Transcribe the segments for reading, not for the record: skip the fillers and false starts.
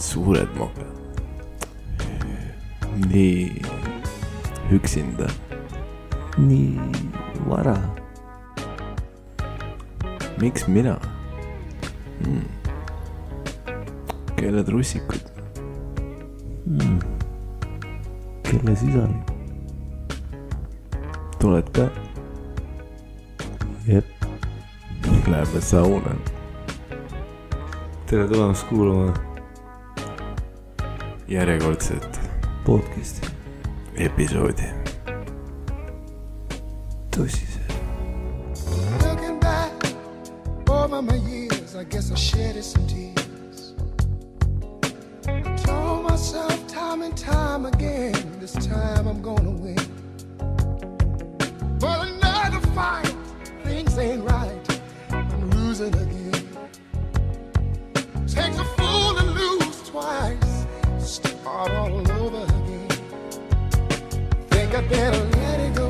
suured mokad. Nii üksinda. Nii vara. Miks mina? Kelle trussikud? Kelle sisari? Tuled ka? Jep. Läheme sauna. Tere tulemast kuulama Järjekordset podcasti episoodi. Tõsise. Looking back over my years, I guess I shedded some tears. I told myself time and time again, this time I'm gonna win. But another fight, things ain't right, I'm losing again. Takes a fool to lose twice, start all over again. Think I better let it go.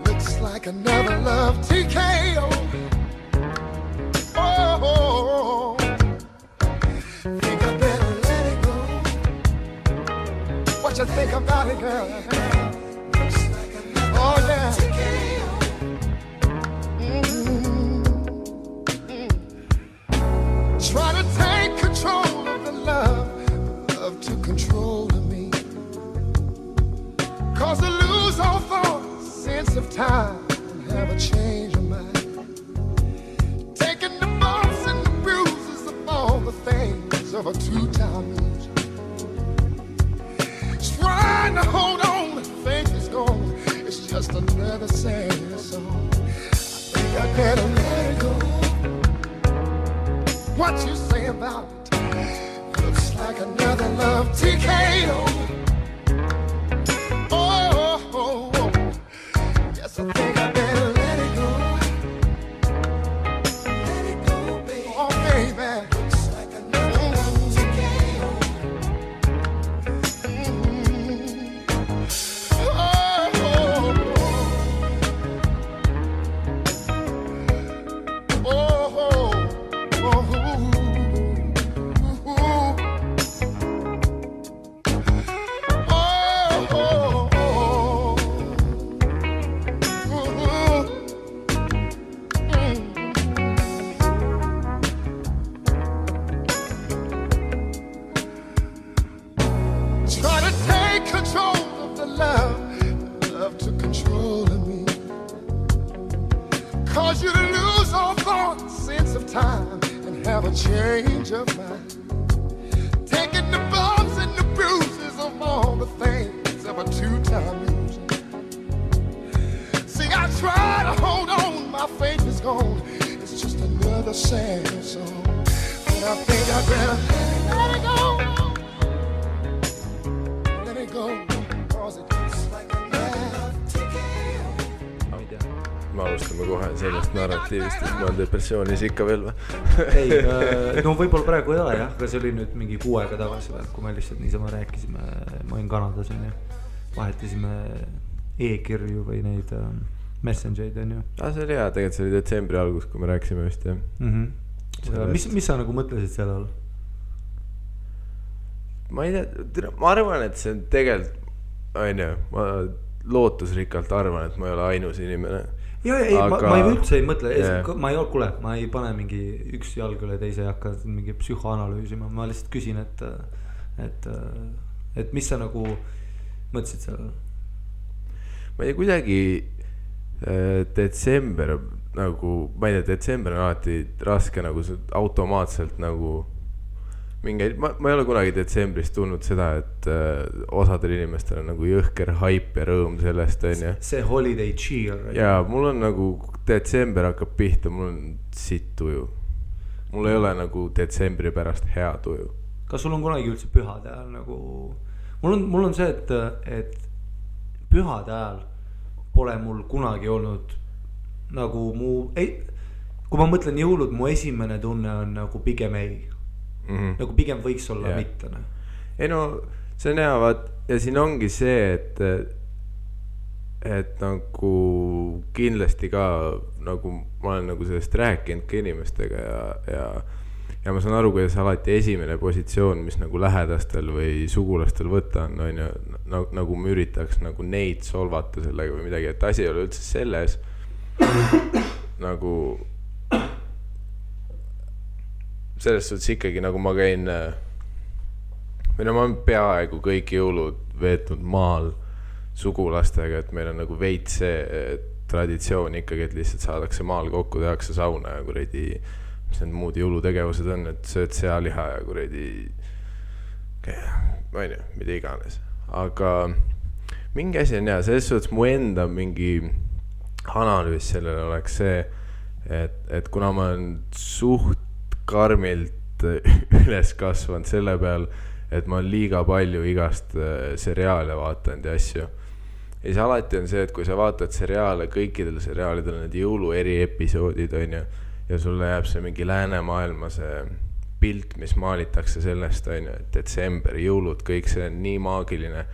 Looks like another love TKO. Oh, think I better let it go. What you think about it, girl? Looks like another love TKO. Try to take control of the love to control of me. Cause I lose all thought, sense of time, and have a change of mind. Taking the bumps and the bruises of all the things of a two-time loser. Trying to hold on, the faith is gone. It's just another sad song. I think I better let it go. What you say about it? Looks like another love TKO. Oh, yes, I think I better let it go. Let it go, baby. Oh, baby. Looks like another love TKO. Try to take control of the love to control of me. Cause you to lose all thought, sense of time, and have a change of mind. Taking the bumps and the bruises of all the things of a two-time loser. See, I try to hold on, my faith is gone. It's just another sad song. But I think I better let it go. Me alustame kohe sellest narratiivist, et ma olen depressioonis ikka veel või? Ei, no võib-olla praegu ei ole jah, aga see oli nüüd mingi 6 aega tagasi või, kui me lihtsalt niisama rääkisime, ma olin Kanadas on ju, vahetasime e-kirju või neid messengereid on ju. See oli hea, tegelikult see oli detsembri algus, kui me rääkisime vist jah. Mis sa nagu mõtlesid selle all? Ma ei tea, ma arvan, et see on tegelikult, ma lootusrikkalt arvan, et ma ei ole ainus inimene. Ma ei üldse ei mõtle, ma ei pane mingi üks jalg üle teise ja hakka mingi psühhoanalüüsima, ma lihtsalt küsin, et mis sa nagu mõtlesid sellel? Ma ei tea, kuidagi detsember nagu, ma ei tea, detsember on alati raske nagu automaatselt nagu mingeid, ma ei ole kunagi detsembris tulnud seda, et osadel inimestel on nagu jõhker hype ja rõõm sellest on ja. See holiday cheer. Ja mul on nagu detsember hakkab pihta, mul on sitt tuju. Mul ei ole nagu detsembri pärast hea tuju. Kas sul on kunagi üldse pühade ajal nagu, mul on see, et pühade ajal pole mul kunagi olnud nagu kui ma mõtlen jõulud, mu esimene tunne on nagu pigem ei. Nagu pigem võiks olla mitte. Ei no, see on hea, vaat, ja siin ongi see, et et nagu kindlasti ka nagu ma olen nagu sellest rääkinud ka inimestega ja ma saan aru, kuidas alati esimene positsioon, mis nagu lähedastel või sugulastel võtta on ju, nagu ma üritaks nagu neid solvata sellega või midagi, et asi ei ole üldse selles nagu selles suhtes ikkagi nagu ma käin või no ma olen peaaegu kõik jõulud veetnud maal sugulastega, et meil on nagu veits see traditsioon ikkagi, et lihtsalt saadakse maal kokku, tehakse sauna ja kuradi mis need muud jõulutegevused on, et sööd sealiha ja kuradi ma ei tea, mida iganes, aga mingi asi on selles suhtes mu enda mingi analüüs sellele oleks see, et kuna ma olen suht karmilt üles kasvanud selle peal, et ma olen liiga palju igast seriaale vaatanud ja asju. Ja siis alati on see, et kui sa vaatad seriaale, kõikidel seriaalidel need jõulu eri episoodid on ju, ja sulle jääb see mingi läänemaailma see pilt, mis maalitakse sellest on ju, et detsember, jõulud, kõik see on nii maagiline.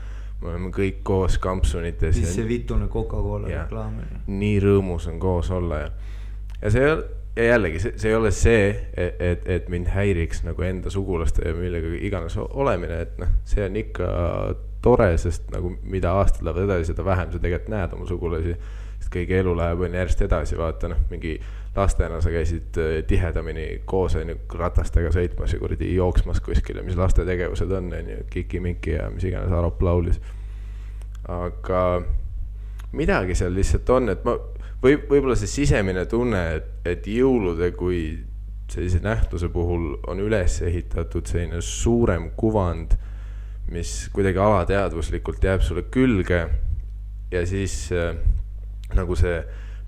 Me oleme kõik koos kampsunites. Siis see vitune Coca-Cola reklaam. Nii rõõmus on koos olla ja see ja jällegi, see ei ole see, et mind häiriks nagu enda sugulaste ja millega iganes olemine, et noh, see on ikka tore, sest nagu mida aastad lähevad edasi, seda vähem sa tegelikult näed oma sugulasi, sest kõige elu läheb on järjest edasi, vaata noh, mingi lastena sa käisid tihedamini koos ratastega sõitmas ja kuradi jooksmas kuskile, mis laste tegevused on, kiki-miki ja mis iganes Arop laulis. Aga midagi seal lihtsalt on, et ma võib-olla see sisemine tunne, et jõulude kui sellise nähtuse puhul on üles ehitatud selline suurem kuvand, mis kuidagi alateadvuslikult jääb sulle külge ja siis nagu see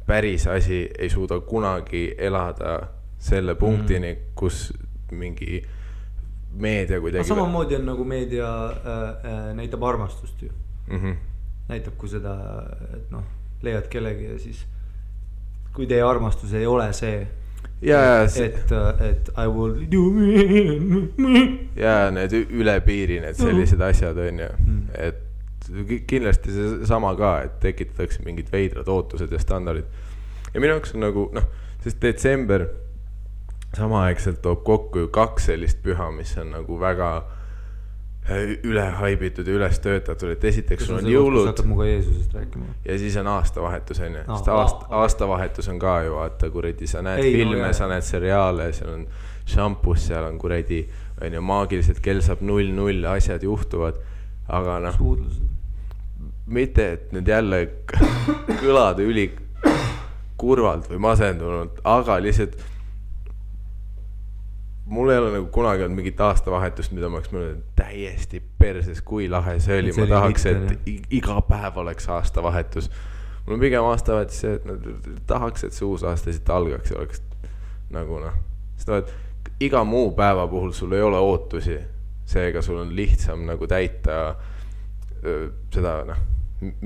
päris asi ei suuda kunagi elada selle punktini, kus mingi meedia kuidagi... Samamoodi on nagu meedia näitab armastust ju. Näitab kui seda, et noh, leiad kellegi ja siis kui teie armastus ei ole see, et I will do ja need üle piiri, need sellised asjad on ju, et kindlasti see sama ka, et tekitatakse mingid veidrad ootused ja standardid ja minu jaoks on nagu, noh, sest detsember samaaegselt toob kokku ju 2 sellist püha, mis on nagu väga ülehaibitud ja üles töötatud, et esiteks sul on jõulud ja siis on aastavahetus on ju, sest aastavahetus on ka ju vaata kuradi, sa näed filme, sa näed seriaale, seal on šampus, seal on kuradi on ju, maagiliselt kell saab 0-0, asjad juhtuvad, aga noh mitte, et nüüd jälle kõlada üli kurvalt või masendunult, aga lihtsalt mul ei ole nagu kunagi olnud mingit aastavahetust, mida ma oleks mõelnud täiesti perses, kui lahe see oli. Ma tahaks, et iga päev oleks aastavahetus. Mul on pigem aastavahetus see, et tahaks, et see uus aasta siit algaks ja oleks nagu noh. Sest iga muu päeva puhul sul ei ole ootusi. Seega sul on lihtsam nagu täita seda noh,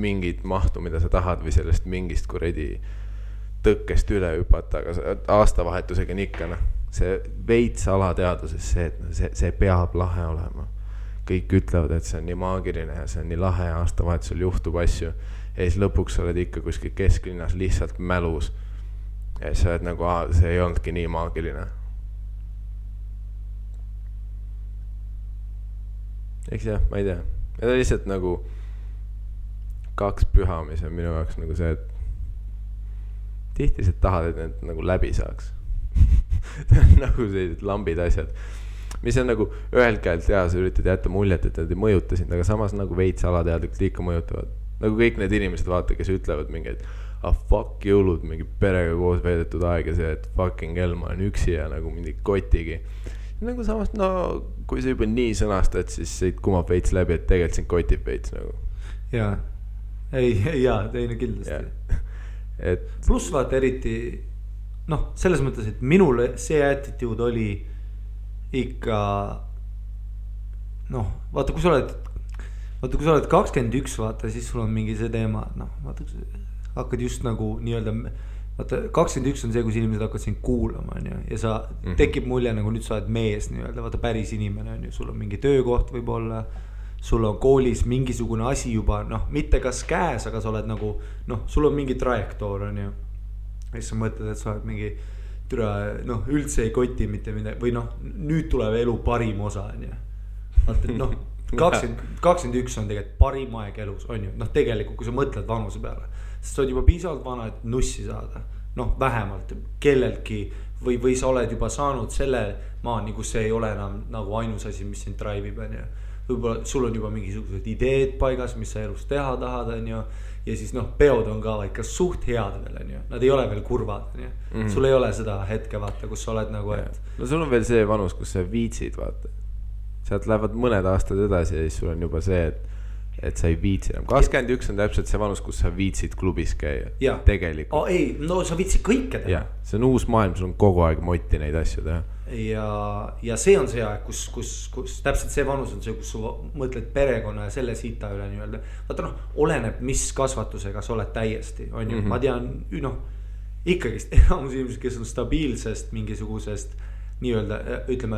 mingit mahtu, mida sa tahad või sellest mingist kuredi tõkkest üle hüpata, aga aastavahetusega on ikka noh. See veits alateaduses see, et see peab lahe olema. Kõik ütlevad, et see on nii maagiline ja see on nii lahe ja aastavahetusel juhtub asju. Ja siis lõpuks sa oled ikka kuskil kesklinnas lihtsalt mälus. Ja sa oled nagu, see ei olnudki nii maagiline. Eks jah, ma ei tea. Ja ta lihtsalt nagu 2 püha, mis on minu jaoks nagu see, et tihti sa tahad, et need nagu läbi saaks. nagu sellised lambid asjad, mis on nagu ühelt käelt ja sa üritad jätta muljet, et nad ei mõjuta sind, aga samas nagu veits alateadlikult ikka mõjutavad. Nagu kõik need inimesed vaata, kes ütlevad mingi, et fuck jõulud, mingi perega koos veedetud aeg ja see, et fucking hell, ma olen üksi ja nagu mingi kotigi. Nagu samas, no kui sa juba nii sõnastad, siis siit kumab veits läbi, et tegelikult sind kotib veits nagu. Jaa, teine kindlasti. Plus vaata eriti noh, selles mõttes, et minule see attitude oli ikka noh, vaata kui sa oled 21, vaata siis sul on mingi see teema, noh, vaata hakkad just nagu nii-öelda, vaata 21 on see, kus inimesed hakkad sind kuulama on ju, ja sa tekib mulje nagu nüüd sa oled mees nii-öelda, vaata päris inimene on ju, sul on mingi töökoht võib-olla, sul on koolis mingisugune asi juba noh, mitte kas käes, aga sa oled nagu noh, sul on mingi trajektoor on ju. Ja siis sa mõtled, et sa oled mingi türa, noh üldse ei koti mitte midagi või noh, nüüd tuleb elu parim osa on ju. Vaata, noh 21 on tegelikult parim aeg elus on ju, noh tegelikult kui sa mõtled vanuse peale, sest sa oled juba piisavalt vana, et nussi saada, noh vähemalt kelleltki või sa oled juba saanud selle maani, kus see ei ole enam nagu ainus asi, mis sind drive'ib on ju. Võib-olla sul on juba mingisugused ideed paigas, mis sa elus teha tahad on ju, ja siis noh, peod on ka ikka suht head veel on ju, nad ei ole veel kurvad on ju, sul ei ole seda hetke vaata, kus sa oled nagu, et no sul on veel see vanus, kus sa viitsid vaata, sealt lähevad mõned aastad edasi ja siis sul on juba see, et sa ei viitsi enam. 21 on täpselt see vanus, kus sa viitsid klubis käia. Tegelikult. Ei, no sa viitsid kõike teha. See on uus maailm, sul on kogu aeg motti neid asju teha. Ja see on see aeg, kus täpselt see vanus on see, kus sa mõtled perekonna ja selle sita üle nii-öelda. Vaata noh, oleneb mis kasvatusega sa oled täiesti, on ju. Ma tean, noh, ikkagist enamus inimesed, kes on stabiilsest mingisugusest nii-öelda, ütleme,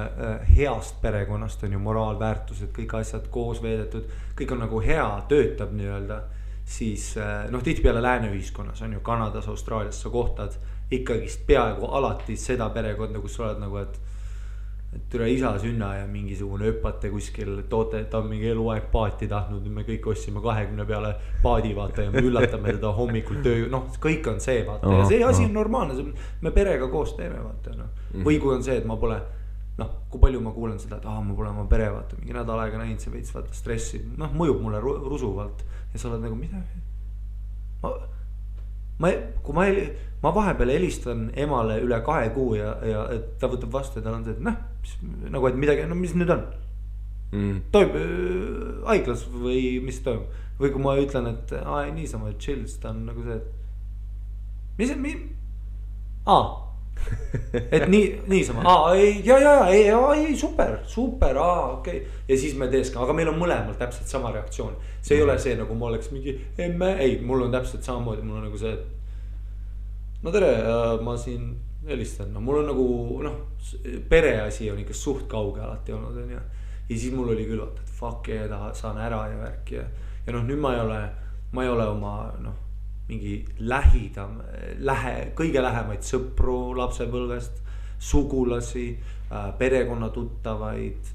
heast perekonnast on ju moraalväärtused, kõik asjad koos veedetud, kõik on nagu hea, töötab nii-öelda, siis noh, tihtipeale lääneühiskonnas on ju Kanadas, Austraalias sa kohtad ikkagist peaaegu alati seda perekonda, kus sa oled nagu, et türa isa sünna ja mingisugune öpate kuskil toote, ta on mingi eluaeg paati tahtnud, me kõik ossime 20 peale paadi vaata ja me üllatame teda hommikul töö, noh, kõik on see vaata ja see asi on normaalne, me perega koos teeme vaata noh. Või kui on see, et ma pole, noh, kui palju ma kuulen seda, et ma pole oma pere vaata, mingi nädal aega näinud, see veits vaata stressi, noh, mõjub mulle rusuvalt ja sa oled nagu midagi. Kui ma vahepeal helistan emale üle 2 kuu ja et ta võtab vastu ja tal on see, et noh, nagu et midagi, no mis nüüd on? Toimub haiglas või mis toimub? Või kui ma ütlen, et niisama chill, ta on nagu see, et et niisama, ei, super, okei. Ja siis me teeskame, aga meil on mõlemal täpselt sama reaktsioon. See ei ole see, nagu ma oleks mingi emme, ei, mul on täpselt samamoodi, mul on nagu see, et no tere, ma siin helistan, no mul on nagu, noh, pereasi on ikka suht kauge alati olnud, on ju. Ja siis mul oli küll, et fuck yeah, saan ära ja värk ja noh, nüüd ma ei ole oma, noh, mingi kõige lähemaid sõpru lapsepõlvest, sugulasi, perekonna tuttavaid,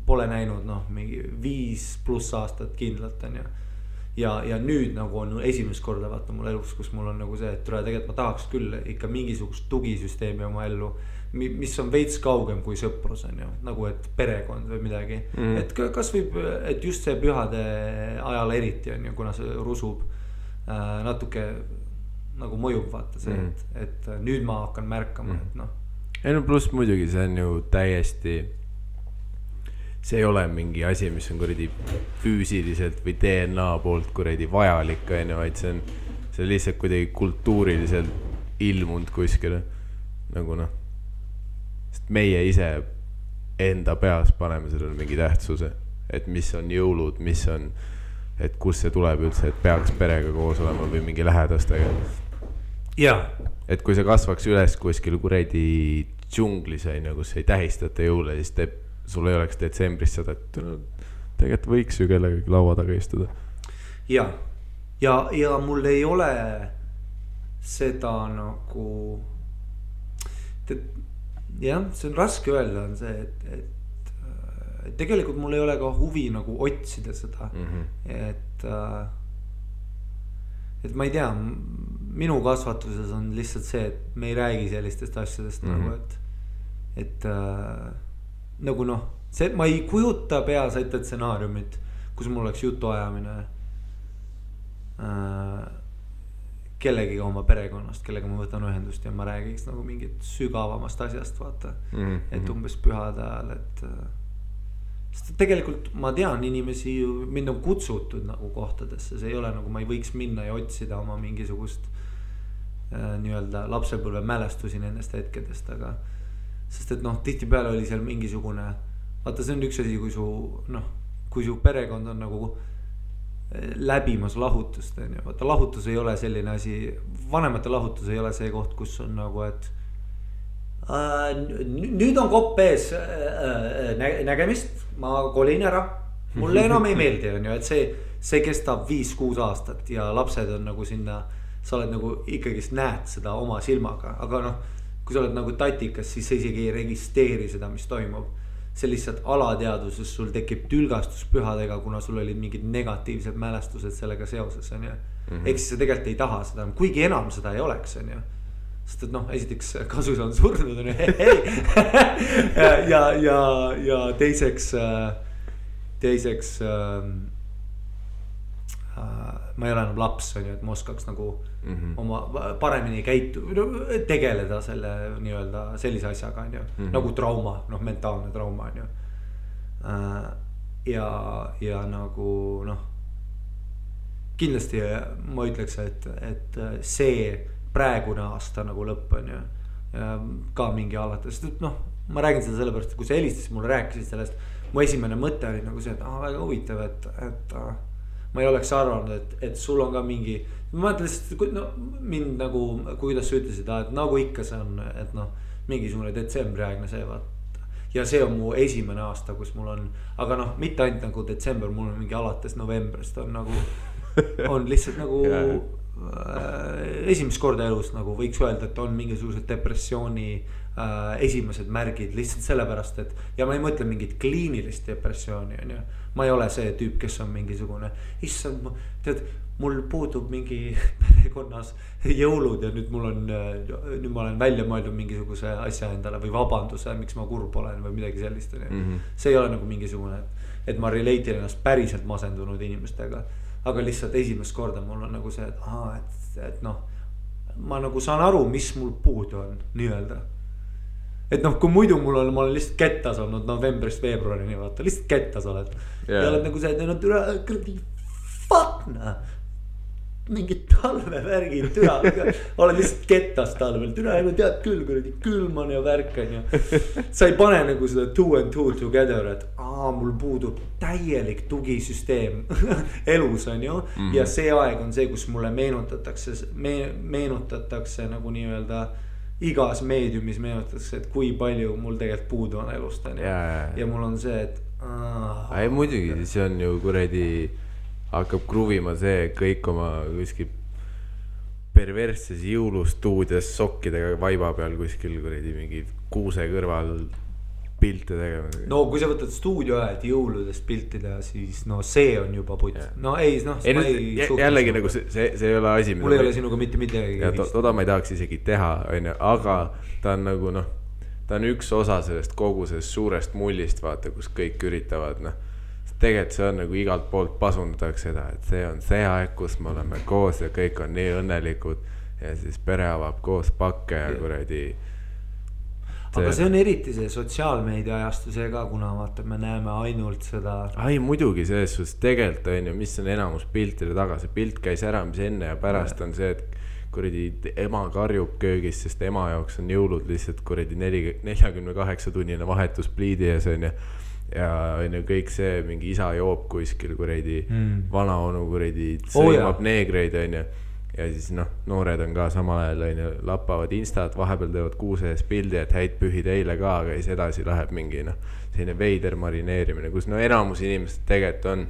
pole näinud, noh, mingi 5+ aastat kindlalt, on ju. Ja nüüd nagu on esimest korda vaata mul elus, kus mul on nagu see, et tegelikult ma tahaks küll ikka mingisugust tugisüsteemi oma ellu, mis on veits kaugem kui sõprus on ju, nagu et perekond või midagi. Et kas võib, et just see pühade ajal eriti on ju, kuna see rusub natuke nagu mõjub vaata see, et nüüd ma hakkan märkama, et noh. Ei no pluss muidugi see on ju täiesti, see ei ole mingi asi, mis on kuradi füüsiliselt või DNA poolt kuradi vajalik, vaid see on lihtsalt kuidagi kultuuriliselt ilmunud kuskile. Nagu noh, sest meie ise enda peas paneme sellele mingi tähtsuse, et mis on jõulud, mis on, et kus see tuleb üldse, et peaks perega koos olema või mingi lähedastega. Et kui sa kasvaks üles kuskil kuradi džunglis, kus ei tähistata jõule, siis sul ei oleks detsembris seda, et tegelikult võiks ju kellegagi laua taga istuda. Ja mul ei ole seda nagu, jah, see on raske öelda, on see, et tegelikult mul ei ole ka huvi nagu otsida seda, et ma ei tea, minu kasvatuses on lihtsalt see, et me ei räägi sellistest asjadest nagu, et nagu noh, see, ma ei kujuta peas ette stsenaariumit, kus mul oleks jutuajamine kellegiga oma perekonnast, kellega ma võtan ühendust ja ma räägiks nagu mingit sügavamast asjast, vaata. Et umbes pühade ajal, et sest tegelikult ma tean inimesi ju, mind on kutsutud nagu kohtadesse, see ei ole nagu ma ei võiks minna ja otsida oma mingisugust nii-öelda lapsepõlve mälestusi nendest hetkedest, aga sest et noh, tihtipeale oli seal mingisugune, vaata see on üks asi, kui su perekond on nagu läbimas lahutust, on ju, vaata lahutus ei ole selline asi, vanemate lahutus ei ole see koht, kus on nagu, et nüüd on kopp ees nägemist, ma kolin ära, mulle enam ei meeldi, on ju, et see kestab 5-6 aastat ja lapsed on nagu sinna, sa oled nagu ikkagist näed seda oma silmaga, aga noh, kui sa oled nagu tatikas, siis sa isegi ei registreeri seda, mis toimub. See lihtsalt alateaduses sul tekib tülgastus pühadega, kuna sul olid mingid negatiivsed mälestused sellega seoses, on ju. Ehk siis sa tegelikult ei taha seda, kuigi enam seda ei oleks, on ju. Sest et noh, esiteks kasus on surnud, on ju, ja teiseks ma ei ole enam laps, on ju, et ma oskaks nagu oma paremini tegeleda selle nii-öelda sellise asjaga, on ju, nagu trauma, noh, mentaalne trauma, on ju. Ja nagu noh, kindlasti ma ütleks, et see praegune aasta nagu lõpp, on ju, ka mingi alates, noh, ma räägin seda sellepärast, et kui sa helistasid mulle, rääkisid sellest, mu esimene mõte oli nagu see, et väga huvitav, et ma ei oleks arvanud, et sul on ka mingi, ma mõtlen lihtsalt, no mind nagu, kuidas sa ütlesid, et nagu ikka see on, et noh, mingisugune detsembriaegne see vaat. Ja see on mu esimene aasta, kus mul on, aga noh, mitte ainult nagu detsember, mul on mingi alates novembrist on nagu, on lihtsalt nagu esimest korda elus nagu võiks öelda, et on mingisugused depressiooni esimesed märgid lihtsalt sellepärast, et ja ma ei mõtle mingit kliinilist depressiooni, on ju. Ma ei ole see tüüp, kes on mingisugune, issand, tead, mul puudub mingi perekonnas jõulud ja nüüd ma olen välja mõeldud mingisuguse asja endale või vabanduse, miks ma kurb olen või midagi sellist. See ei ole nagu mingisugune, et ma relate ennast päriselt masendunud inimestega, aga lihtsalt esimest korda mul on nagu see, et noh, ma nagu saan aru, mis mul puudu on, nii-öelda. Et noh, kui muidu ma olen lihtsalt kettas olnud novembrist veebruarini, vaata, lihtsalt kettas oled. Ja oled nagu see, et no türa, fuck nah. Mingid talvevärgid, türa, oled lihtsalt kettas talvel, türa, tead küll, kuradi külman ja värkan ja sa ei pane nagu seda 2 and 2 together, et mul puudub täielik tugisüsteem elus, on ju, ja see aeg on see, kus mulle meenutatakse nagu nii-öelda igas meediumis meenutatakse, et kui palju mul tegelikult puudu on elust, on ju, ja mul on see, et ei muidugi, see on ju kuradi hakkab kruvima see kõik oma kuskil perversses jõulustuudios sokkidega vaiba peal kuskil kuradi mingi kuuse kõrval pilte tegema. No kui sa võtad stuudio ajad jõuludest piltida, siis no see on juba putt. No ei, noh jällegi nagu see ei ole asi, mul ei ole sinuga mitte midagi. Toda ma ei tahaks isegi teha, aga ta on nagu noh, ta on üks osa sellest kogu sellest suurest mullist, vaata, kus kõik üritavad, noh, tegelikult see on nagu igalt poolt pasundatakse seda, et see on see aeg, kus me oleme koos ja kõik on nii õnnelikud ja siis pere avab koos pakke ja kuradi. Aga see on eriti see sotsiaalmeedia ajastuse ka, kuna vaata, me näeme ainult seda. Ai, muidugi selles suhtes tegelikult on ju, mis on enamus piltide taga, see pilt käis ära, mis enne ja pärast on see, et kuradi ema karjub köögis, sest ema jaoks on jõulud lihtsalt kuradi 48 tunnine vahetus pliidi ees on ju. Ja on ju kõik see, mingi isa joob kuskil kuradi vana onu kuradi sõimab neegreid on ju. Ja siis noh, noored on ka samal ajal on ju, lappavad instat, vahepeal teevad kuuse ees pildi, et häid pühi teile ka, aga siis edasi läheb mingi noh, selline veider marineerimine, kus no enamus inimesed tegelikult on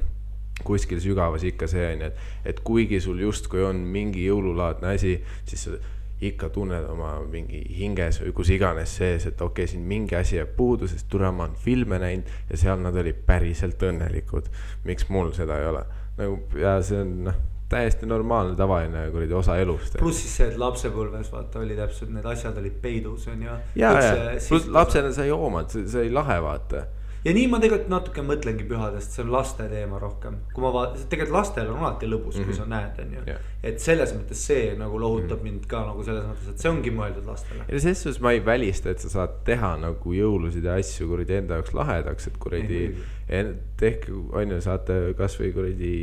kuskil sügavas ikka see on, et kuigi sul justkui on mingi jõululaadne asi, siis sa ikka tunned oma mingi hinges või kus iganes sees, et okei, siin mingi asi jääb puudu, sest tule ma on filme näinud ja seal nad olid päriselt õnnelikud. Miks mul seda ei ole? Nagu, ja see on noh, täiesti normaalne, tavaline kuradi osa elust. Plus siis see, et lapsepõlves vaata oli täpselt, need asjad olid peidus on ja. Plus lapsena sa ei joomad, see ei lahe vaata. Ja nii ma tegelikult natuke mõtlengi pühadest, see on laste teema rohkem. Kui ma tegelikult lastel on alati lõbus, kui sa näed on ju. Et selles mõttes see nagu lohutab mind ka nagu selles mõttes, et see ongi mõeldud lastele. Ja selles suhtes ma ei välista, et sa saad teha nagu jõulusid ja asju kuradi enda jaoks lahedaks, et kuradi tehke, on ju, saate kas või kuradi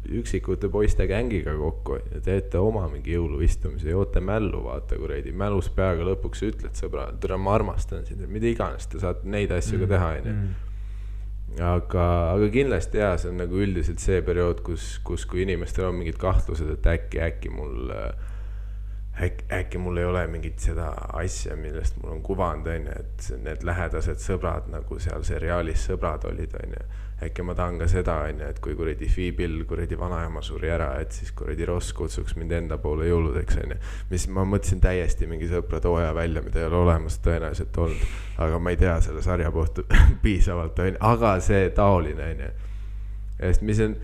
üksikute poiste gängiga kokku ja teete oma mingi jõuluistumise, joote mällu, vaata kuradi, mälus peaga lõpuks ütled sõbra, tere ma armastan sind, mida iganes, te saate neid asju ka teha, aga kindlasti jah, see on nagu üldiselt see periood, kus kui inimestel on mingid kahtlused, et äkki mul äkki mul ei ole mingit seda asja, millest mul on kuvand, onju, et need lähedased sõbrad nagu seal seriaalis sõbrad olid, onju. Äkki ma tahan ka seda, onju, et kui kuradi Fiibil kuradi vanaema suri ära, et siis kuradi Ross kutsuks mind enda poole jõuludeks, onju. Mis ma mõtlesin täiesti mingi sõpra tooja välja, mida ei ole olemas tõenäoliselt olnud, aga ma ei tea selle sarja kohta piisavalt, onju, aga see taoline, onju. Sest mis on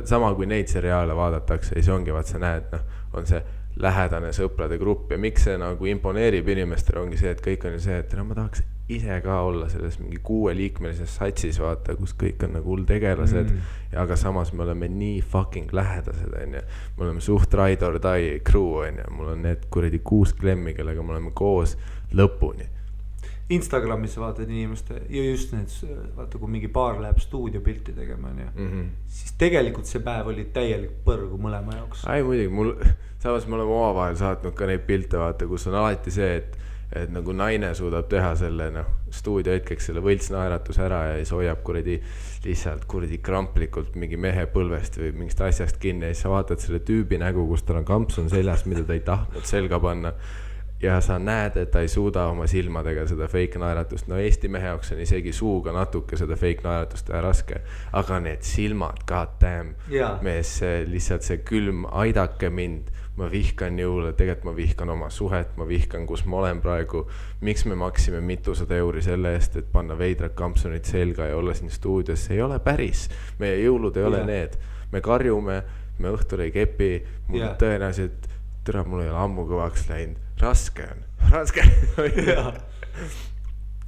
sama, kui neid seriaale vaadatakse, siis ongi, vaat sa näed, noh, on see lähedane sõprade grupp ja miks see nagu imponeerib inimestele ongi see, et kõik on ju see, et no ma tahaks ise ka olla selles mingi 6-liikmelises satsis, vaata, kus kõik on nagu hull tegelased, aga samas me oleme nii fucking lähedased, onju. Me oleme suht ride or die crew, onju. Mul on need kuradi 6 klemmi, kellega me oleme koos lõpuni. Instagramis vaatad inimeste ja just need, vaata, kui mingi paar läheb stuudiopilti tegema, siis tegelikult see päev oli täielik põrgu mõlema jaoks. Ai, muidugi, samas me oleme omavahel saatnud ka neid pilte, vaata, kus on alati see, et nagu naine suudab teha selle, noh, stuudio hetkeks selle võltsnaeratus ära ja siis hoiab kuradi lihtsalt kuradi kramplikult mingi mehe põlvest või mingist asjast kinni ja siis sa vaatad selle tüübi nägu, kus tal on kampsun seljas, mida ta ei tahtnud selga panna. Ja sa näed, et ta ei suuda oma silmadega seda fake naeratust. No Eesti mehe jaoks on isegi suuga natuke seda fake naeratust teha raske. Aga need silmad, god damn. Mees, lihtsalt see külm, aidake mind. Ma vihkan jõule, tegelikult ma vihkan oma suhet, ma vihkan, kus ma olen praegu. Miks me maksime mitusada euri selle eest, et panna veidrad kampsunid selga ja olla siin stuudios? See ei ole päris. Meie jõulud ei ole need. Me karjume, me õhtul ei kepi. Mul tõenäoliselt, tõra, mul ei ole ammu kõvaks läinud. Raske on.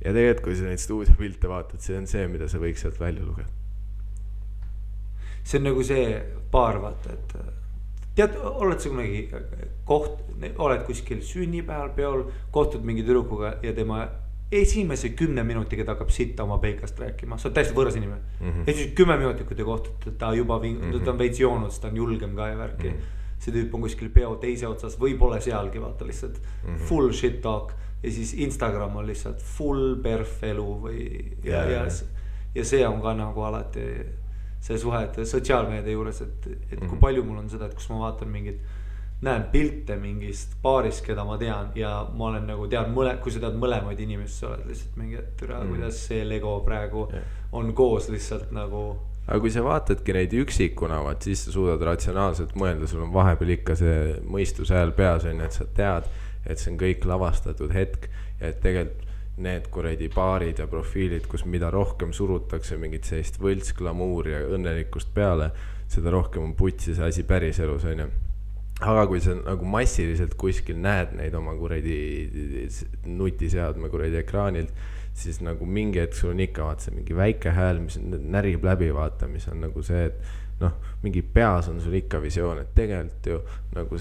Ja tegelikult, kui sa neid stuudiopilte vaatad, see on see, mida sa võiks sealt välja lugeda. See on nagu see paar, vaata, et tead, oled sa kunagi oled kuskil sünnipäeval peol, kohtud mingi tüdrukuga ja tema esimese 10 minutiga ta hakkab sitta oma peikast rääkima. Sa oled täiesti võõras inimene. Esimese 10 minutit, kui te kohtute, ta juba ta on veits joonud, ta on julgem ka ja värki. See tüüp on kuskil peo teise otsas või pole sealgi, vaata lihtsalt full shit talk ja siis Instagram on lihtsalt full perf elu või ja see on ka nagu alati see suhet sotsiaalmeedia juures, et kui palju mul on seda, et kus ma vaatan mingit, näen pilte mingist paarist, keda ma tean ja ma olen nagu tean, kui sa tead mõlemaid inimesi, sa oled lihtsalt mingi, et kuidas see Lego praegu on koos lihtsalt nagu. Aga kui sa vaatadki neid üksikuna, siis sa suudad ratsionaalselt mõelda, sul on vahepeal ikka see mõistuse hääl peas, et sa tead, et see on kõik lavastatud hetk ja et tegelikult need kuradi paarid ja profiilid, kus mida rohkem surutakse mingit sellist võltsklamuuri ja õnnelikkust peale, seda rohkem on putsi see asi päris elus, onju. Aga kui sa nagu massiliselt kuskil näed neid oma kuradi nutiseadme kuradi ekraanilt, siis nagu mingi hetk sul on ikka vaata see mingi väike hääl, mis närib läbi vaata, mis on nagu see, et noh, mingi peas on sul ikka visioon, et tegelikult ju nagu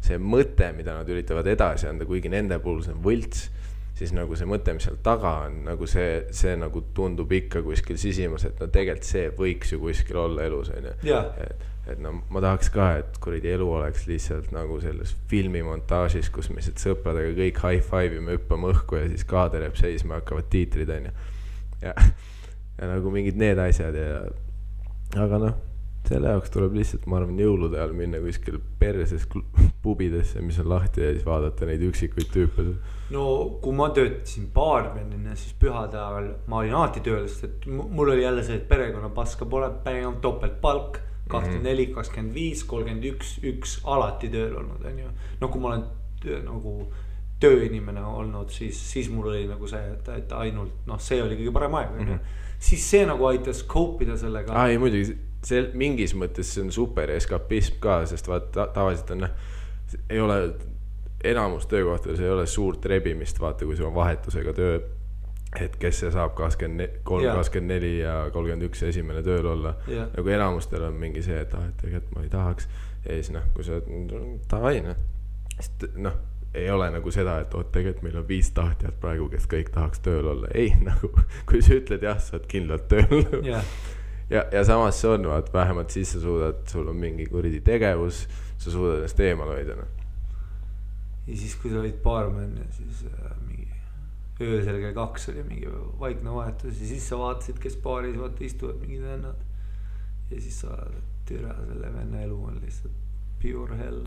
see mõte, mida nad üritavad edasi anda, kuigi nende puhul see on võlts, siis nagu see mõte, mis seal taga on, nagu see nagu tundub ikka kuskil sisimas, et no tegelikult see võiks ju kuskil olla elus, onju. Et no ma tahaks ka, et kuradi elu oleks lihtsalt nagu selles filmimontaažis, kus me sõpradega kõik high-five me hüppame õhku ja siis kaader jääb seisma, hakkavad tiitrid, onju. Ja nagu mingid need asjad ja aga noh, selle jaoks tuleb lihtsalt, ma arvan, jõulude ajal minna kuskil perses pubidesse, mis on lahti ja siis vaadata neid üksikuid tüüpe. No kui ma töötasin baarmenina, siis pühade ajal ma olin alati tööl, sest et mul oli jälle see, et perekonna paska pole, päev topelt palk 24, 25, 31, 1 alati tööl olnud, on ju. No kui ma olen nagu tööinimene olnud, siis mul oli nagu see, et ainult, noh, see oli kõige parem aeg, siis see nagu aitas koopida sellega. Ai, muidugi, see mingis mõttes see on super eskapism ka, sest vaata, tavaliselt on, ei ole enamus töökohtades ei ole suurt rebimist, vaata, kui sul on vahetusega töö, et kes see saab 23, 24 ja 31 esimene tööl olla. Nagu enamustel on mingi see, et tegelikult ma ei tahaks. Ja siis noh, kui sa tavai, noh, ei ole nagu seda, et tegelikult meil on 5 tahtjad praegu, kes kõik tahaks tööl olla. Ei, nagu, kui sa ütled jah, sa oled kindlalt tööl. Ja samas see on, vaat, vähemalt siis sa suudad, sul on mingi kuridi tegevus, sa suudad ennast eemal hoida. Ja siis, kui sa olid baarmen ja siis mingi öösel kell 2 oli mingi vaikne vahetus ja siis sa vaatasid, kes baaris vaata istuvad mingid vennad ja siis sa türa selle venna elu on lihtsalt pure hell.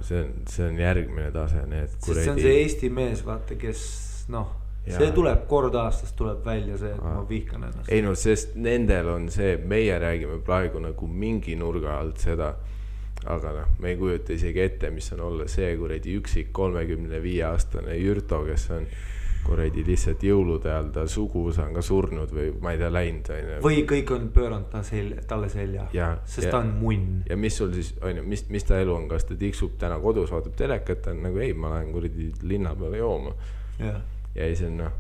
See on järgmine tase, need kuredi. See on see Eesti mees, vaata, kes noh, see tuleb kord aastas tuleb välja see, et ma vihkan ennast. Ei no, sest nendel on see, meie räägime praegu nagu mingi nurga alt seda, aga noh, me ei kujuta isegi ette, mis on olla see kuredi üksik 35-aastane Jürto, kes on kuredi lihtsalt jõulude all, ta suguvõsa on ka surnud või ma ei tea, läinud. Või kõik on pööranud talle selja, sest ta on munn. Ja mis sul siis, mis ta elu on, kas ta tiksub täna kodus, vaatab telekat, ta on nagu ei, ma lähen kuredi linna peale jooma. Ja ei see on noh,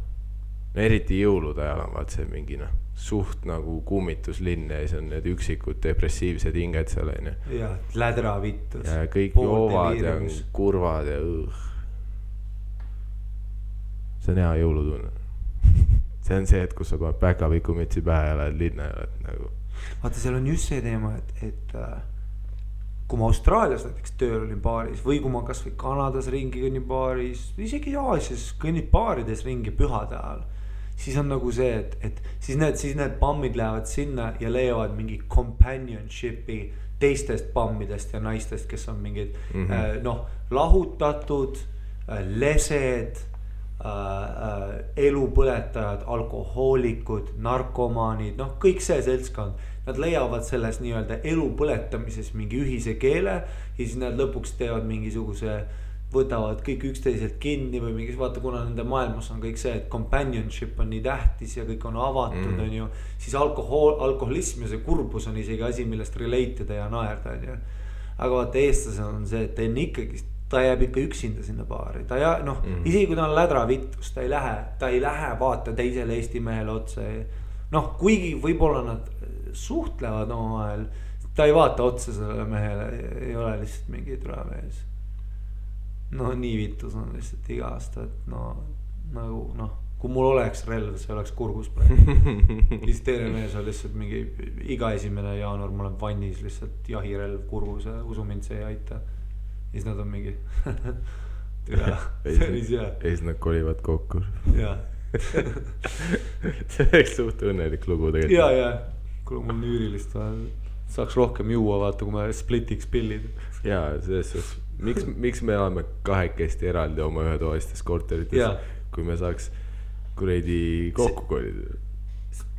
eriti jõulude ajal on vaat see mingi noh, suht nagu kummituslinn ja see on need üksikud depressiivsed hinged seal on. Ja lädra vittus. Ja kõik joovad ja kurvad ja see on hea jõulutunne. See on see, et kus sa paned päkavikumütsi pähe ja lähed linna ja lähed nagu. Vaata, seal on just see teema, et kui ma Austraalias näiteks tööl olin baaris või kui ma kas või Kanadas ringi kõnnin baaris, isegi Aasias kõnnid baarides ringi pühade ajal, siis on nagu see, et siis need pammid lähevad sinna ja leiavad mingi companionship'i teistest pammidest ja naistest, kes on mingid lahutatud, lesed, elupõletajad, alkohoolikud, narkomaanid, noh kõik see seltskond. Nad leiavad selles nii-öelda elupõletamises mingi ühise keele ja siis nad lõpuks teevad mingisuguse, võtavad kõik üksteiselt kinni või mingis, vaata kuna nende maailmas on kõik see, et companionship on nii tähtis ja kõik on avatud, on ju, siis alkoholism ja see kurbus on isegi asi, millest relate'ida ja naerda, on ju. Aga vaata eestlasel on see, et ta jääb ikka üksinda sinna baari, isegi kui ta on lädra vittus, ta ei lähe vaata teisele Eesti mehele otsa. Noh, kuigi võib-olla nad suhtlevad omavahel, ta ei vaata otsa sellele mehele, ei ole lihtsalt mingi türamees. No nii vittus on lihtsalt iga aasta, et kui mul oleks relv, see oleks kurgus praegu. Siis teine mees on lihtsalt mingi iga 1. jaanuar, ma olen vannis lihtsalt jahirelv kurgus ja usu mind, see ei aita. Siis nad on mingi türa, päris hea. Ja siis nad kolivad kokku. Jaa. See oleks suht õnnelik lugu tegelikult. Jaa, kui mul nüürilist saaks rohkem juua, vaata, kui me splitiks pillid. Jaa, selles miks me elame kahekesti eraldi oma ühetoalistes korterites, kui me saaks kuredi kokku kolida?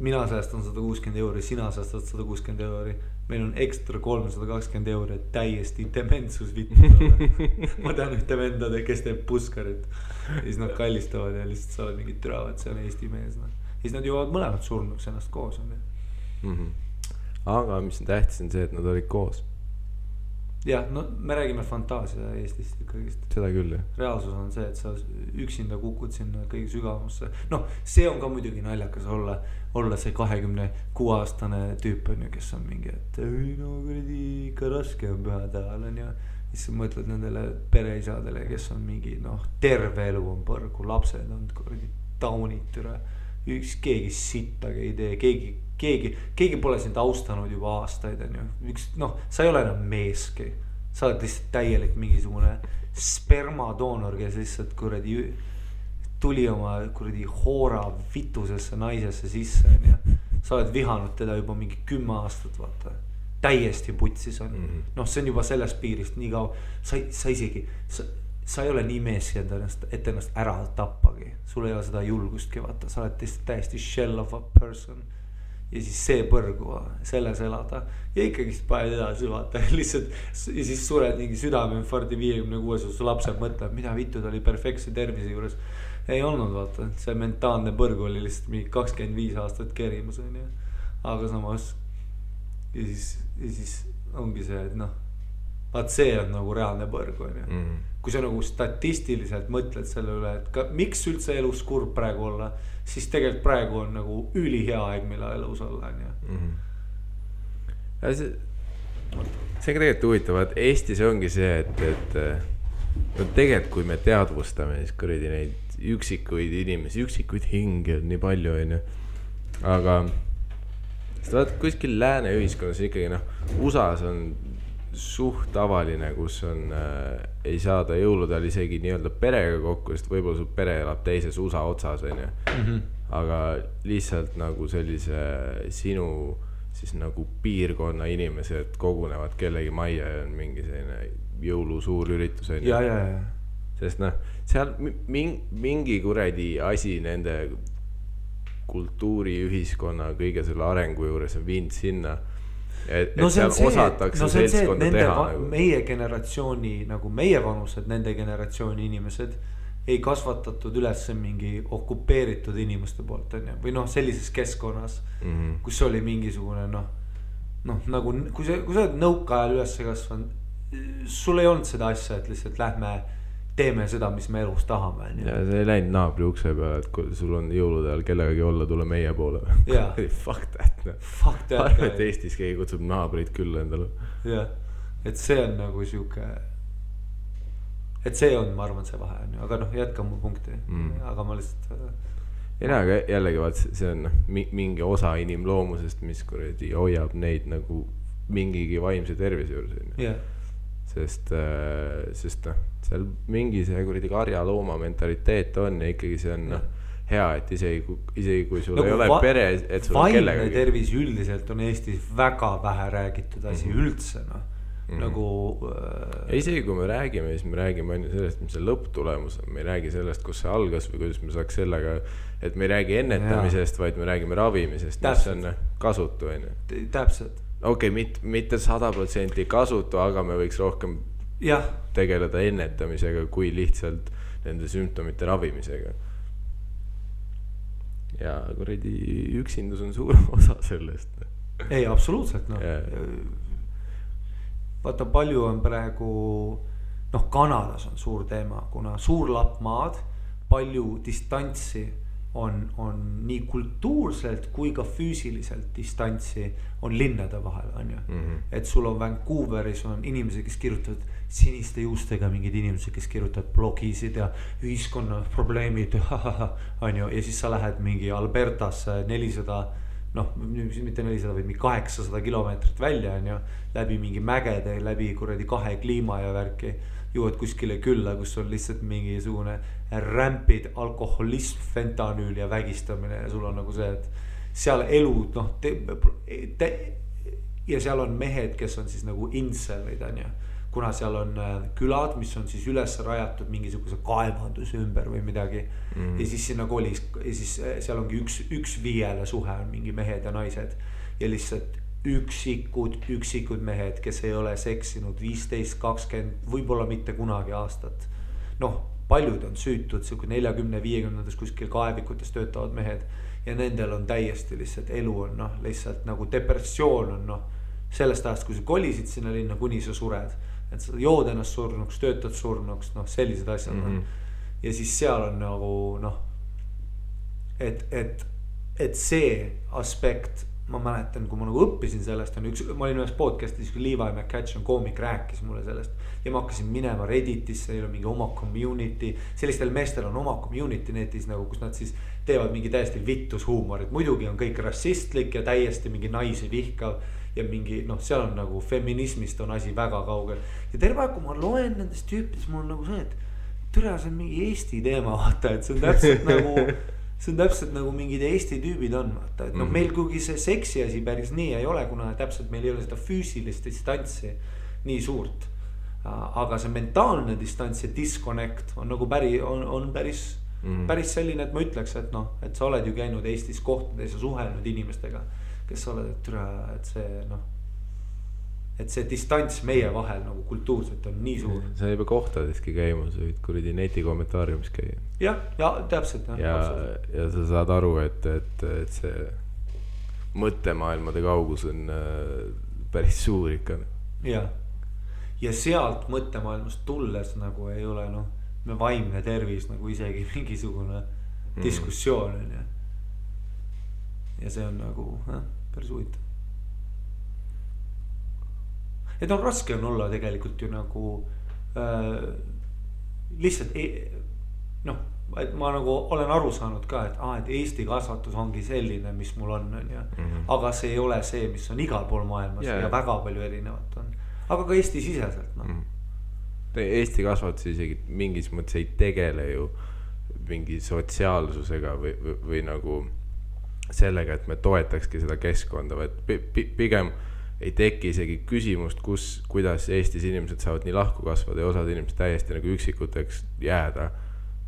Mina säästan 160 €, sina säästad 160 €. Meil on ekstra 320 €, et täiesti dementsus vittu. Ma tean ühte vendade, kes teeb puskarit. Ja siis nad kallistavad ja lihtsalt sa oled mingid türavad, see on Eesti mees. Ja siis nad jõuavad mõlemad surnuks ennast koos. Aga mis on tähtis on see, et nad olid koos. Jah, no me räägime fantaasia Eestist ikkagist. Seda küll, jah. Reaalsus on see, et sa üksinda kukud sinna kõige sügavamusse. Noh, see on ka muidugi naljakas olla see 26-aastane tüüp on ju, kes on mingi, et kuradi ikka raske on pühade ajal on ju. Siis sa mõtled nendele pereisadele, kes on mingi, terve elu on põrgu, lapsed on kuradi taunid türa. Keegi sittagi ei tee, keegi pole sind austanud juba aastaid on ju. Sa ei ole enam meeski. Sa oled lihtsalt täielik mingisugune spermadoonor, kes lihtsalt kuradi tuli oma kuradi hoora vitusesse naisesse sisse on ju. Sa oled vihanud teda juba mingi 10 aastat, vaata. Täiesti putsis on. See on juba sellest piirist nii kaua. Sa isegi... Sa ei ole nii meeski et ennast ära tappagi. Sul ei ole seda julgustki, vaata. Sa oled täiesti shell of a person. Ja siis see põrgu, selles elada. Ja ikkagist paned edasi, vaata. Lihtsalt, ja siis sured mingi südameinfarkti 56, su lapsed mõtleb, mida vittu ta oli perfektse tervise juures. Ei olnud, vaata. See mentaalne põrgu oli lihtsalt mingi 25 aastat kerimus. Aga samas, ja siis ongi see, et vaat see on nagu reaalne põrgu. Kui sa nagu statistiliselt mõtled selle üle, et miks üldse elus kurb praegu olla, siis tegelikult praegu on nagu ülihea aeg, mille elus olla. See on tegelikult huvitav, et Eestis ongi see, et tegelikult kui me teadvustame, siis kuradi neid üksikuid inimesi, üksikuid hinge on nii palju, aga kuskil lääne ühiskonnas ikkagi USA-s on suht tavaline, kus on ei saada jõuludel isegi nii-öelda perega kokku, sest võib-olla su pere elab teises USA otsas, aga lihtsalt nagu sellise siis nagu piirkonna inimesed kogunevad kellegi majja ja on mingi selline jõulu suur üritus. Ja. Sest noh, seal mingi kuradi asi nende kultuuri, ühiskonna, kõige selle arengu juures on viinud sinna, et seal osatakse seltskonda teha. Meie generatsiooni, nagu meie vanused, nende generatsiooni inimesed ei kasvatatud üles mingi okupeeritud inimeste poolt, on ju, või noh, sellises keskkonnas, kus oli mingisugune nagu, kui sa oled nõukaajal üles kasvanud, sul ei olnud seda asja, et lihtsalt lähme teeme seda, mis me elus tahame. Ja see ei läinud naabri ukse peale, et kui sul on jõulude ajal kellegagi olla, tule meie poole. Fuck that. Arve, et Eestis keegi kutsub naabrid küll endale. Jah, et see on nagu siuke, et see on, ma arvan, see vahe on ju, aga noh, jätka mu punkti, aga ma lihtsalt ei näe, aga jällegi vaat see on mingi osa inimloomusest, mis kuradi hoiab neid nagu mingigi vaimse tervise juures. Sest noh, seal mingi see kuradi karja looma mentaliteet on ja ikkagi see on hea, et isegi kui sul ei ole pere, et sul on kellega. Vaimne tervis üldiselt on Eestis väga vähe räägitud asi üldse, noh. Nagu isegi kui me räägime, siis me räägime ainult sellest, mis see lõpptulemus on. Me ei räägi sellest, kus see algas või kuidas me saaks sellega, et me ei räägi ennetamisest, vaid me räägime ravimisest, mis on kasutu. Täpselt. Okei, mitte 100% kasutu, aga me võiks rohkem tegeleda ennetamisega kui lihtsalt nende sümptomite ravimisega. Ja kuradi üksindus on suur osa sellest. Ei, absoluutselt, noh. Vaata, palju on praegu, noh, Kanadas on suur teema, kuna suur lapp maad, palju distantsi on nii kultuurselt kui ka füüsiliselt distantsi on linnade vahel, on ju. Et sul on Vancouveris on inimesed, kes kirjutavad siniste juustega, mingid inimesed, kes kirjutavad blogisid ja ühiskonna probleemid, on ju. Ja siis sa lähed mingi Albertasse 400, noh, mitte 400, vaid 800 kilomeetrit välja, on ju, läbi mingi mägede, läbi kuradi 2 kliima ja värki, jõuad kuskile külla, kus on lihtsalt mingisugune rämpid, alkoholism, fentanüül ja vägistamine ja sul on nagu see, et seal elu, noh, ja seal on mehed, kes on siis nagu inselid, on ju, kuna seal on külad, mis on siis üles rajatud mingisuguse kaevanduse ümber või midagi. Ja siis sinna kolis, ja siis seal ongi üks viiele suhe on mingi mehed ja naised ja lihtsalt üksikud mehed, kes ei ole seksinud 15, 20, võib-olla mitte kunagi aastat. Noh, paljud on süütud, 40-50 kuskil kaevikutes töötavad mehed ja nendel on täiesti lihtsalt elu on, noh, lihtsalt nagu depressioon on, noh, sellest ajast, kui sa kolisid sinna linna, kuni sa sured, et sa jood ennast surnuks, töötad surnuks, noh, sellised asjad on. Ja siis seal on nagu, noh, et see aspekt, ma mäletan, kui ma nagu õppisin sellest, ma olin ühes podcastis, kui Levi McCatch on koomik, rääkis mulle sellest ja ma hakkasin minema Redditisse, neil on mingi oma community, sellistel meestel on oma community netis nagu, kus nad siis teevad mingi täiesti vittus huumorit, muidugi on kõik rassistlik ja täiesti mingi naisi vihkav ja mingi, noh, seal on nagu feminismist on asi väga kaugel ja terve aeg, kui ma loen nendest tüüpidest, mul on nagu see, et türa, see on mingi Eesti teema, vaata, et see on täpselt nagu see on täpselt nagu mingid Eesti tüübid on, vaata, et noh, meil kuigi see seksi asi päris nii ei ole, kuna täpselt meil ei ole seda füüsilist distantsi nii suurt. Aga see mentaalne distants ja disconnect on nagu päris selline, et ma ütleks, et noh, et sa oled ju käinud Eestis kohtades ja suhelnud inimestega, kes sa oled, et türa, et see, noh, et see distants meie vahel nagu kultuurselt on nii suur. Sa ei pea kohtadeski käima, sa võid kuradi neti kommentaariumis käia. Ja täpselt. Ja sa saad aru, et see mõttemaailmade kaugus on päris suur ikka. Ja sealt mõttemaailmast tulles nagu ei ole, noh, me vaimne tervis nagu isegi mingisugune diskussioon on ja. Ja see on nagu päris huvitav. Et on raske on olla tegelikult ju nagu lihtsalt noh, et ma nagu olen aru saanud ka, et Eesti kasvatus ongi selline, mis mul on ja. Aga see ei ole see, mis on igal pool maailmas ja väga palju erinevat on. Aga ka Eesti siseselt, noh. Eesti kasvatus isegi mingis mõttes ei tegele ju mingi sotsiaalsusega või nagu sellega, et me toetakski seda keskkonda, vaid pigem ei teki isegi küsimust, kuidas Eestis inimesed saavad nii lahku kasvada ja osad inimesed täiesti nagu üksikuteks jääda.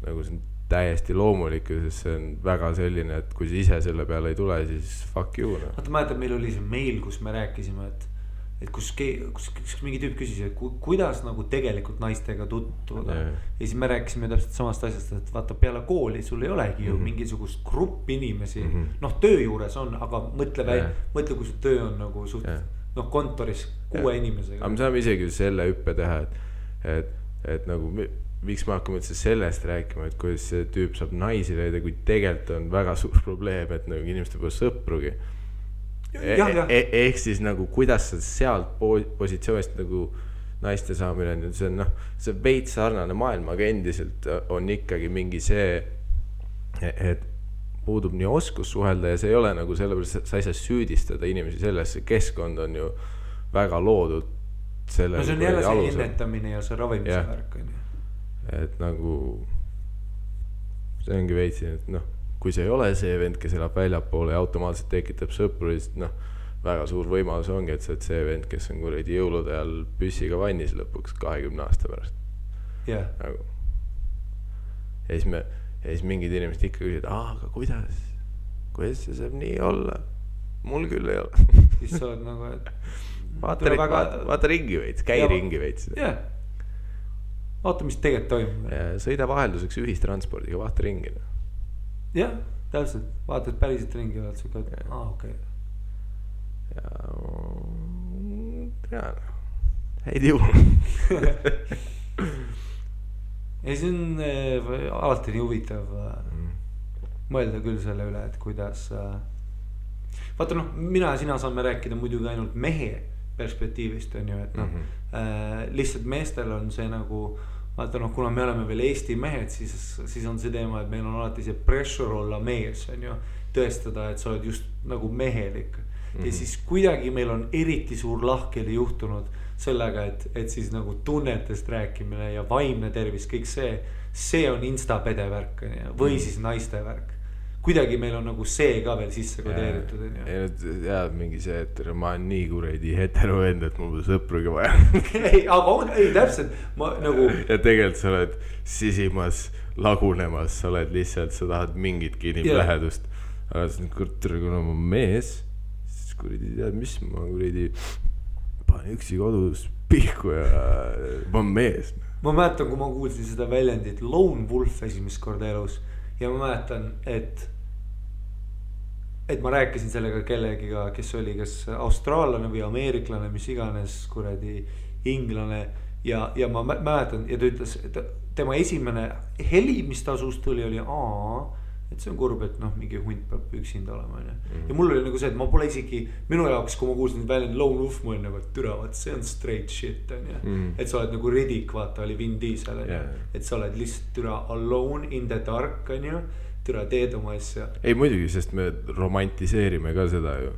Nagu see on täiesti loomulik, sest see on väga selline, et kui sa ise selle peale ei tule, siis fuck you. No. Vaata, mäletad, meil oli see meil, kus me rääkisime, et kus mingi tüüp küsis, et kuidas nagu tegelikult naistega tutvuda. Ja siis me rääkisime täpselt samast asjast, et vaata peale kooli sul ei olegi ju mingisugust grupp inimesi. Noh, töö juures on, aga mõtle, kui su töö on nagu suht, noh, kontoris 6 inimesega. Aga me saame isegi selle hüppe teha, et nagu miks me hakkame üldse sellest rääkima, et kuidas see tüüp saab naisi leida, kui tegelikult on väga suur probleem, et nagu inimeste pole sõprugi. Ehk siis nagu kuidas sa sealt positsioonist nagu naiste saamine on, see on noh, see veits sarnane maailm, aga endiselt on ikkagi mingi see, et puudub nii oskus suhelda ja see ei ole nagu sellepärast, sa ei saa süüdistada inimesi selles, see keskkond on ju väga loodud selle. No see on jälle see ennetamine ja see ravimise värk on ju. Et nagu see ongi veitsi, et noh, kui see ei ole see vend, kes elab väljapoole ja automaatselt tekitab sõpru, siis noh, väga suur võimalus ongi, et sa oled see vend, kes on kuradi jõulude ajal püssiga vannis lõpuks 20 aasta pärast. Nagu. Ja siis mingid inimesed ikka küsivad, aga kuidas see saab nii olla? Mul küll ei ole. Siis sa oled nagu, et vaata ringi veits, käi ringi veits. Vaata, mis tegelikult toimub. Sõida vahelduseks ühistranspordiga, vaata ringi. Jah, täpselt, vaatad päriselt ringi ja oled suke, et okei. Ja häid jõu. Ja see on alati nii huvitav mõelda küll selle üle, et kuidas vaata noh, mina ja sina saame rääkida muidugi ainult mehe perspektiivist on ju, et noh lihtsalt meestel on see nagu vaata noh, kuna me oleme veel Eesti mehed, siis on see teema, et meil on alati see pressure olla mees on ju, tõestada, et sa oled just nagu mehelik. Ja siis kuidagi meil on eriti suur lahkeli juhtunud sellega, et siis nagu tunnetest rääkimine ja vaimne tervis, kõik see on instapede värk või siis naiste värk. Kuidagi meil on nagu see ka veel sisse kodeeritud. Ja mingi see, et ma olen nii kuredi hetero vend, et mul sõprugi vaja. Ei, täpselt. Nagu... Ja tegelikult sa oled sisimas lagunemas, sa oled lihtsalt, sa tahad mingitki inimlähedust. Aga kuna ma mees, siis kuredi tead, mis ma kuredi panen üksi kodus pihku ja ma olen mees. Ma mäletan, kui ma kuulsin seda väljendit Lone Wolf esimest korda elus ja ma mäletan, et ma rääkisin sellega kellegiga, kes oli kas austraallane või ameeriklane, mis iganes kuradi inglane ja ma mäletan ja ta ütles, et tema esimene heli, mis ta suust tuli, oli et see on kurb, et noh, mingi hunt peab üksinda olema ja mul oli nagu see, et ma pole isegi minu jaoks, kui ma kuulsin väljend Lone Wolf, ma olin nagu, et türa, see on straight shit on ja et sa oled nagu Riddick, vaata oli Vin Diesel et sa oled lihtsalt türa alone in the dark on ju, türa teed oma asja. Ei muidugi, sest me romantiseerime ka seda ju.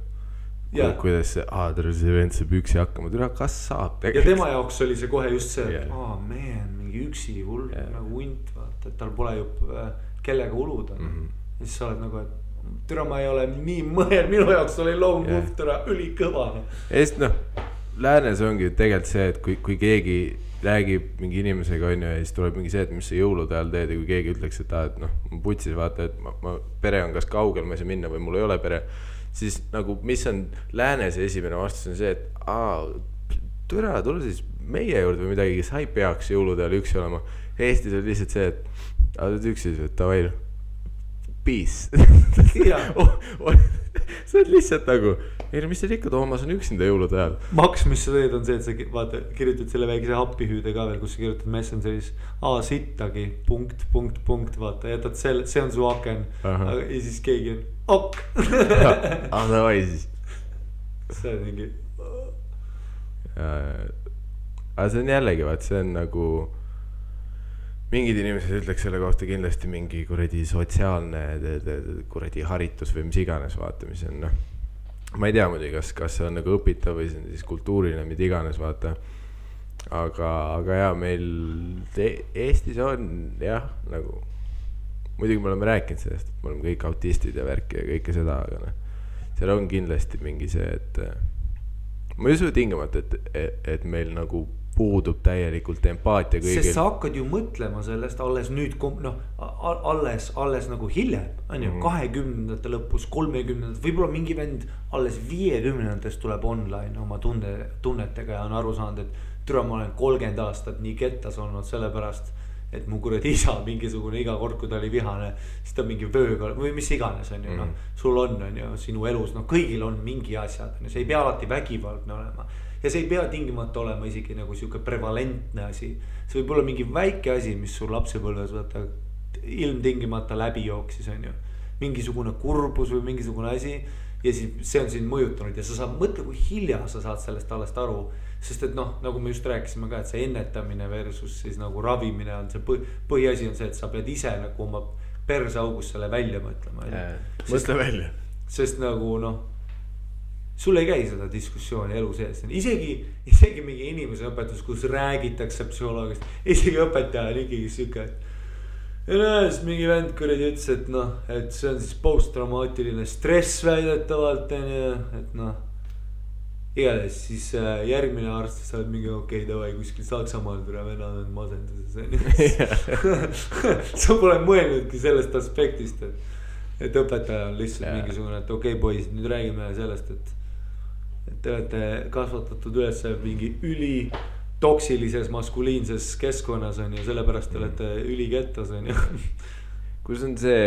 Kuidas see vend saab üksi hakkama, türa, kas saab tegelikult? Ja tema jaoks oli see kohe just see, man, mingi üksi hull nagu hunt, vaata, et tal pole ju kellega uluda ja siis sa oled nagu, et türa ma ei ole nii mõel, minu jaoks oli Lone Wolf türa ülikõva Eest noh, läänes ongi tegelikult see, et kui keegi räägib mingi inimesega on ja siis tuleb mingi see, et mis sa jõulude ajal teed ja kui keegi ütleks, et noh, ma putsis vaata, et ma pere on kas kaugel, ma ei saa minna või mul ei ole pere, siis nagu mis on läänes esimene vastus on see, et türa, tule siis meie juurde või midagi, sa ei peaks jõulude ajal üksi olema. Eestis on lihtsalt see, et sa oled üksi, et tavai, peace. Sa oled lihtsalt nagu, ei no mis teil ikka, Toomas on üksinda jõulude ajal. Maks, mis sa teed on see, et sa vaata, kirjutad selle väikese happihüüde ka veel, kus sa kirjutad Messengeris sittagi, punkt, vaata, jätad selle, see on su aken ja siis keegi on davai siis. See on mingi aga see on jällegi, vaat see on nagu mingid inimesed ütleks selle kohta kindlasti mingi kuradi sotsiaalne kuradi haritus või mis iganes vaata, mis on noh, ma ei tea muidugi, kas see on nagu õpitav või see on siis kultuuriline, mida iganes vaata, aga jah, meil Eestis on jah, nagu muidugi me oleme rääkinud sellest, et me oleme kõik autistid ja värki ja kõike seda, aga noh, seal on kindlasti mingi see, et ma ei usu tingimata, et meil nagu puudub täielikult empaatia kõigil. Sest sa hakkad ju mõtlema sellest alles nüüd, noh, alles nagu hiljem, on ju, 20. lõpus, 30. Võib-olla mingi vend alles 50. tuleb online oma tunnetega ja on aru saanud, et türa ma olen 30 aastat nii kettas olnud sellepärast, et mu kuradi isa mingisugune iga kord, kui ta oli vihane, siis ta mingi vööga või mis iganes on ju, noh, sul on ju sinu elus, noh, kõigil on mingi asjad, see ei pea alati vägivaldne olema. Ja see ei pea tingimata olema isegi nagu siuke prevalentne asi. See võib olla mingi väike asi, mis sul lapsepõlves võtta ilmtingimata läbi jooksis, on ju. Mingisugune kurbus või mingisugune asi ja siis see on sind mõjutanud ja sa saad mõtle, kui hilja sa saad sellest alles aru. Sest et noh, nagu me just rääkisime ka, et see ennetamine versus siis nagu ravimine on see põhiasi on see, et sa pead ise nagu oma persaugus selle välja mõtlema. Mõtle välja. Sest nagu noh, sul ei käi seda diskussiooni elu sees. Isegi mingi inimese õpetus, kus räägitakse psühholoogist, isegi õpetaja on ikkagi siuke, et näes, mingi vend kuradi ütles, et noh, et see on siis posttraumaatiline stress väidetavalt, et noh, igatahes siis järgmine arst sa oled mingi okei, davai kuskil Saksamaal tule vennad on masenduses. Sa pole mõelnudki sellest aspektist, et õpetaja on lihtsalt mingisugune, et okei poisid, nüüd räägime sellest, et te olete kasvatatud üles mingi üli toksilises maskuliinses keskkonnas on ju, sellepärast te olete ülikettas on ju. Kus on see,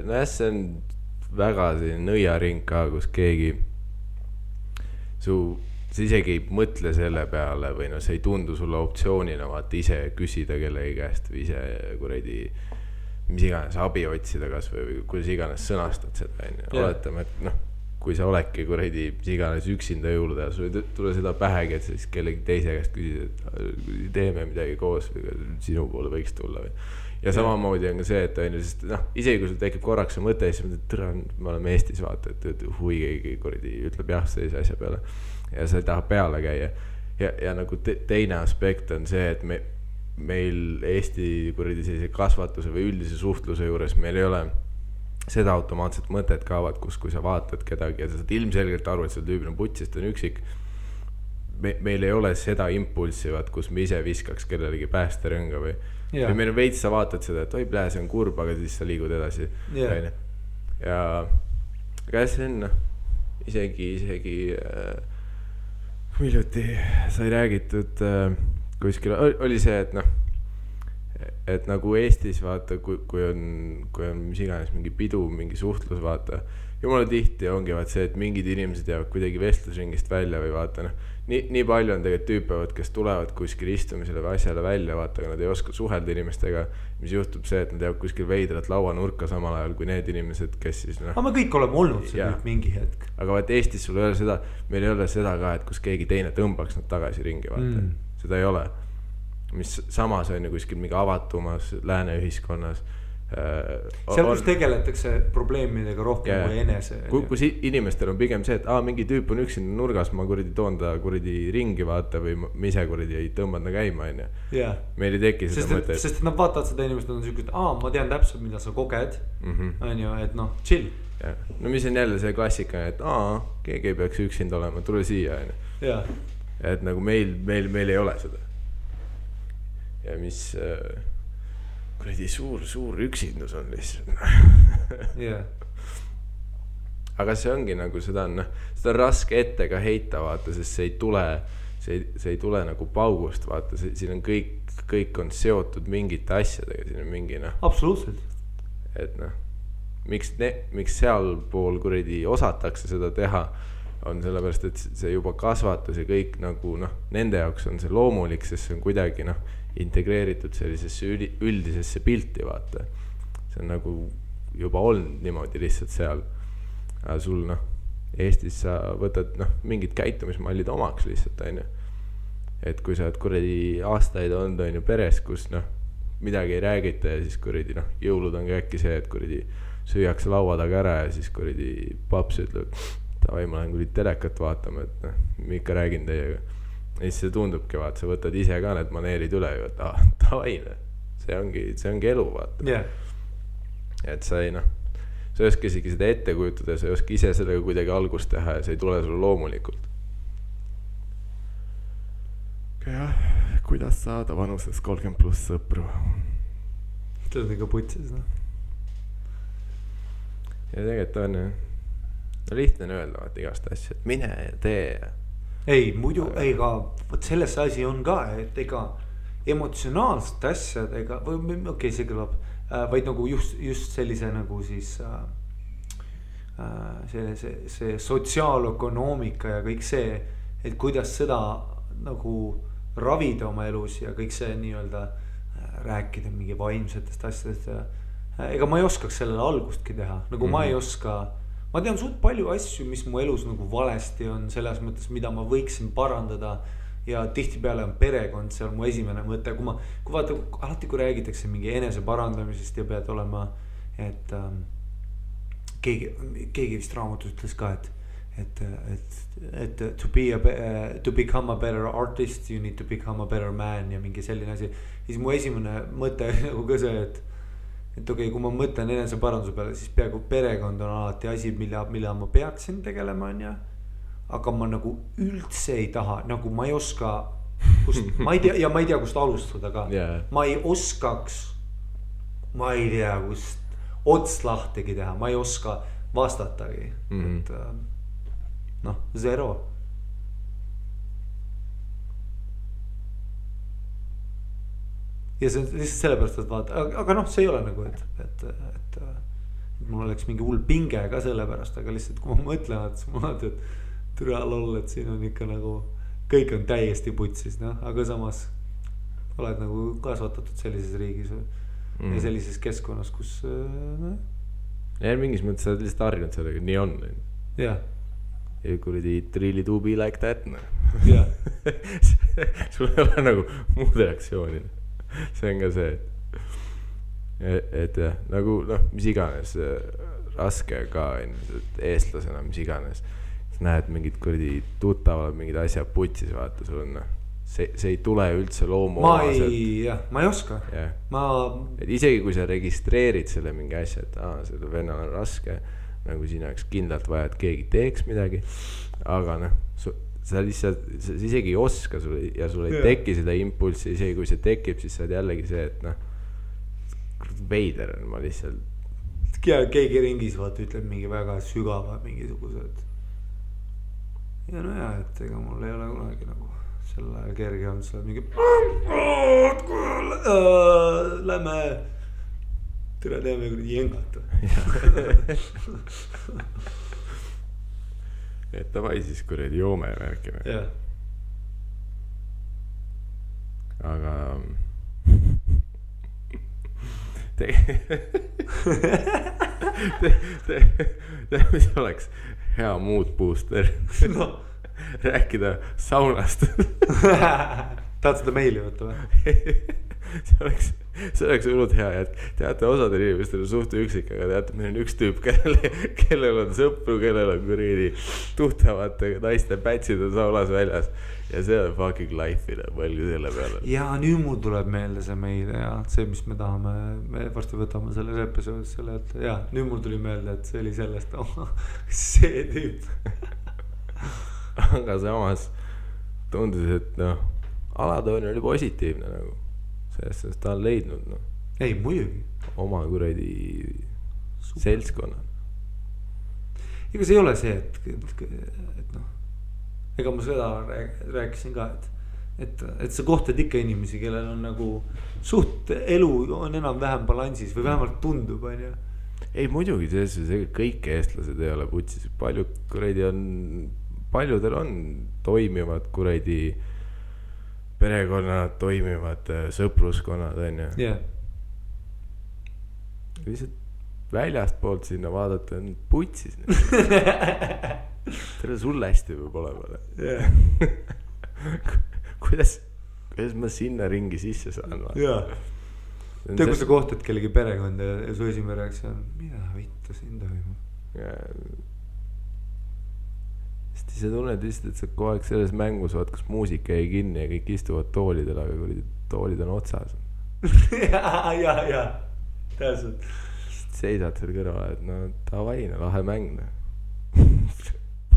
no jah, see on väga selline nõiaring ka, kus keegi sa isegi ei mõtle selle peale või no see ei tundu sulle optsioonina vaata ise küsida kellegi käest või ise kuradi mis iganes abi otsida kas või kuidas iganes sõnastad seda oletame, et noh, kui sa oledki kuradi mis iganes üksinda jõuluda ja sul ei tule seda pähegi, et siis kellegi teise käest küsida, et teeme midagi koos või sinu poole võiks tulla või. Ja samamoodi on ka see, et sest noh, isegi kui sul tekib korraks see mõte, siis me oleme Eestis vaata, et hui keegi kuradi ütleb jah sellise asja peale ja sa ei taha peale käia. Ja nagu teine aspekt on see, et meil Eesti kuradi sellise kasvatuse või üldise suhtluse juures meil ei ole seda automaatset mõtet kaavad, kus kui sa vaatad kedagi ja sa saad ilmselgelt aru, et see tüübil on puts, sest on üksik. Meil ei ole seda impulsi, kus me ise viskaks kellelegi päästerõnga või meil on veits, sa vaatad seda, et oi plee, see on kurb, aga siis sa liigud edasi. Ja aga see on isegi hiljuti sai räägitud kuskil, oli see, et noh, et nagu Eestis vaata, kui on mis iganes mingi pidu, mingi suhtlus vaata, jumala tihti ongi vaat see, et mingid inimesed jäävad kuidagi vestlusringist välja või vaata noh, nii palju on tegelikult tüüpevad, kes tulevad kuskil istumisele või asjale välja, vaata, aga nad ei oska suhelda inimestega, mis juhtub see, et nad jäävad kuskil veidrat lauanurka samal ajal kui need inimesed, kes siis noh. Aga me kõik oleme olnud see nüüd mingi hetk. Aga vaat Eestis sul ei ole seda, meil ei ole seda ka, et kus keegi teine tõmbaks nad tagasi ringi, vaata. Seda ei ole. Mis samas on ju kuskil mingi avatumas lääne ühiskonnas. Seal kus tegeletakse probleemidega rohkem kui enese. Kus inimestel on pigem see, et mingi tüüp on üksinda nurgas, ma kuradi toon ta kuradi ringi vaata või ma ise kuradi ei tõmbad na käima on ju. Meil ei teki seda mõtet. Sest nad vaatavad seda inimest, nad on siuke, et ma tean täpselt, mida sa koged on ju, et noh, chill. No mis on jälle see klassika, et keegi ei peaks üksinda olema, tule siia on ju. Et nagu meil ei ole seda. Ja mis kuradi suur üksindus on lihtsalt. Aga see ongi nagu seda on raske ette ka heita vaata, sest see ei tule nagu paugust vaata, siin on kõik on seotud mingite asjadega, siin on mingi absoluutselt. Et miks sealpool kuradi osatakse seda teha on sellepärast, et see juba kasvatus ja kõik nagu nende jaoks on see loomulik, sest see on kuidagi integreeritud sellisesse üldisesse pilti vaata. See on nagu juba olnud niimoodi lihtsalt seal. Aga sul Eestis sa võtad mingid käitumismallid omaks lihtsalt on ju. Et kui sa oled kuradi aastaid olnud on ju peres, kus midagi ei räägita ja siis kuradi jõulud on ka äkki see, et kuradi süüakse laua taga ära ja siis kuradi paps ütleb, tavai ma lähen kuradi telekat vaatama, et ma ikka räägin teiega. Ja siis see tundubki vaata, sa võtad ise ka need maneerid üle ju, et tavai, see ongi elu vaata. et sa ei sa ei oska isegi seda ette kujutada, sa ei oska ise sellega kuidagi algust teha ja see ei tule sulle loomulikult. jah, kuidas saada vanuses 30+ sõpru? See on ikka putsis, Ja tegelikult on lihtne on öelda igast asja, et mine ja tee. Ei, muidu, ega selles asi on ka, et ega emotsionaalsed asjad, ega, okei, see kõlab, vaid nagu just sellise nagu siis see sotsiaalökonoomika ja kõik see, et kuidas seda nagu ravida oma elus ja kõik see nii-öelda rääkida mingi vaimsetest asjadest ja ega ma ei oskaks sellele algustki teha, nagu ma ei oska, ma tean suht palju asju, mis mu elus nagu valesti on selles mõttes, mida ma võiksin parandada ja tihtipeale on perekond seal mu esimene mõte, kui vaata, alati kui räägitakse mingi enese parandamisest ja pead olema, et keegi vist raamatus ütles ka, et to become a better artist, you need to become a better man ja mingi selline asi. Siis mu esimene mõte nagu ka see, et okei, kui ma mõtlen enese paranduse peale, siis peaaegu perekond on alati asi, mille ma peaksin tegelema, on ja. Aga ma nagu üldse ei taha, nagu ma ei oska, ma ei tea, kust alustada ka. Ma ei oskaks, ma ei tea, kust ots lahtegi teha, ma ei oska vastatagi. Et zero. Ja see on lihtsalt sellepärast, et vaata, aga see ei ole nagu, et mul oleks mingi hull pinge ka sellepärast, aga lihtsalt kui ma mõtlen, et mul on, et türa loll, et siin on ikka nagu, kõik on täiesti putsis, aga samas oled nagu kasvatatud sellises riigis ja sellises keskkonnas, kus ja mingis mõttes sa oled lihtsalt harjunud sellega, nii on. Ja kuradi it really do be like that. Ja sul ei ole nagu muud reaktsiooni. See on ka see, et jah, nagu mis iganes raske ka eestlasena, mis iganes näed mingid kuradi tuttavad, mingid asjad putsis, vaata sul on see ei tule üldse loomu ma ei oska et isegi kui sa registreerid selle mingi asja, et selle vennal on raske, nagu siin oleks kindlalt vaja, et keegi teeks midagi, aga sa lihtsalt, sa isegi ei oska ja sul ei teki seda impulsi, isegi kui see tekib, siis sa oled jällegi see, et veider on ma lihtsalt keegi ringis vaata ütleb mingi väga sügava mingisugused ja et ega mul ei ole kunagi nagu selle kerge on seal mingi lähme tere teeme kuradi jengata et davai siis kuradi joome värkime aga mis oleks hea mood booster rääkida saunast tahad seda meili võtta või? see oleks hullult hea, et teate, osadel inimestel on suht üksik, aga teate, meil on üks tüüp, kellel on sõpru, kellel on kuridi tuhtavate naiste pätsid on saunas väljas ja see on fucking life'ina, mõelge selle peale. Ja nüüd mul tuleb meelde see meil ja see, mis me tahame, me varsti võtame selles episoodis selle, et ja nüüd mul tuli meelde, et see oli sellest, see tüüp. Aga samas tundus, et alatoon oli positiivne nagu. Sellest ta on leidnud ei, muidugi oma kuradi seltskonna. Ega see ei ole see, et ega ma seda rääkisin ka, et sa kohtad ikka inimesi, kellel on nagu suht elu on enam-vähem balansis või vähemalt tundub, on ju. Ei muidugi, kõik eestlased ei ole putsis, paljudel on toimivad kuradi perekonnad, toimivad sõpruskonnad, on ju. Lihtsalt väljast poolt sinna vaadata on putsis. Tere sulle hästi võib olema. Kuidas ma sinna ringi sisse saan? Tea, kui sa kohtad kellegi perekonda ja su esimene reaktsioon, mida vittu siin toimub? Sa tunned lihtsalt, et sa kogu aeg selles mängus vaat, kas muusika jäi kinni ja kõik istuvad toolidel, aga kui toolid on otsas. ja, täpselt. seisad seal kõrval, et no davai, no lahe mäng.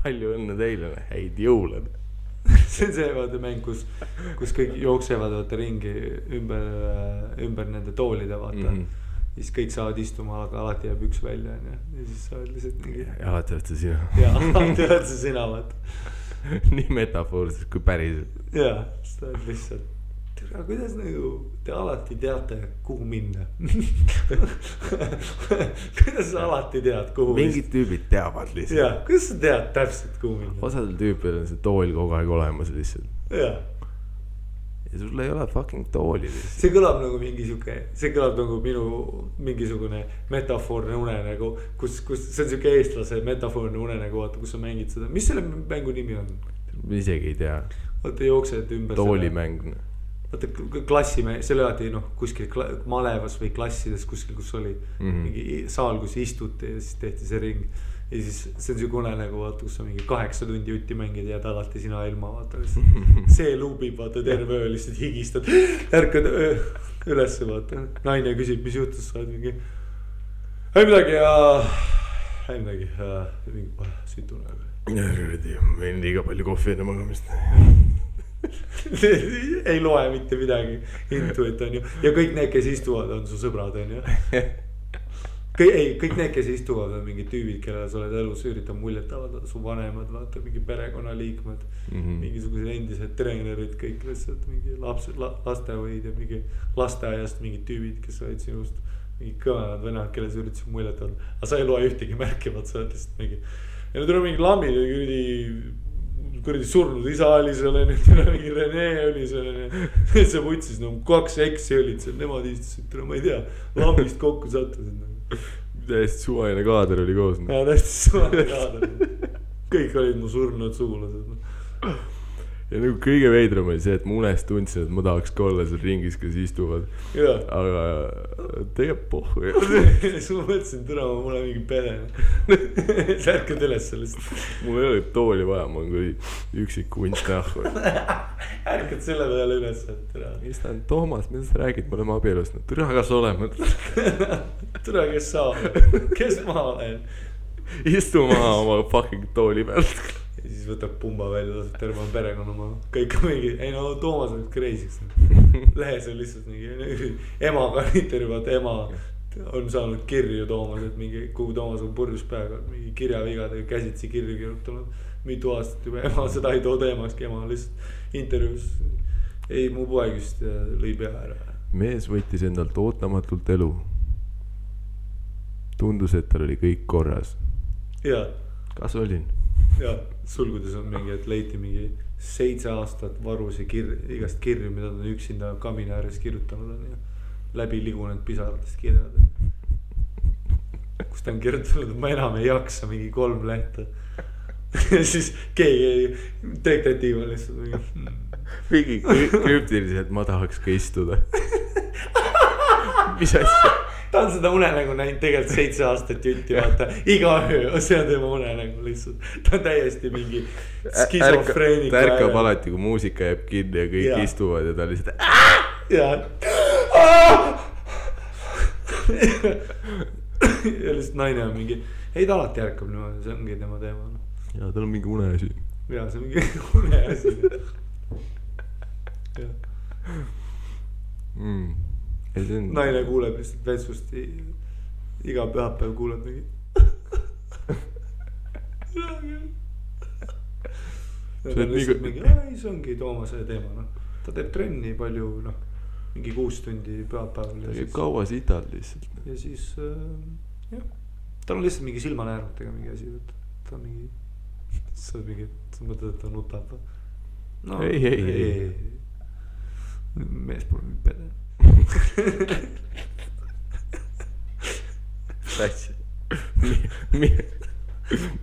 Palju õnne teile, häid jõule. See on see vaata mäng, kus kõik jooksevad vaata ringi ümber nende toolide vaata. Siis kõik saavad istuma, aga alati jääb üks välja ja siis sa oled lihtsalt mingi. Ja alati oled sa sina. Ja alati oled sa sina vaata. Nii metafoorselt kui päriselt. Ja, sa oled lihtsalt. Aga kuidas nagu te alati teate, kuhu minna? Kuidas sa alati tead, kuhu minna? Mingid tüübid teavad lihtsalt. Ja, kuidas sa tead täpselt, kuhu minna? Osadel tüüpil on see tool kogu aeg olemas lihtsalt. Ja. Ja sul ei ole fucking tooli lihtsalt. See kõlab nagu see kõlab nagu minu mingisugune metafoorne unenägu, kus see on siuke eestlase metafoorne unenägu, vaata, kus sa mängid seda. Mis selle mängu nimi on? Ma isegi ei tea. Vaata jooksed ümber toolimäng. Vaata klassimäng, selle alati kuskil malevas või klassides kuskil, kus oli mingi saal, kus istuti ja siis tehti see ring. Ja siis see on siuke unenägu, vaata, kus sa mingi 8 tundi jutti mängid ja alati sina ilma, vaata. See luubib, vaata, terve öö lihtsalt higistad. Ärkad ülesse, vaata. Naine küsib, mis juhtus, sa oled mingi. Ei midagi, mingi sütune. Võin liiga palju kohvi enne magamist. Ei loe mitte midagi intu, et on ju. Ja kõik need, kes istuvad, on su sõbrad, on ju. Kõik need, kes istuvad, on mingid tüübid, kellele sa oled elus üritab muljet avaldada, su vanemad, vaata, mingi perekonnaliikmed, mingisugused endised treenerid, kõik lihtsalt mingi lastehoid ja mingi lasteaiast mingid tüübid, kes olid sinust mingi kõvenad venad, kelle sa üritasid muljet avaldada. Aga sa ei loe ühtegi märkivat, sa oled lihtsalt mingi. Ja nüüd on mingi lambid ja kuradi surnud isa oli seal, mingi Rene oli seal, see võtsis 2 eksi olid seal, nemad istusid, ma ei tea, lambist kokku sattusid. Täiesti suvaline kaader oli koos. Ja täiesti suvaline kaader. Kõik olid mu surnud sugulased. Ja nagu kõige veidram oli see, et ma unest tundsin, et ma tahaks ka olla seal ringis, kes istuvad. Ja. Aga tegelikult pohhu. Siis ma mõtlesin, türa, mul on mingi pere. Särkad üles sellest. Mul ei ole tooli vaja, ma olen kui üksik kunst nähku. Ärkad selle peale üles, et türa. Mis ta on, Toomas, mida sa räägid, me oleme abielust. Türa, kas oleme? Türa, kes sa oled? Kes ma olen? Istu maha oma fucking tooli pealt. Ja siis võtab pumba välja, laseb terve perekonna maha. Kõik on mingi, ei no Toomas on kreisiks. Lehes on lihtsalt mingi emaga intervjuvad, ema on saanud kirju Toomas, et mingi, kuhu Toomas on purjus peaga, mingi kirjavigadega käsitsi kirju kirjutanud mitu aastat juba. Ema seda ei too teemakski, ema lihtsalt intervjuus. Ei, mu poeg just lõi pea ära. Mees võttis endalt ootamatult elu. Tundus, et tal oli kõik korras. Ja. Kas olin? Ja, sulgudes on mingi, et leiti mingi 7 aastat varusi igast kirju, mida ta on üksinda kamina ääres kirjutanud on ja läbi ligunenud pisaratest kirjad. Kus ta on kirjutanud, et ma enam ei jaksa mingi 3 lehte. Ja siis keegi detektiiv on lihtsalt mingi krüptiliselt, ma tahaks ka istuda. Mis asja? Ta on seda unenägu näinud tegelikult 7 aastat jutti, vaata, iga öö, see on tema unenägu lihtsalt. Ta on täiesti mingi skisofreenika. Ta ärkab alati, kui muusika jääb kinni ja kõik istuvad ja ta lihtsalt ja lihtsalt naine on mingi, ei ta alati ärkab niimoodi, see ongi tema teema. Ja tal on mingi uneasi. Ja see on mingi uneasi. Naine kuuleb lihtsalt vetsust iga pühapäev kuuleb mingi see ongi Toomase teema, ta teeb trenni palju, mingi 6 tundi pühapäeval ta käib kaua sitad lihtsalt ja siis jah, tal on lihtsalt mingi silmanäärmetega mingi asi, ta on mingi sa mõtled, et ta nutab no, ei mees pole mingi pede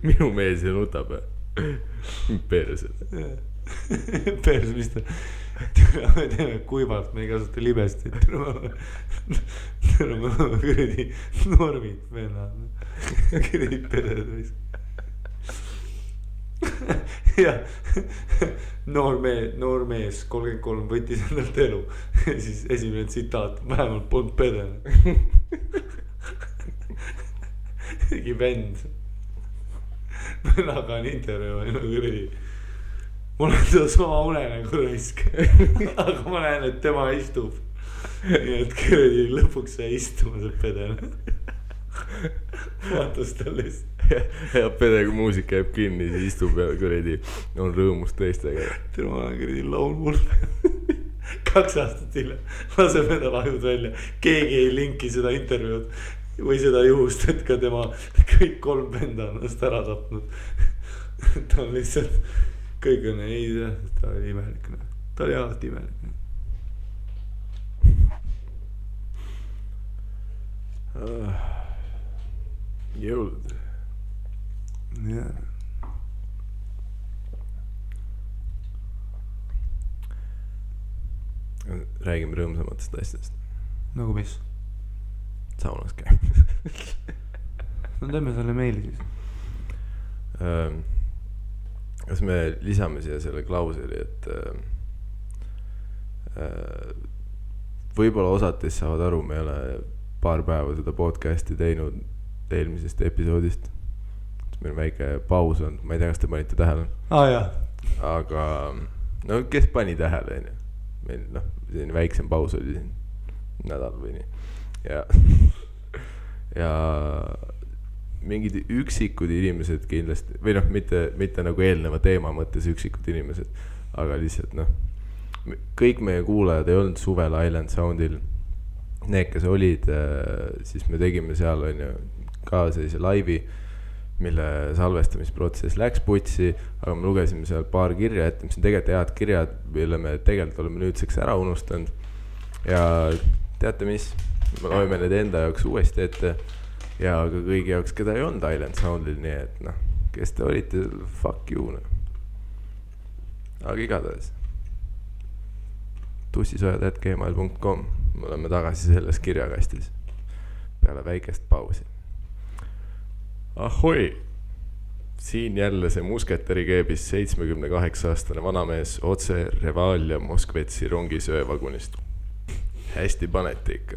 minu mees ei nutab perse perse, mis ta me teeme kuivalt, me ei kasuta libesti me kuradi normid vennad kuradi peded ja noor mees 33 võttis endalt elu siis esimene tsitaat, vähemalt polnud pede mingi vend. Vennaga on intervjuu ja kuradi. Mul on seda sama unenägu raisk. Aga ma näen, et tema istub. Nii et kuradi lõpuks sai istuma see pedel. Vaatas talle lihtsalt. Ja pede, kui muusika jääb kinni, siis istub ja kuradi on rõõmus teistega. Ma olen kuradi laulmul. 2 aastat hiljem laseb endal ajud välja. Keegi ei linki seda intervjuud või seda juhust, et ka tema kõik 3 venda on ennast ära tapnud. Ta on lihtsalt, kõik on ei, ta oli imelik. Ta oli alati imelik. Jõulud. Jah. Räägime rõõmsamatest asjadest. Nagu mis? Saunas käib. No teeme selle meili siis. Kas me lisame siia selle klauseli, et võib-olla osates saavad aru, me ei ole paar päeva seda podcasti teinud eelmisest episoodist. Meil on väike paus on, ma ei tea, kas te panite tähele. Jah. Aga no kes pani tähele, meil selline väiksem paus oli siin nädal või nii. Ja mingid üksikud inimesed kindlasti, või mitte nagu eelneva teema mõttes üksikud inimesed, aga lihtsalt kõik meie kuulajad ei olnud suvel Island Soundil. Need, kes olid, siis me tegime seal ka sellise laivi, mille salvestamisprotsess läks putsi, aga me lugesime seal paar kirja ette, mis on tegelikult head kirjad, mille me tegelikult oleme nüüdseks ära unustanud. Ja teate mis, me loeme need enda jaoks uuesti ette ja ka kõigi jaoks, keda ei olnud Island Soundil, nii et kes te olite, fuck you. Aga igatahes tussisojad@gmail.com, me oleme tagasi selles kirjakastis peale väikest pausi. Ahoi! Siin jälle see musketeri keebis 78-aastane vanamees otse Revalia Moskvetsi rongisöövagunist. Hästi paneti ikka.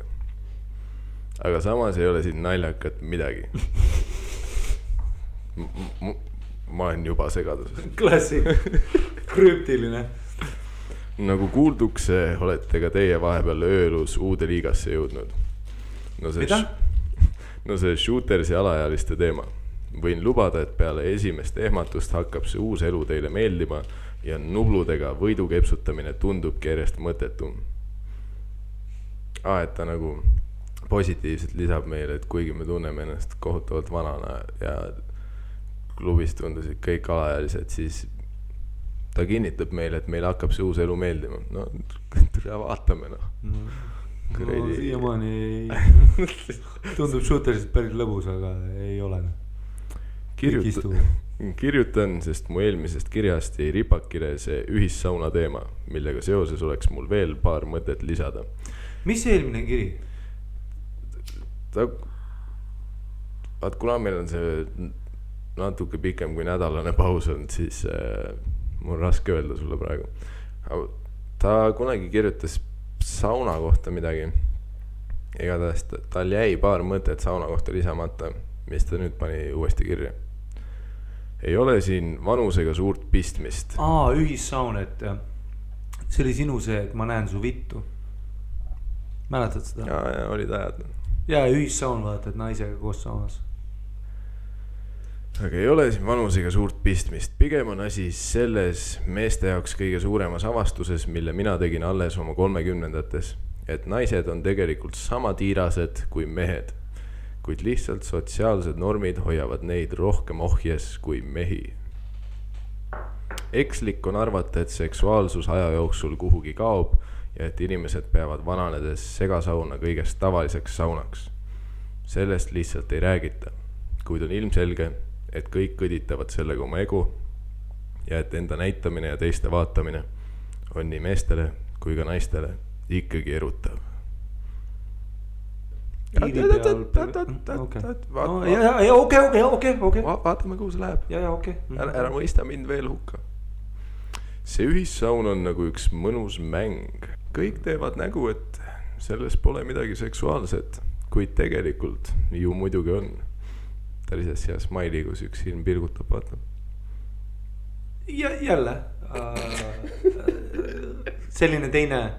Aga samas ei ole siin naljakat midagi. Ma olen juba segaduses. Klassik. Krüptiline. Nagu kuulduks, olete ka teie vahepeal öölus uude liigasse jõudnud. Mida? No see shootersi alaealiste teema. Võin lubada, et peale esimest ehmatust hakkab see uus elu teile meeldima ja nubludega võidu kepsutamine tundubki järjest mõttetum. Et ta nagu positiivselt lisab meile, et kuigi me tunneme ennast kohutavalt vanana ja klubis tundusid kõik alaealised, siis ta kinnitab meile, et meil hakkab see uus elu meeldima. No, vaatame siiamaani tundub shooterist päris lõbus, aga ei ole. Kirjutan, sest mu eelmisest kirjast jäi ripakile see ühissauna teema, millega seoses oleks mul veel paar mõtet lisada. Mis see eelmine kiri? Kuna meil on see natuke pikem kui nädalane paus on, siis mul on raske öelda sulle praegu. Ta kunagi kirjutas sauna kohta midagi. Igatahes tal jäi paar mõtet sauna kohta lisamata, mis ta nüüd pani uuesti kirja. Ei ole siin vanusega suurt pistmist. Ühissaun, et see oli sinu see, et ma näen su vittu. Mäletad seda? Ja olid ajad. Ja ühissaun vaata, et naisega koos saunas. Aga ei ole siin vanusega suurt pistmist. Pigem on asi selles meeste jaoks kõige suuremas avastuses, mille mina tegin alles oma 30-ndates, et naised on tegelikult sama tiirased kui mehed, kuid lihtsalt sotsiaalsed normid hoiavad neid rohkem ohjes kui mehi. Ekslik on arvata, et seksuaalsus aja jooksul kuhugi kaob ja et inimesed peavad vananedes segasauna kõigest tavaliseks saunaks. Sellest lihtsalt ei räägita, kuid on ilmselge, et kõik kõditavad sellega oma ego ja et enda näitamine ja teiste vaatamine on nii meestele kui ka naistele ikkagi erutav. Vaatame, kuhu see läheb. Ära mõista mind veel hukka. See ühissaun on nagu üks mõnus mäng. Kõik teevad nägu, et selles pole midagi seksuaalset, kuid tegelikult ju muidugi on. suhtelises ja Smiley, kus üks silm pilgutab, vaata. Ja jälle selline teine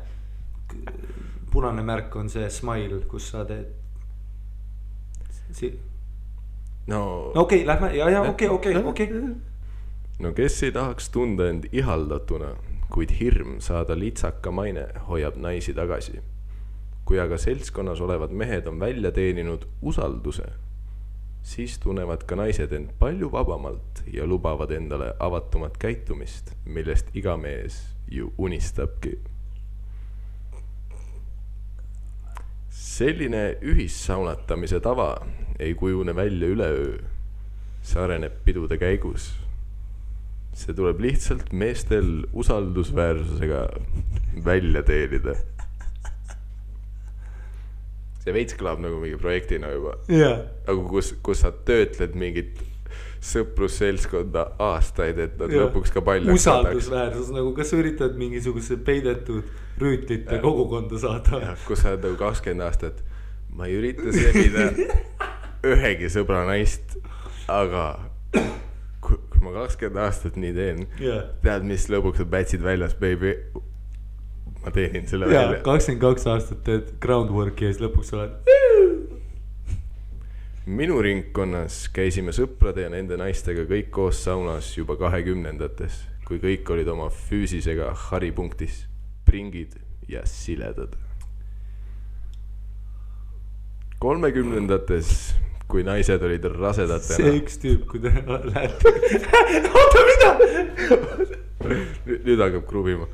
punane märk on see Smile, kus sa teed no okei, lähme, okei. No kes ei tahaks tunda end ihaldatuna, kuid hirm saada litsaka maine hoiab naisi tagasi. Kui aga seltskonnas olevad mehed on välja teeninud usalduse, siis tunnevad ka naised end palju vabamalt ja lubavad endale avatumat käitumist, millest iga mees ju unistabki. Selline ühissaunatamise tava ei kujune välja üleöö. See areneb pidude käigus. See tuleb lihtsalt meestel usaldusväärsusega välja teenida. See veits kõlab nagu mingi projektina juba. Aga kus sa töötled mingit sõprusseltskonda aastaid, et nad lõpuks ka paljaks usaldusväärsus, nagu kas sa üritad mingisuguse peidetud rüütlite kogukonda saada. Ja, kus sa oled nagu 20 aastat. Ma ei ürita sebida ühegi sõbra naist, aga kui ma 20 aastat nii teen, tead, mis lõpuks on pätsid väljas, baby. Ma teenin selle välja. 22 aastat teed groundworki ja siis lõpuks oled. Minu ringkonnas käisime sõprade ja nende naistega kõik koos saunas juba 20-ndates, kui kõik olid oma füüsisega haripunktis, pringid ja siledad. 30-ndates, kui naised olid rasedatena. See üks tüüp, kui te lähete. Oota, mida? Nüüd hakkab krubima.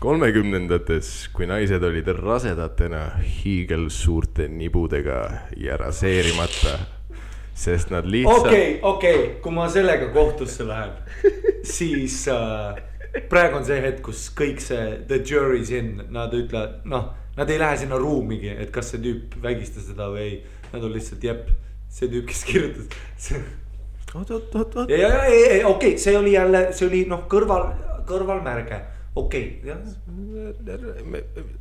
30-ndates, kui naised olid rasedatena hiigel suurte nibudega ja raseerimata, sest nad lihtsalt... Okei, kui ma sellega kohtusse lähen, siis praegu on see hetk, kus kõik see the jury's in, nad ütlevad, nad ei lähe sinna ruumigi, et kas see tüüp vägistas seda või ei, nad on lihtsalt see tüüp, kes kirjutas. Okei, see oli jälle, see oli kõrvalmärge. Okei, jah.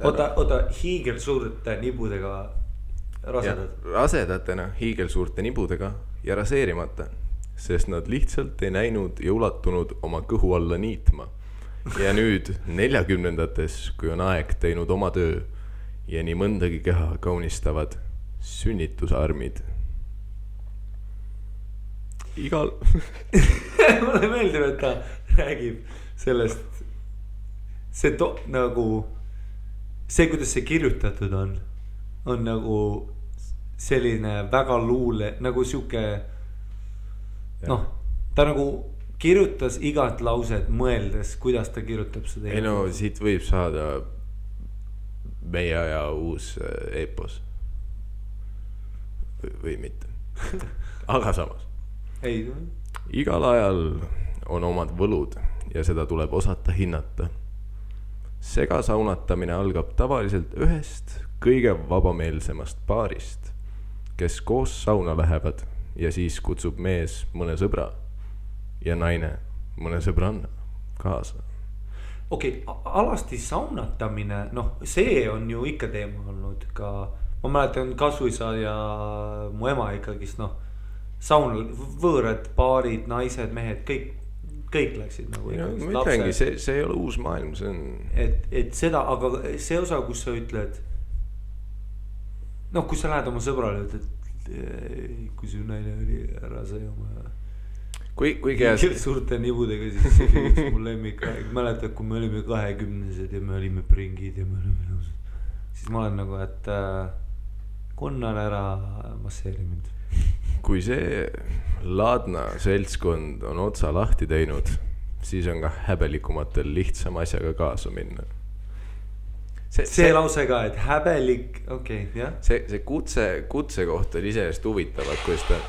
Oota, hiigel suurte nibudega rasedad. Rasedatena hiigel suurte nibudega ja raseerimata, sest nad lihtsalt ei näinud ja ulatunud oma kõhu alla niitma. Ja nüüd 40-ndates, kui on aeg teinud oma töö ja nii mõndagi keha kaunistavad sünnitusarmid. Igal... Mulle meeldib, et ta räägib sellest nagu see, kuidas see kirjutatud on nagu selline väga luule, nagu siuke ta nagu kirjutas igat lauset mõeldes, kuidas ta kirjutab seda. Ei no, siit võib saada meie aja uus epos või mitte. Aga samas igal ajal on omad võlud ja seda tuleb osata hinnata. Segasaunatamine algab tavaliselt ühest kõige vabameelsemast paarist, kes koos sauna lähevad ja siis kutsub mees mõne sõbra ja naine mõne sõbranna kaasa. Okei, alasti saunatamine, see on ju ikka teema olnud ka, ma mäletan Kasuisa ja mu ema ikkagist, saunal võõrad paarid, naised, mehed, kõik läksid nagu ikkagi. Ma ütlengi, see ei ole uus maailm, see on... Et seda, aga see osa, kus sa ütled, kus sa lähed oma sõbrale, et kui su naine oli ära sai oma... Kui käes... Suurte nibudega, siis see üks mu lemmik. Mäletad, kui me olime 20-sed ja me olime pringid ja me olime nõused. Siis ma olen nagu, et konnan ära masseeri mind. Kui see laadna seltskond on otsa lahti teinud, siis on ka häbelikumatel lihtsam asjaga kaasa minna. See lause ka, et häbelik, jah. See kutse kohta oli iseenesest huvitavad, kuidas ta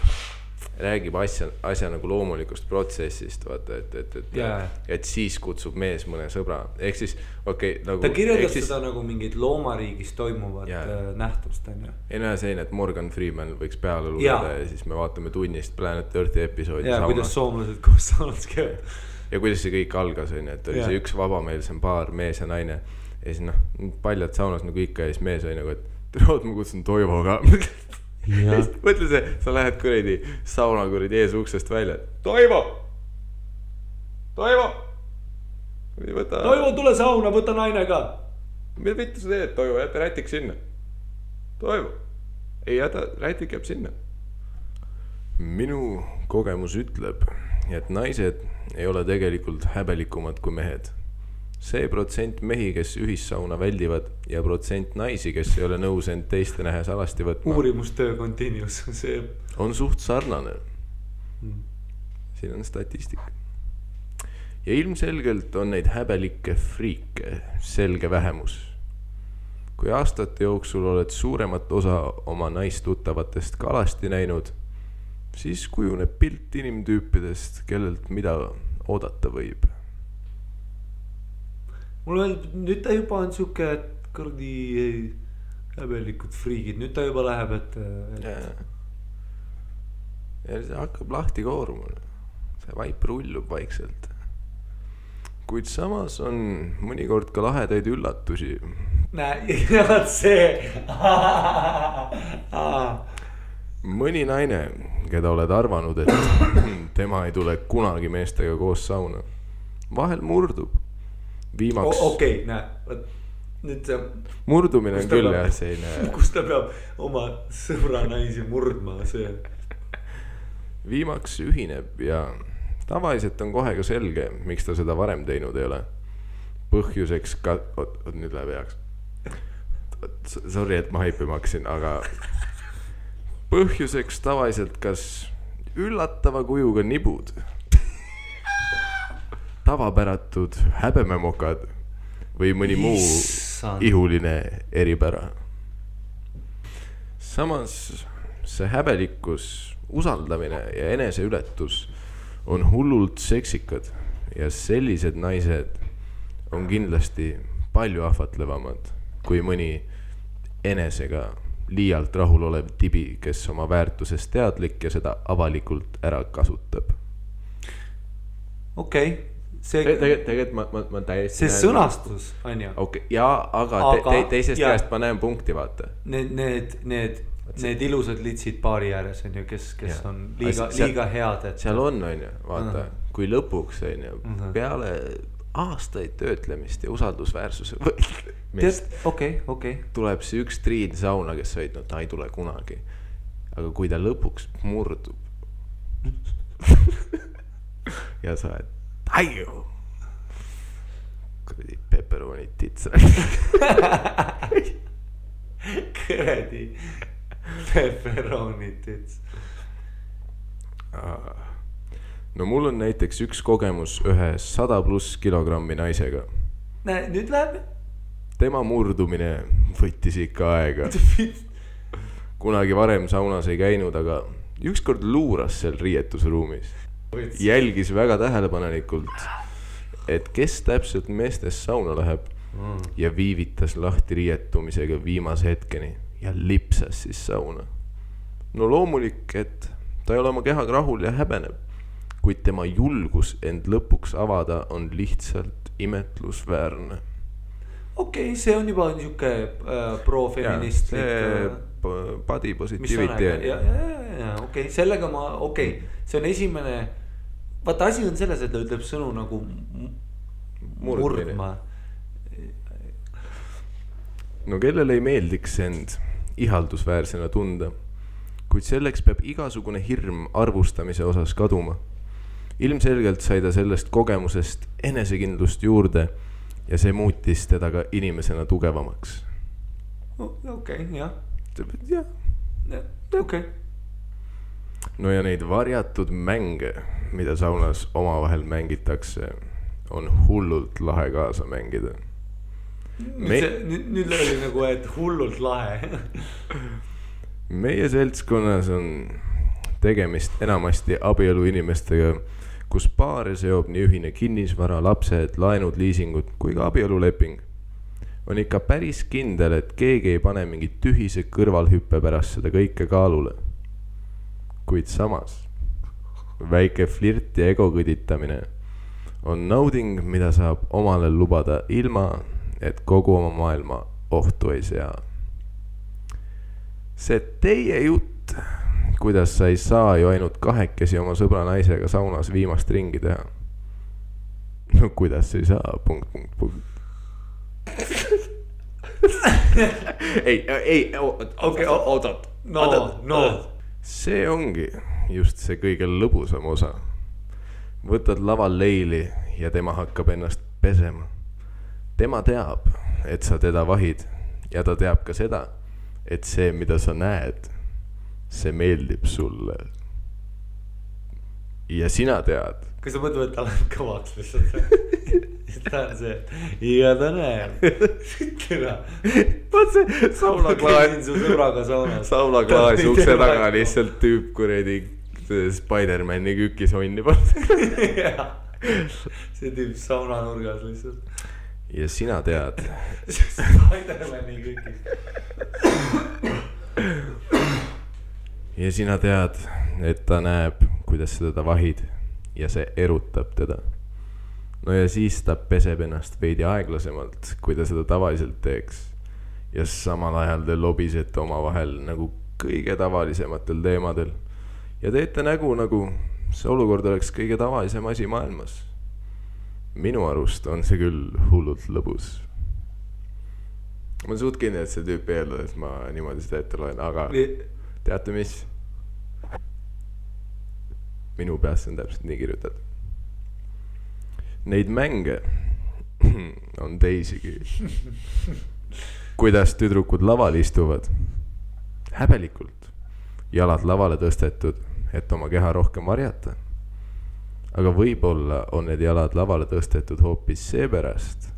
räägib asja nagu loomulikust protsessist, vaata, et siis kutsub mees mõne sõbra. Ehk siis, nagu... Ta kirjeldas seda nagu mingid loomariigis toimuvad nähtust, on ju. Ei näe selline, et Morgan Freeman võiks peale lugeda ja siis me vaatame tunnist Planet Earthi episoodi saunas. Ja kuidas soomlased koos saunas käivad. Ja kuidas see kõik algas, on ju, et oli see üks vabameelsem paar, mees ja naine. Ja siis paljad saunas nagu ikka ja siis mees oli nagu, et ma kutsun Toivo ka. mõtle see, sa lähed kuradi sauna kuradi ees uksest välja. Toivo! Toivo, tule sauna, võta naine ka. Mida vittu sa teed, Toivo, jäta rätik sinna. Toivo, ei jäta, rätik jääb sinna. Minu kogemus ütleb, et naised ei ole tegelikult häbelikumad kui mehed. See protsent mehi, kes ühissauna väldivad ja protsent naisi, kes ei ole nõus end teiste nähes alasti võtma. Uurimustöö continuous, see on suht sarnane. Siin on statistika. Ja ilmselgelt on neid häbelikke friike selge vähemus. Kui aastate jooksul oled suuremat osa oma naistuttavatest kalasti näinud, siis kujuneb pilt inimtüüpidest, kellelt mida oodata võib. Mulle öeldab, nüüd ta juba on siuke, et kõrdi häbelikud friigid, nüüd ta juba läheb, et... Ja see hakkab lahti kooruma. See vaip rullub vaikselt. Kuid samas on mõnikord ka lahedaid üllatusi. Näe, see... Mõni naine, keda oled arvanud, et tema ei tule kunagi meestega koos sauna. Vahel murdub. Viimaks... Okei, näe, nüüd see... Murdumine on küll jah, see ei näe... Kus ta peab oma sõbra naisi murdma, see... Viimaks ühineb ja tavaliselt on kohe ka selge, miks ta seda varem teinud ei ole. Põhjuseks ka... Nüüd läheb heaks. Sorry, et ma haipima hakkasin, aga... Põhjuseks tavaliselt kas üllatava kujuga nibud, tavapäratud häbememokad või mõni muu ihuline eripära. Samas see häbelikkus, usaldamine ja eneseületus on hullult seksikad ja sellised naised on kindlasti palju ahvatlevamad kui mõni enesega liialt rahul olev tibi, kes oma väärtusest teadlik ja seda avalikult ära kasutab. Okei. Tegelikult ma täiesti... See sõnastus, on ju? Okay, jaa, aga teisest käest ma näen punkti, vaata. Need ilusad litsid paari ääres, on ju, kes on liiga head. Seal on ju, vaata, kui lõpuks, on ju, peale aastaid töötlemist ja usaldusväärsuse tuleb see üks triin sauna, kes võid, no ta ei tule kunagi. Aga kui ta lõpuks murdub ja sa oled Aiu! Kuradi pepperonid tits. Kuradi pepperonid tits. No mul on näiteks üks kogemus ühe 100+ kilogrammi naisega. Näe, nüüd läheb? Tema murdumine võttis ikka aega. Kunagi varem saunas ei käinud, aga ükskord luuras seal riietusruumis. Jälgis väga tähelepanelikult, et kes täpselt meestes sauna läheb ja viivitas lahti riietumisega viimase hetkeni ja lipsas siis sauna. No loomulik, et ta ei ole oma kehaga rahul ja häbeneb, kuid tema julgus end lõpuks avada on lihtsalt imetlusväärne. Okei, see on juba niisugune pro-feministlik... Body positivity. Okei, sellega ma... see on esimene... Vaata, asi on selles, et ta ütleb sõnu nagu murdma. No kellele ei meeldiks end ihaldusväärsena tunda, kuid selleks peab igasugune hirm arvustamise osas kaduma. Ilmselgelt sai ta sellest kogemusest enesekindlust juurde ja see muutis teda ka inimesena tugevamaks. Okei, jah. Okei. No ja neid varjatud mänge, mida saunas omavahel mängitakse, on hullult lahe kaasa mängida. Nüüd oli nagu, et hullult lahe. Meie seltskonnas on tegemist enamasti abielu inimestega, kus paare seob nii ühine kinnisvara, lapsed, laenud, liisingud kui ka abieluleping. On ikka päris kindel, et keegi ei pane mingi tühise kõrvalhüppe pärast seda kõike kaalule. Kuid samas, väike flirt ja ego kõditamine on nauding, mida saab omale lubada ilma, et kogu oma maailma ohtu ei sea. See teie jutt kuidas sa ei saa ju ainult kahekesi oma sõbra naisega saunas viimast ringi teha. No kuidas ei saa, punkt. ei, oot. No. See ongi just see kõige lõbusam osa. Võtad laval leili ja tema hakkab ennast pesema. Tema teab, et sa teda vahid ja ta teab ka seda, et see, mida sa näed, see meeldib sulle. Ja sina tead. Kas sa mõtled, et ta läheb kõvaks lihtsalt? Ta on see, ja ta näeb. Vaat see saulaklaas. Su sõbraga saunas. Saulaklaas ukse taga lihtsalt tüüp kuredi Spider-Mani kükis onni poolt. See tüüp saunanurgas lihtsalt. Ja sina tead. Spider-Mani kükis. Ja sina tead, et ta näeb, kuidas sa teda vahid ja see erutab teda. No ja siis ta peseb ennast veidi aeglasemalt, kui ta seda tavaliselt teeks. Ja samal ajal te lobisete oma vahel nagu kõige tavalisematel teemadel. Ja teete nägu nagu see olukord oleks kõige tavalisem asi maailmas. Minu arust on see küll hullult lõbus. Ma suht kindel, et see tüüp eeldab, et ma niimoodi seda ette loen, aga teate mis? Minu peas on täpselt nii kirjutad. Neid mänge on teisigi. Kuidas tüdrukud laval istuvad? Häbelikult. Jalad lavale tõstetud, et oma keha rohkem varjata. Aga võib-olla on need jalad lavale tõstetud hoopis seepärast,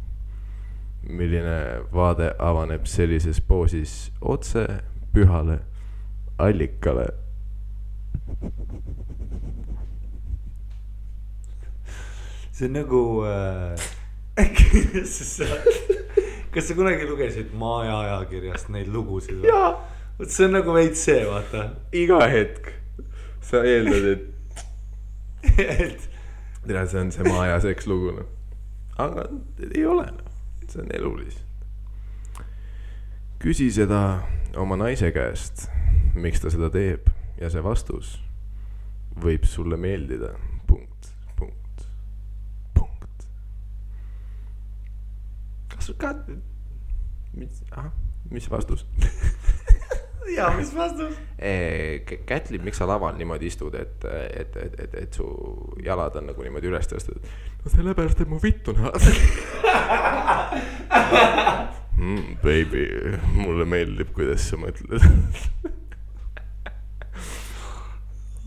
milline vaade avaneb sellises poosis otse pühale allikale. See on nagu kas sa kunagi lugesid Maja ajakirjast neid lugusid? Jaa. See on nagu veits see, vaata. Iga hetk sa eeldad, et tere, see on see Maja seks lugu. Aga ei ole. See on elu lihtsalt. Küsi seda oma naise käest, miks ta seda teeb ja see vastus võib sulle meeldida. Mis vastus? Jaa, mis vastus? Kätli, miks sa laval niimoodi istud, et su jalad on nagu niimoodi üles tõstud? No sellepärast, et mu vitt on baby, mulle meeldib, kuidas sa mõtled.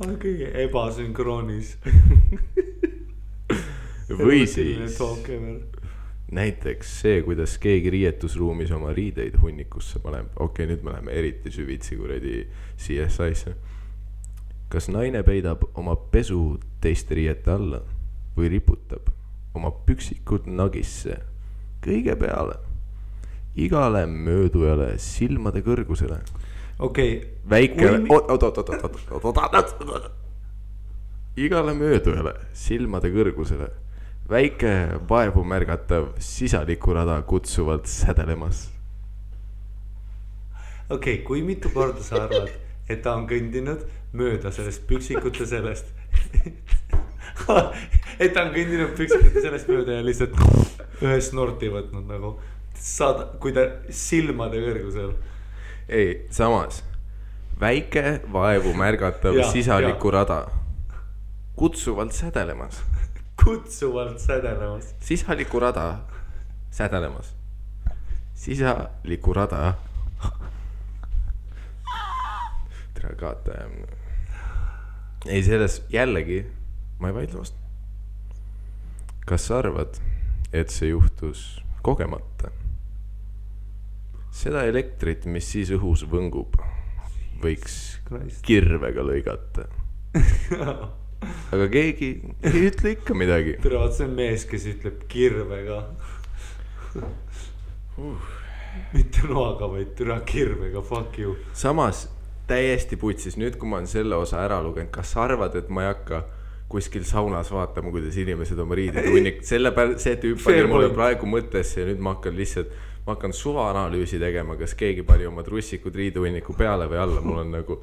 On kõige ebasünkroonis. Või siis näiteks see, kuidas keegi riietusruumis oma riideid hunnikusse paneb. Okei, nüüd me läheme eriti süvitsi kuredi CSI-sse. Kas naine peidab oma pesu teiste riiete alla või riputab oma püksikud nagisse kõige peale igale möödujale silmade kõrgusele? Okei. Väike... Igale möödujale silmade kõrgusele väike vaevu märgatav sisalikurada kutsuvalt sädelemas. Okei, kui mitu korda sa arvad, et ta on kõndinud mööda sellest püksikute sellest et ta on kõndinud püksikute sellest mööda ja lihtsalt ühe snorti võtnud nagu saada, kui ta silmade kõrgusel. Ei, samas väike vaevu märgatav sisalikurada kutsuvalt sädelemas. Kutsuvalt sädelemas. Sisalikurada sädelemas. Sisalikurada. Tere kaataja. Ei, selles jällegi ma ei vaidle vastu. Kas sa arvad, et see juhtus kogemata? Seda elektrit, mis siis õhus võngub, võiks kirvega lõigata. Aga keegi ei ütle ikka midagi. Tere, vaat see on mees, kes ütleb kirvega. Mitte noaga, vaid tere kirvega, fuck you. Samas täiesti putsis, nüüd kui ma olen selle osa ära lugenud, kas sa arvad, et ma ei hakka kuskil saunas vaatama, kuidas inimesed oma riidid hunnik. See tüüp pani mulle praegu mõttesse ja nüüd ma hakkan lihtsalt ma hakkan suvaanalüüsi tegema, kas keegi pani oma trussikud riiduvõnniku peale või alla, mul on nagu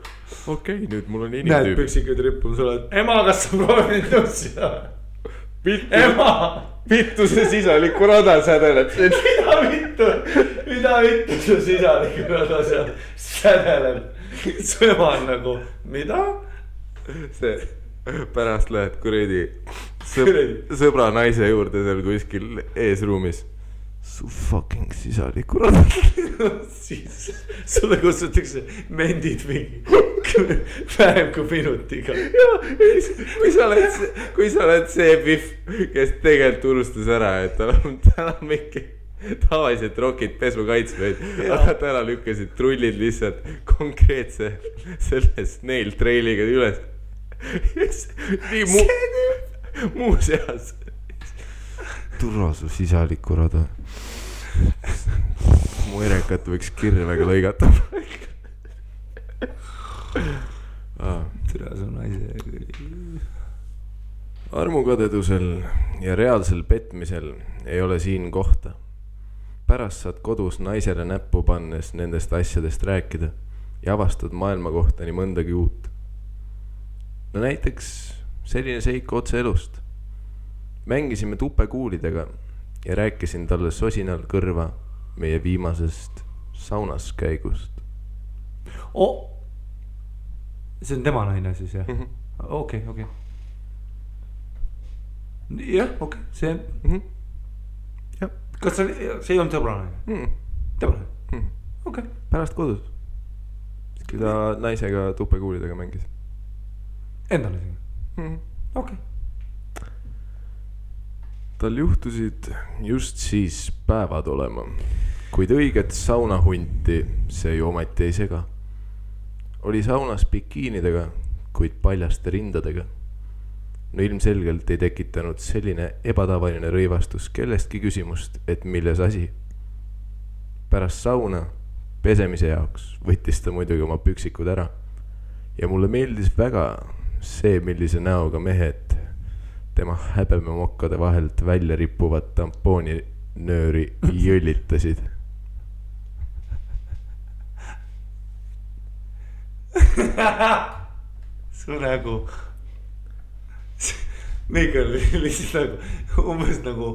okei, nüüd mul on inimtüüp. Näed püksikud rippun sulle, et ema, kas sa proovid nussida? Ema! Vittu see sisaliku rada sädeleb. Mida vittu su sisaliku rada seal sädeleb? Su ema on nagu, mida? See pärast lähed kuredi sõbra naise juurde seal kuskil eesruumis. Su fucking sisaliku rada. Siis sulle kutsutakse mendid mingi vähem kui minutiga. Kui sa oled see pihv, kes tegelikult unustas ära, et tal on mingi tavaliselt rokid pesu kaitsmeid, aga täna lükkasid trullid lihtsalt konkreetse selles nail trailiga üles. Nii muuseas. Turra su sisaliku rada. Mu erekat võiks kirvega lõigata. Türa su naise. Armukadedusel ja reaalsel petmisel ei ole siin kohta. Pärast saad kodus naisele näppu pannes nendest asjadest rääkida ja avastad maailma kohta nii mõndagi uut. No näiteks selline seik otse elust. Mängisime tupekuulidega ja rääkisin talle sosinal kõrva meie viimasest saunas käigust. See on tema naine siis, jah? Okei. Jah, okei, see Jah. Kas see ei olnud sõbra naine? Tema naine? Okei. Pärast kodus. Kui ta naisega tupekuulidega mängis. Endale siin? Okei. Tal juhtusid just siis päevad olema, kuid õiget saunahunti see ju ometi ei sega. Oli saunas bikiinidega, kuid paljaste rindadega. No ilmselgelt ei tekitanud selline ebatavaline rõivastus kellestki küsimust, et milles asi. Pärast sauna pesemise jaoks võttis ta muidugi oma püksikud ära. Ja mulle meeldis väga see, millise näoga mehed tema häbememokkade vahelt välja rippuvad tampooni nööri jõllitasid. Su nägu Mikael lihtsalt nagu umbes nagu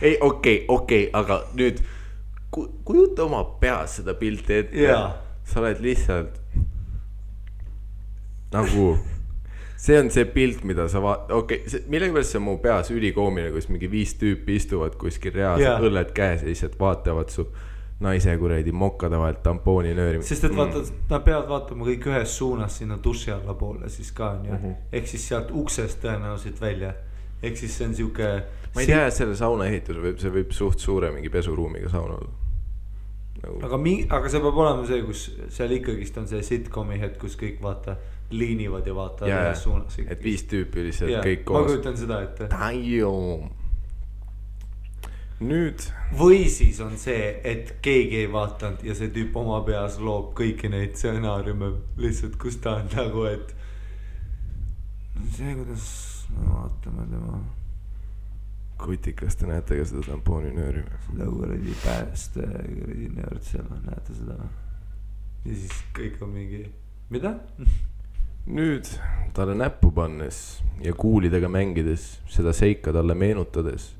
ei, okei, aga nüüd kujuta oma peas seda pilti ette. Sa oled lihtsalt nagu see on see pilt, mida sa millega pärast see on mu peas ülikoomine, kus mingi 5 tüüpi istuvad kuskil reaalselt õlled käes ja lihtsalt vaatavad su naise kuredi mokkade vahelt tampooni nööri. Sest et vaata, nad peavad vaatama kõik ühes suunas sinna duši alla poole siis ka on ju. Ehk siis sealt uksest tõenäoliselt välja. Ehk siis see on siuke ma ei tea, selle sauna ehitus see võib suht suure mingi pesuruumiga sauna olla nagu. Aga see peab olema see, kus seal ikkagist on see sitcomi hetk, kus kõik vaata liinivad ja vaatavad ühes suunas. Et 5 tüüpi lihtsalt kõik koos. Ma kujutan seda, et nüüd või siis on see, et keegi ei vaatanud ja see tüüp oma peas loob kõiki neid stsenaariume lihtsalt, kus ta on nagu, et see, kuidas me vaatame tema kutikas, te näete ka seda tampooni nööri seda kuradi pääste nöörd seal, näete seda ja siis kõik on mingi mida? Nüüd talle näppu pannes ja kuulidega mängides seda seika talle meenutades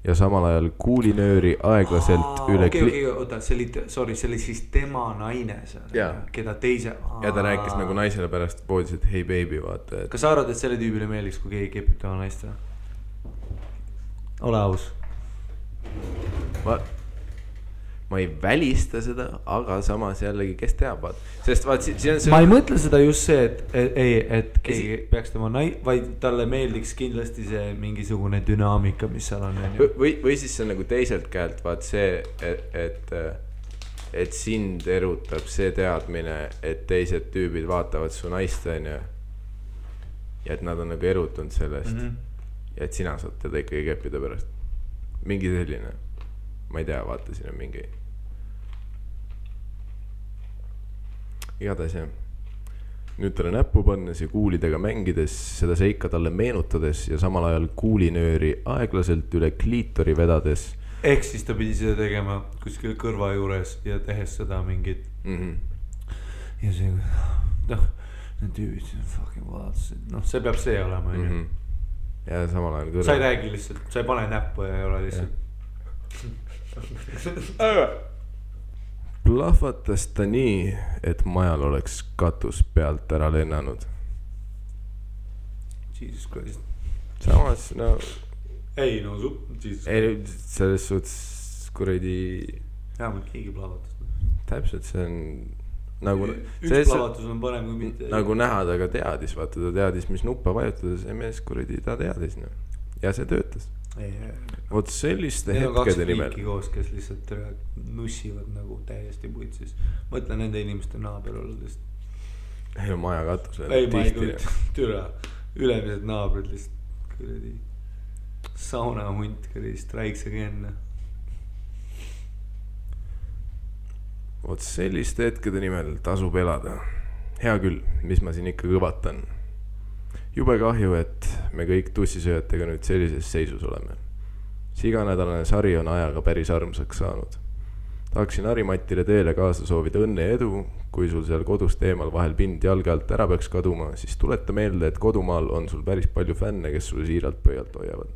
ja samal ajal kuulinööri aeglaselt üle oota, see oli siis tema naine seal, keda teise ja ta rääkis nagu naisele pärast poodis, et hei baby, vaata Kas sa arvad, et selle tüübile meeldiks, kui keegi kepib tema naist? Ole aus. Ma ei välista seda, aga samas jällegi, kes teab, vaat. Sest vaat siin on see ma ei mõtle seda just see, et keegi peaks tema vaid talle meeldiks kindlasti see mingisugune dünaamika, mis seal on. Või siis see on nagu teiselt käelt, vaat see, et sind erutab see teadmine, et teised tüübid vaatavad su naist, on ja et nad on nagu erutunud sellest ja et sina saad teda ikkagi keppida pärast. Mingi selline, ma ei tea, vaata, siin on mingi igatahes jah. Nüüd talle näppu pannes ja kuulidega mängides seda seika talle meenutades ja samal ajal kuulinööri aeglaselt üle kliitori vedades ehk siis ta pidi seda tegema kuskil kõrva juures ja tehes seda mingit ja see noh, need tüübid fucking vaatasid, noh see peab see olema onju. Ja samal ajal kõrva. Sa ei räägi lihtsalt, sa ei pane näppu ja ei ole lihtsalt plahvatas ta nii, et majal oleks katus pealt ära lennanud. Jesus Christ. Samas no ei no ei, selles suhtes kuradi vähemalt keegi plahvatas. täpselt see on nagu üks plahvatus on parem kui mitte. nagu näha ta ka teadis, vaata ta teadis mis nuppa vajutada, see mees kuradi ta teadis no. Ja see töötas. Vot selliste hetkede nimel koos, kes lihtsalt nussivad nagu täiesti putsis. Mõtlen nende inimeste naaber olles. ei no maja katus ei ma ei kujuta türa ülemised naabrid lihtsalt kuradi sauna hunt kuradi strikes again. Vot selliste hetkede nimel tasub elada. Hea küll, mis ma siin ikka kõvatan. Jube kahju, et me kõik tussisööjatega nüüd sellises seisus oleme. See iganädalane sari on ajaga päris armsaks saanud. Tahaksin Harimatile teele kaasa soovida õnne ja edu. Kui sul seal kodust eemal vahel pind jalge alt ära peaks kaduma, siis tuleta meelde, et kodumaal on sul päris palju fänne, kes sul siiralt pöialt hoiavad.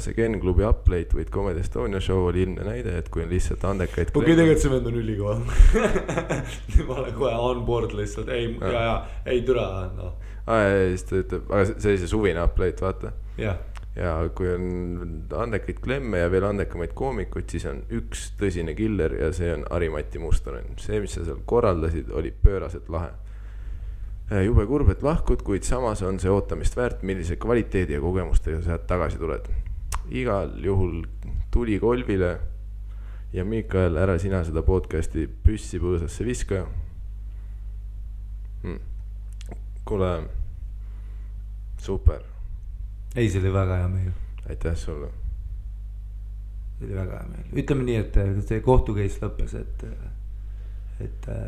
See Ken Klubi Uplate või Comedy Estonia show oli ilmne näide, et kui on lihtsalt andekaid okei, tegelikult see vend on ülikoha. Ma olen kohe on board lihtsalt, ei türa no. Siis ta ütleb, aga see oli see suvine Uplate, vaata. Ja kui on andekaid klemme ja veel andekamaid koomikuid, siis on üks tõsine killer ja see on Harimati Mustonen. See, mis sa seal korraldasid, oli pööraselt lahe. Jube kurb, et lahkud, kuid samas on see ootamist väärt, millise kvaliteedi ja kogemustega sa tagasi tuled. Igal juhul tuli kolvile ja Mikael, ära sina seda podcasti püssi põõsasse viska. Kuule, super. Ei, see oli väga hea meil. Aitäh sulle. See oli väga hea meil. Ütleme nii, et see kohtukeis lõppes, et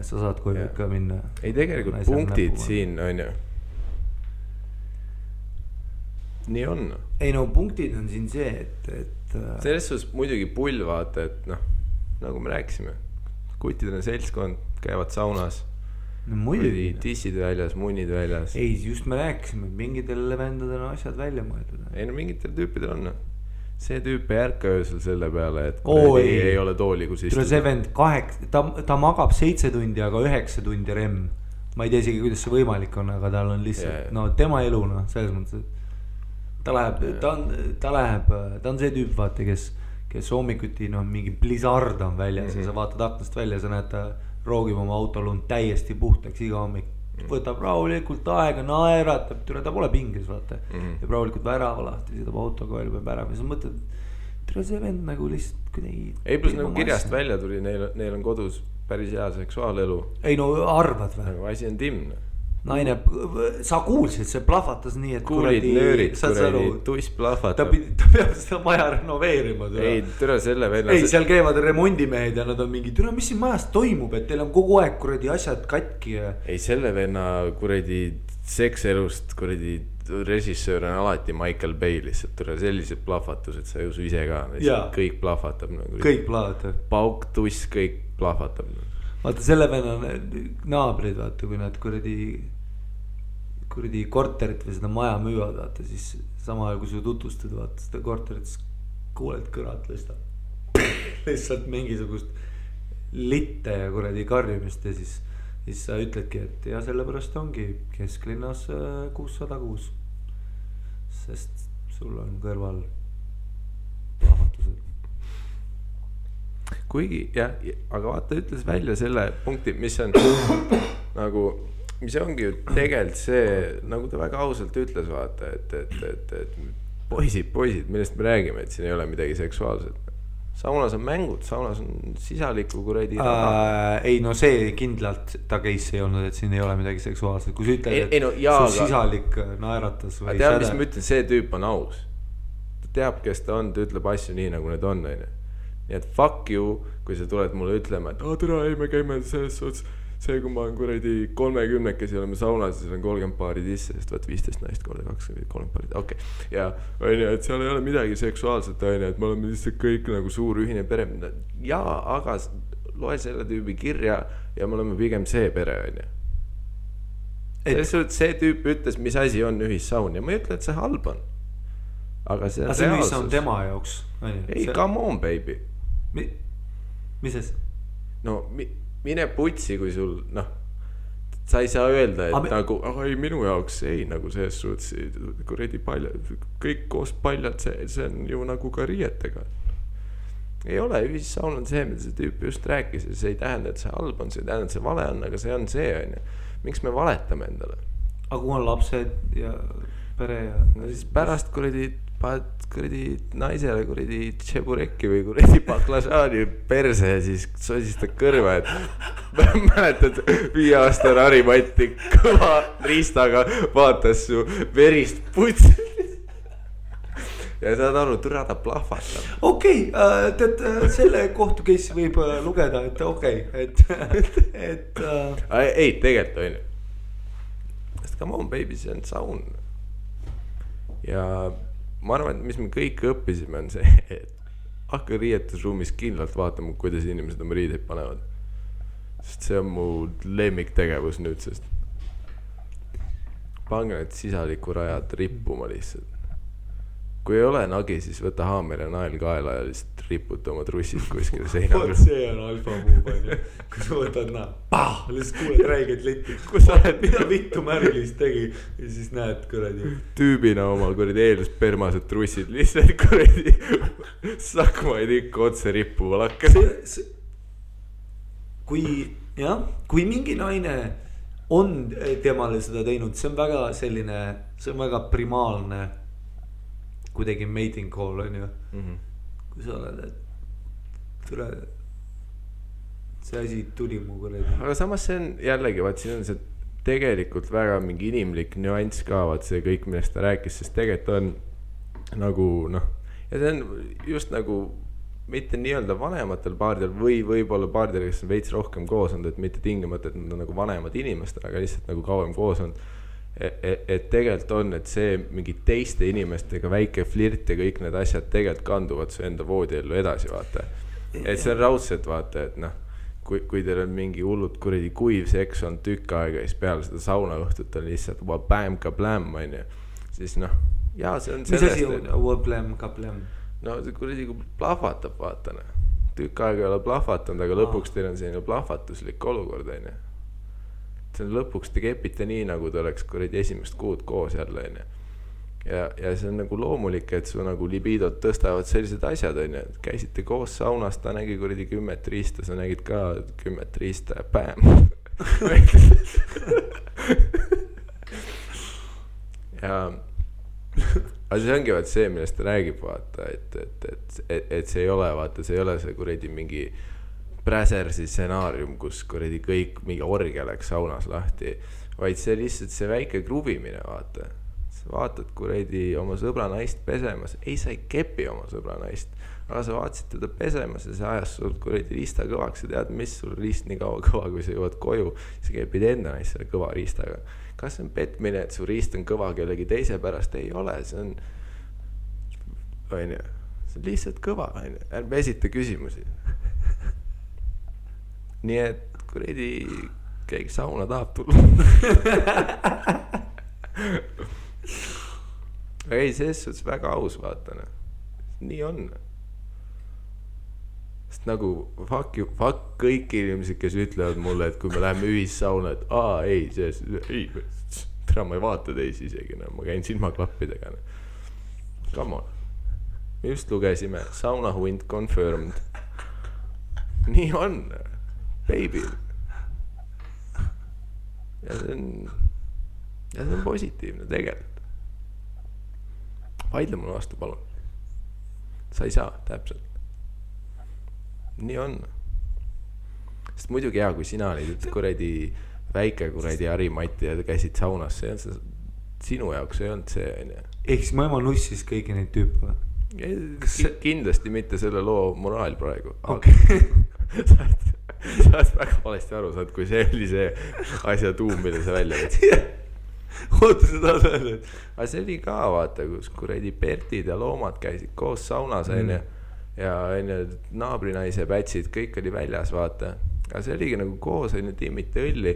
sa saad koju ikka minna. Ei tegelikult punktid siin on ju. Nii on. Ei no punktid on siin see, et selles suhtes muidugi pull vaata, et noh, nagu me rääkisime, kutidele seltskond käivad saunas no muidugi. Tissid väljas, munnid väljas. Ei, just me rääkisime, et mingitele vendadele on asjad välja mõeldud. Ei no mingitel tüüpidel on. See tüüp ei ärka öösel selle peale, et ei ole tooli, kus istuda. See vend ta magab 7 tundi, aga 9 tundi rem. Ma ei tea isegi, kuidas see võimalik on, aga tal on lihtsalt, no tema elu, no, selles mõttes, et ta on see tüüp, vaata, kes hommikuti, no, mingi blizzard on väljas ja sa vaatad aknast välja, sa näed, ta roogib oma autolund täiesti puhtaks iga hommik. Võtab rahulikult aega, naeratab, ta pole pingis, vaata. Ja rahulikult värava lahti, sõidab autoga välja peab ära. Ja sa mõtled, tere see vend nagu lihtsalt kuidagi. Ei, plus nagu kirjast välja tuli, neil on kodus päris hea seksuaalelu. Ei no arvad või? Nagu asi on timne. Naine, sa kuulsid, see plahvatas nii, et kuulid nöörid, tuss plahvatab. Ta peab seda maja renoveerima. Ei, türa selle venna. Ei, seal käivad remondimehed ja nad on mingi, türa, mis siin majas toimub, et teil on kogu aeg kuradi asjad katki. Ei, selle venna kuradi sekselust kuradi režissöör on alati Michael Bay lihtsalt. Türa sellised plahvatused, sa ju ise ka. Kõik plahvatab. Kõik plahvatab. Pauk, tuss, kõik plahvatab. Vaata selle venna naabrid, vaata, kui nad kuradi korterit või seda maja müüvad, vaata, siis sama ajal kui sa tutvustad, vaata, seda korterit, siis kuuled kõrat lihtsalt mingisugust litte ja kuradi karjumist ja siis sa ütledki, et ja sellepärast ongi kesklinnas 606, sest sul on kõrval plahvatused. Kuigi, jah, aga vaata, ütles välja selle punkti, mis on nagu, mis ongi ju tegelikult see, nagu ta väga ausalt ütles, vaata, et poisid, millest me räägime, et siin ei ole midagi seksuaalset. Saunas on mängud, saunas on sisaliku kuradi ei no see kindlalt ta case ei olnud, et siin ei ole midagi seksuaalset. Kui sa ütled, et su sisalik naeratas või teab, mis ma ütlen, see tüüp on aus. Ta teab, kes ta on, ta ütleb asju nii, nagu need on. Nii et fuck you, kui sa tuled mulle ütlema, et tere, ei me käime selles suhtes see, kui ma olen kuradi 30-kesi oleme saunas ja seal on 30 paari sisse, sest vaat 15 naist korda 20, 30 paari, okei. Ja onju, et seal ei ole midagi seksuaalset onju, et me oleme lihtsalt kõik nagu suur ühine pere. Jaa, aga loe selle tüübi kirja ja me oleme pigem see pere onju. See tüüp ütles, mis asi on ühissaun ja ma ei ütle, et see halb on. Aga see on reaalsus. See ühissaun tema jaoks. Ei, come on baby. Mis see? No mine putsi, kui sul, sa ei saa öelda, et nagu, ei minu jaoks ei, nagu selles suhtes, kuredi paljad, kõik koos paljad, see on ju nagu ka riietega. Ei ole, ühissaun on see, mida see tüüp just rääkis ja see ei tähenda, et see halb on, see ei tähenda, et see vale on, aga see on see, on. Miks me valetame endale? Aga kui on lapsed ja pere ja... No siis pärast kuredi naisele kuredi tšeburekki või kuredi baklažaani perse ja siis sosistad kõrva, et mäletad 5 aasta Harimatti kõva riistaga vaatas su verist putsi ja saad aru, türa ta plahvatab. Okei, tead, selle kohtu case võib lugeda, et okei, et ei, tegelikult on ju. Sest come on baby, see on saun. Ja ma arvan, et mis me kõik õppisime on see, et hakka riietusruumis kindlalt vaatama, kuidas inimesed oma riideid panevad. Sest see on mu lemmiktegevus nüüd, sest pange need sisaliku rajad rippuma lihtsalt. Kui ei ole nagi, siis võta haamer ja nael kaela ja lihtsalt riputa oma trussid kuskile seinaga. Vot see on alfa move, kui sa võtad lihtsalt kuuled räiged letti. Mida vittu Märlis tegi ja siis näed kuradi. Tüübina oma kuradi eeluspermased trussid lihtsalt kuradi sakmaid ikka otse rippuva lakkas. Kui mingi naine on temale seda teinud, see on väga selline, see on väga primaalne kuidagi mating call on ju. Kui sa oled, et tule, see asi tuli mu kuradi. Aga samas see on jällegi, vaat siin on see tegelikult väga mingi inimlik nüanss ka, vaat see kõik, millest ta rääkis, sest tegelikult on nagu ja see on just nagu mitte nii-öelda vanematel paaridel või võib-olla paaridel, kes on veits rohkem koos olnud, et mitte tingimata, et nad on nagu vanemad inimestel, aga lihtsalt nagu kauem koos olnud. Et tegelikult on, et see mingi teiste inimestega väike flirt ja kõik need asjad tegelikult kanduvad su enda voodiellu edasi, vaata. Et see on raudselt, vaata, et kui teil on mingi hullud kuradi kuiv seks on tükk aega ja siis peale seda saunaõhtut on lihtsalt bäm ka bläm, on ju. Siis jaa, see on sellest. Mis asi on bläm ka bläm? No see kuradi kui plahvatab, vaata. Tükk aega ei ole plahvatanud, aga lõpuks teil on selline plahvatuslik olukord, on ju. See on lõpuks te kepite nii, nagu te oleks kuradi esimest kuud koos jälle, on ju. Ja see on nagu loomulik, et su nagu libidot tõstavad sellised asjad, on ju. Käisite koos saunas, ta nägi kuradi 10 riista, sa nägid ka 10 riista ja bäm. Ja aga see ongi vaat see, millest ta räägib, vaata, et see ei ole, vaata, see ei ole see kuradi mingi Präsersi stsenaarium, kus kuradi kõik mingi orgia läks saunas lahti, vaid see lihtsalt see väike kruvimine, vaata. Sa vaatad kuradi oma sõbra naist pesemas, ei sa ei kepi oma sõbra naist, aga sa vaatasid teda pesemas ja see ajas sul kuradi riista kõvaks ja tead, mis sul riist nii kaua kõva, kui sa jõuad koju, sa kepid enda naist selle kõva riistaga. Kas see on petmine, et su riist on kõva kellegi teise pärast? Ei ole, see on lihtsalt kõva, ärme esita küsimusi. Nii et kuradi keegi sauna tahab tulla. Aga ei, selles suhtes väga aus, vaatana. Nii on. Sest nagu fuck kõik inimesed, kes ütlevad mulle, et kui me läheme ühissauna, et ei, tere, ma ei vaata teisi isegi, ma käin silmaklappidega. Come on. Me just lugesime, sauna hunt confirmed. Nii on. Baby. Ja see on positiivne tegelikult. Vaidle mulle vastu, palun. Sa ei saa, täpselt. Nii on. Sest muidugi hea, kui sina olid kuradi väike kuradi Harimatti ja käisid saunas, see on see, sinu jaoks ei olnud see, on ju. Ehk siis mu ema nussis kõiki neid tüüpe? Kindlasti mitte selle loo moraal praegu. Okay. sa oled väga valesti aru saanud, kui see oli see asja tuum, mille sa välja võtsid. oota, sa tahad öelda, et aga see oli ka, vaata, kus kuradi Bertid ja loomad käisid koos saunas, onju. Ja onju, naabrinaise pätsid, kõik oli väljas, vaata. aga see oligi nagu koos, onju, timmiti õlli.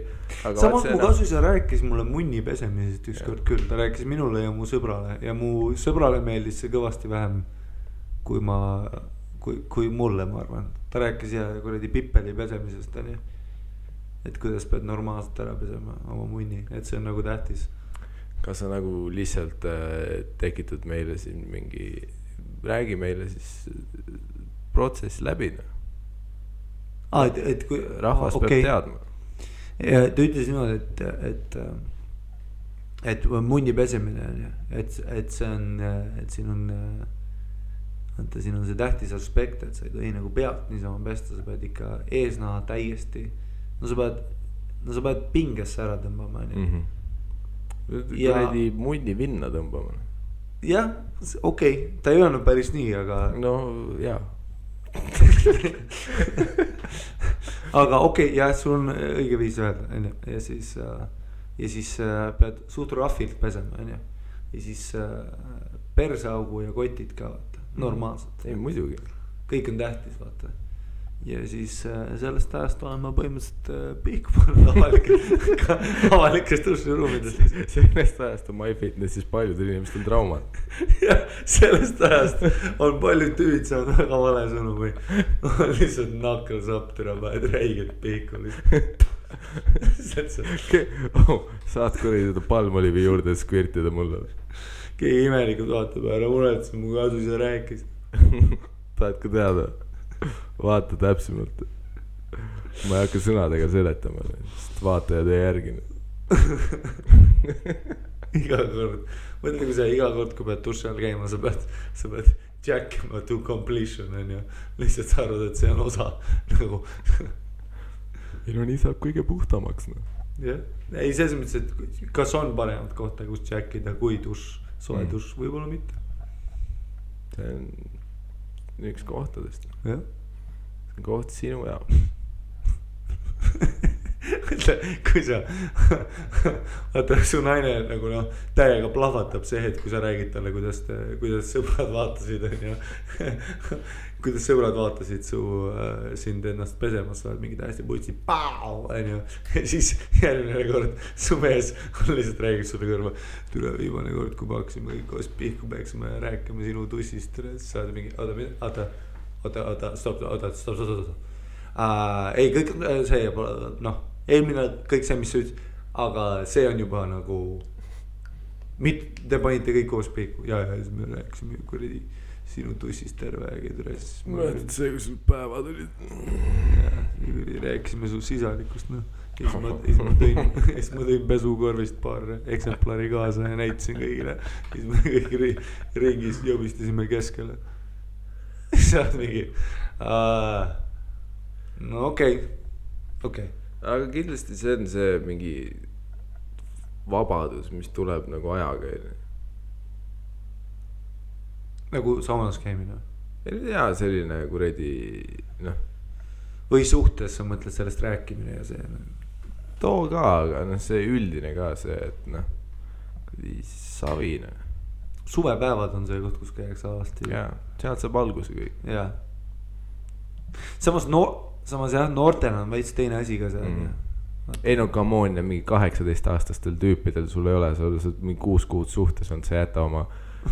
samas mu kasuisa rääkis mulle munni pesemisest ükskord küll, ta rääkis minule ja mu sõbrale ja mu sõbrale meeldis see kõvasti vähem kui mulle, ma arvan. Ta rääkis ja kuradi pipeli pesemisest, onju. Et kuidas pead normaalselt ära pesema oma munni, et see on nagu tähtis. Kas sa nagu lihtsalt tekitad meile siin mingi, räägi meile siis protsess läbi, no? Et kui rahvas peab teadma. Ja ta ütles niimoodi, et munni pesemine on ju, et see on, et siin on see tähtis aspekt, et sa ei tohi nagu pealt niisama pesta, sa pead ikka eesnaha täiesti, no sa pead pingesse ära tõmbama, on ju. Kuredi munni vinna tõmbama. Jah, okei, ta ei öelnud päris nii, aga no jaa. aga okei, jah, sul on õige viis öelda, ja siis pead suht rafilt pesema, ja siis persaugu ja kotid ka, vaata, normaalselt. Ei, muidugi. Kõik on tähtis, vaata. Ja siis sellest ajast olen ma põhimõtteliselt pihkunud avalikest duširuumidest. Sellest ajast on MyFitnessis paljudel inimestel traumad. Jah, sellest ajast on paljud tüüd saanud väga vale sõnu või on lihtsalt nakkelsapp türa päed räiged pihku lihtsalt. Saad kuradi seda palmolivi juurde skvirtida mulle. Keegi imelikult vaatab ära, muretsen mu kasuisa rääkis. Tahad ka teada? Vaata täpsemalt. Ma ei hakka sõnadega seletama, sest vaatajad ei järgine. Iga kord, mõtle kui sa iga kord, kui pead duši all käima, sa pead jackima to completion, on ju. Lihtsalt sa arvad, et see on osa nagu. Ei no nii saab kõige puhtamaks, no. Jah, ei selles mõttes, et kas on paremat kohta, kus jackida kui duš, soe duš, võib-olla mitte. See on üks kohtadest. Jah. See on koht sinu jaoks. Kui sa vaata su naine nagu noh täiega plahvatab see hetk, kui sa räägid talle, kuidas sõbrad vaatasid, on ju. Kuidas sõbrad vaatasid sind ennast pesemas, sa oled mingi täiesti putsi pau, on ju. Ja siis järgmine kord su mees on lihtsalt räägib sulle kõrva. Tule viimane kord, kui me hakkasime kõik koos pihku peaksime rääkima sinu tussist. Sa oled mingi, oota. Ei, kõik see noh, eelmine kõik see, mis sa ütlesid, aga see on juba nagu te panite kõik koos pihku ja siis me rääkisime kuradi sinu tussist terve aeg. Mõtled see, kui sul päevad olid. Rääkisime su sisalikust, noh. Siis ma tõin pesukorvist paar eksemplari kaasa ja näitasin kõigile. Siis me kõik ringis jõbistasime keskele. Saad mingi no okei. Aga kindlasti see on see mingi vabadus, mis tuleb nagu ajaga. Nagu saunas käimine? Jaa, selline kuradi, noh. Või suhtes sa mõtled sellest rääkimine ja see? Too ka, aga noh, see üldine ka see, et noh, savine. Suvepäevad on see koht, kus käiakse alasti. Jaa, sealt saab alguse kõik. Jaa. Samas jah, noortena on veits teine asi ka see. Ei no come on, ja mingi 18-aastastel tüüpidel sul ei ole, sa oled mingi 6 kuud suhtes on, sa jäta oma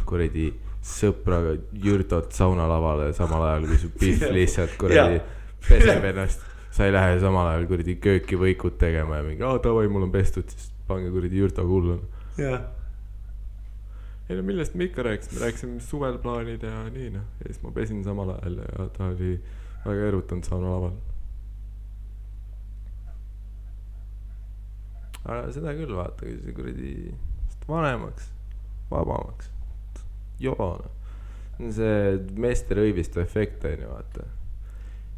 kuradi sõpraga jürdot saunalavale samal ajal, kui su pihv lihtsalt kuradi peseb ennast. Sa ei lähe samal ajal kuradi kööki võikud tegema ja mingi, davai, mul on pestud, siis pange kuradi jürto kullun. Jah. Ei no millest me ikka rääkisime suvel plaanid ja nii, noh. Ja siis ma pesin samal ajal ja ta oli väga erutanud saunalaval. Aga seda küll vaata, kui see kuradi vanemaks, vabamaks. Joona. See meeste rõivistu efekt on ju vaata.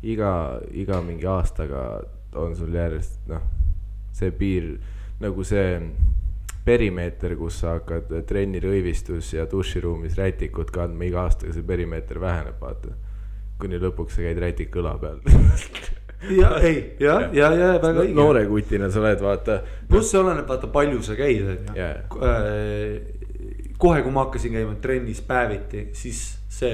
Iga mingi aastaga on sul järjest, noh, see piir, nagu see perimeeter, kus sa hakkad trenni rõivistus ja duširuumis rätikut kandma, iga aastaga see perimeeter väheneb, vaata. Kuni lõpuks sa käid rätik õla peal. ja väga õige. noore kutina sa oled, vaata. pluss see oleneb, vaata palju sa käid, on ju. Kohe, kui ma hakkasin käima trennis päeviti, siis see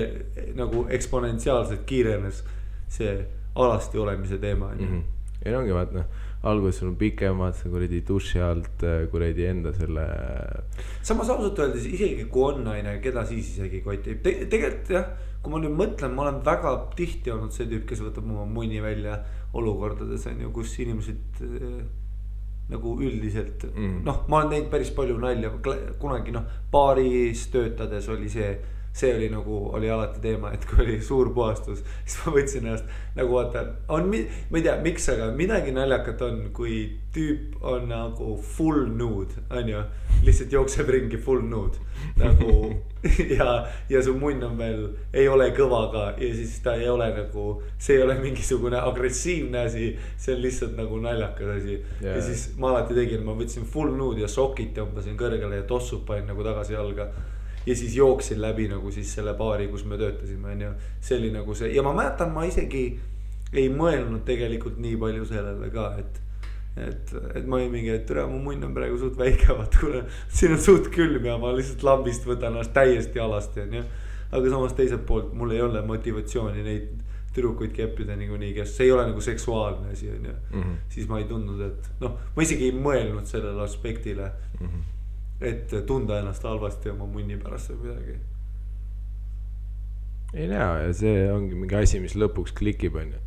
nagu eksponentsiaalselt kiirenes see alasti olemise teema, on ju. Ja ongi vaata, alguses sul on pikemad, sa kuradi duši alt kuradi enda selle. Samas ausalt öeldes, isegi kui on naine, keda siis isegi kotib. Tegelikult jah, kui ma nüüd mõtlen, ma olen väga tihti olnud see tüüp, kes võtab oma munni välja olukordades, on ju, kus inimesed nagu üldiselt, noh, ma olen teinud päris palju nalja, kunagi baaris töötades oli see oli nagu, oli alati teema, et kui oli suur puhastus, siis ma võtsin ennast nagu vaata, ma ei tea, miks, aga midagi naljakat on, kui tüüp on nagu full nude, on ju, lihtsalt jookseb ringi full nude nagu ja su munn on veel, ei ole kõva ka ja siis ta ei ole nagu, see ei ole mingisugune agressiivne asi, see on lihtsalt nagu naljakas asi ja siis ma alati tegin, ma võtsin full nude ja sokid tõmbasin kõrgele ja tossud panin nagu tagasi jalga. Ja siis jooksin läbi nagu siis selle baari, kus me töötasime, on ju. See oli nagu see, ja ma mäletan, ma isegi ei mõelnud tegelikult nii palju sellele ka, et ma ei mingi, et tere, mu munn on praegu suht väike, vaat kuna siin on suht külm ja ma lihtsalt lambist võtan ennast täiesti alasti, on ju. Aga samas teiselt poolt mul ei ole motivatsiooni neid tüdrukuid keppida niikuinii, kes see ei ole nagu seksuaalne asi, on ju. Siis ma ei tundnud, et ma isegi ei mõelnud sellele aspektile. Et tunda ennast halvasti oma munni pärast või midagi. Ei näe, ja see ongi mingi asi, mis lõpuks klikib, on ju.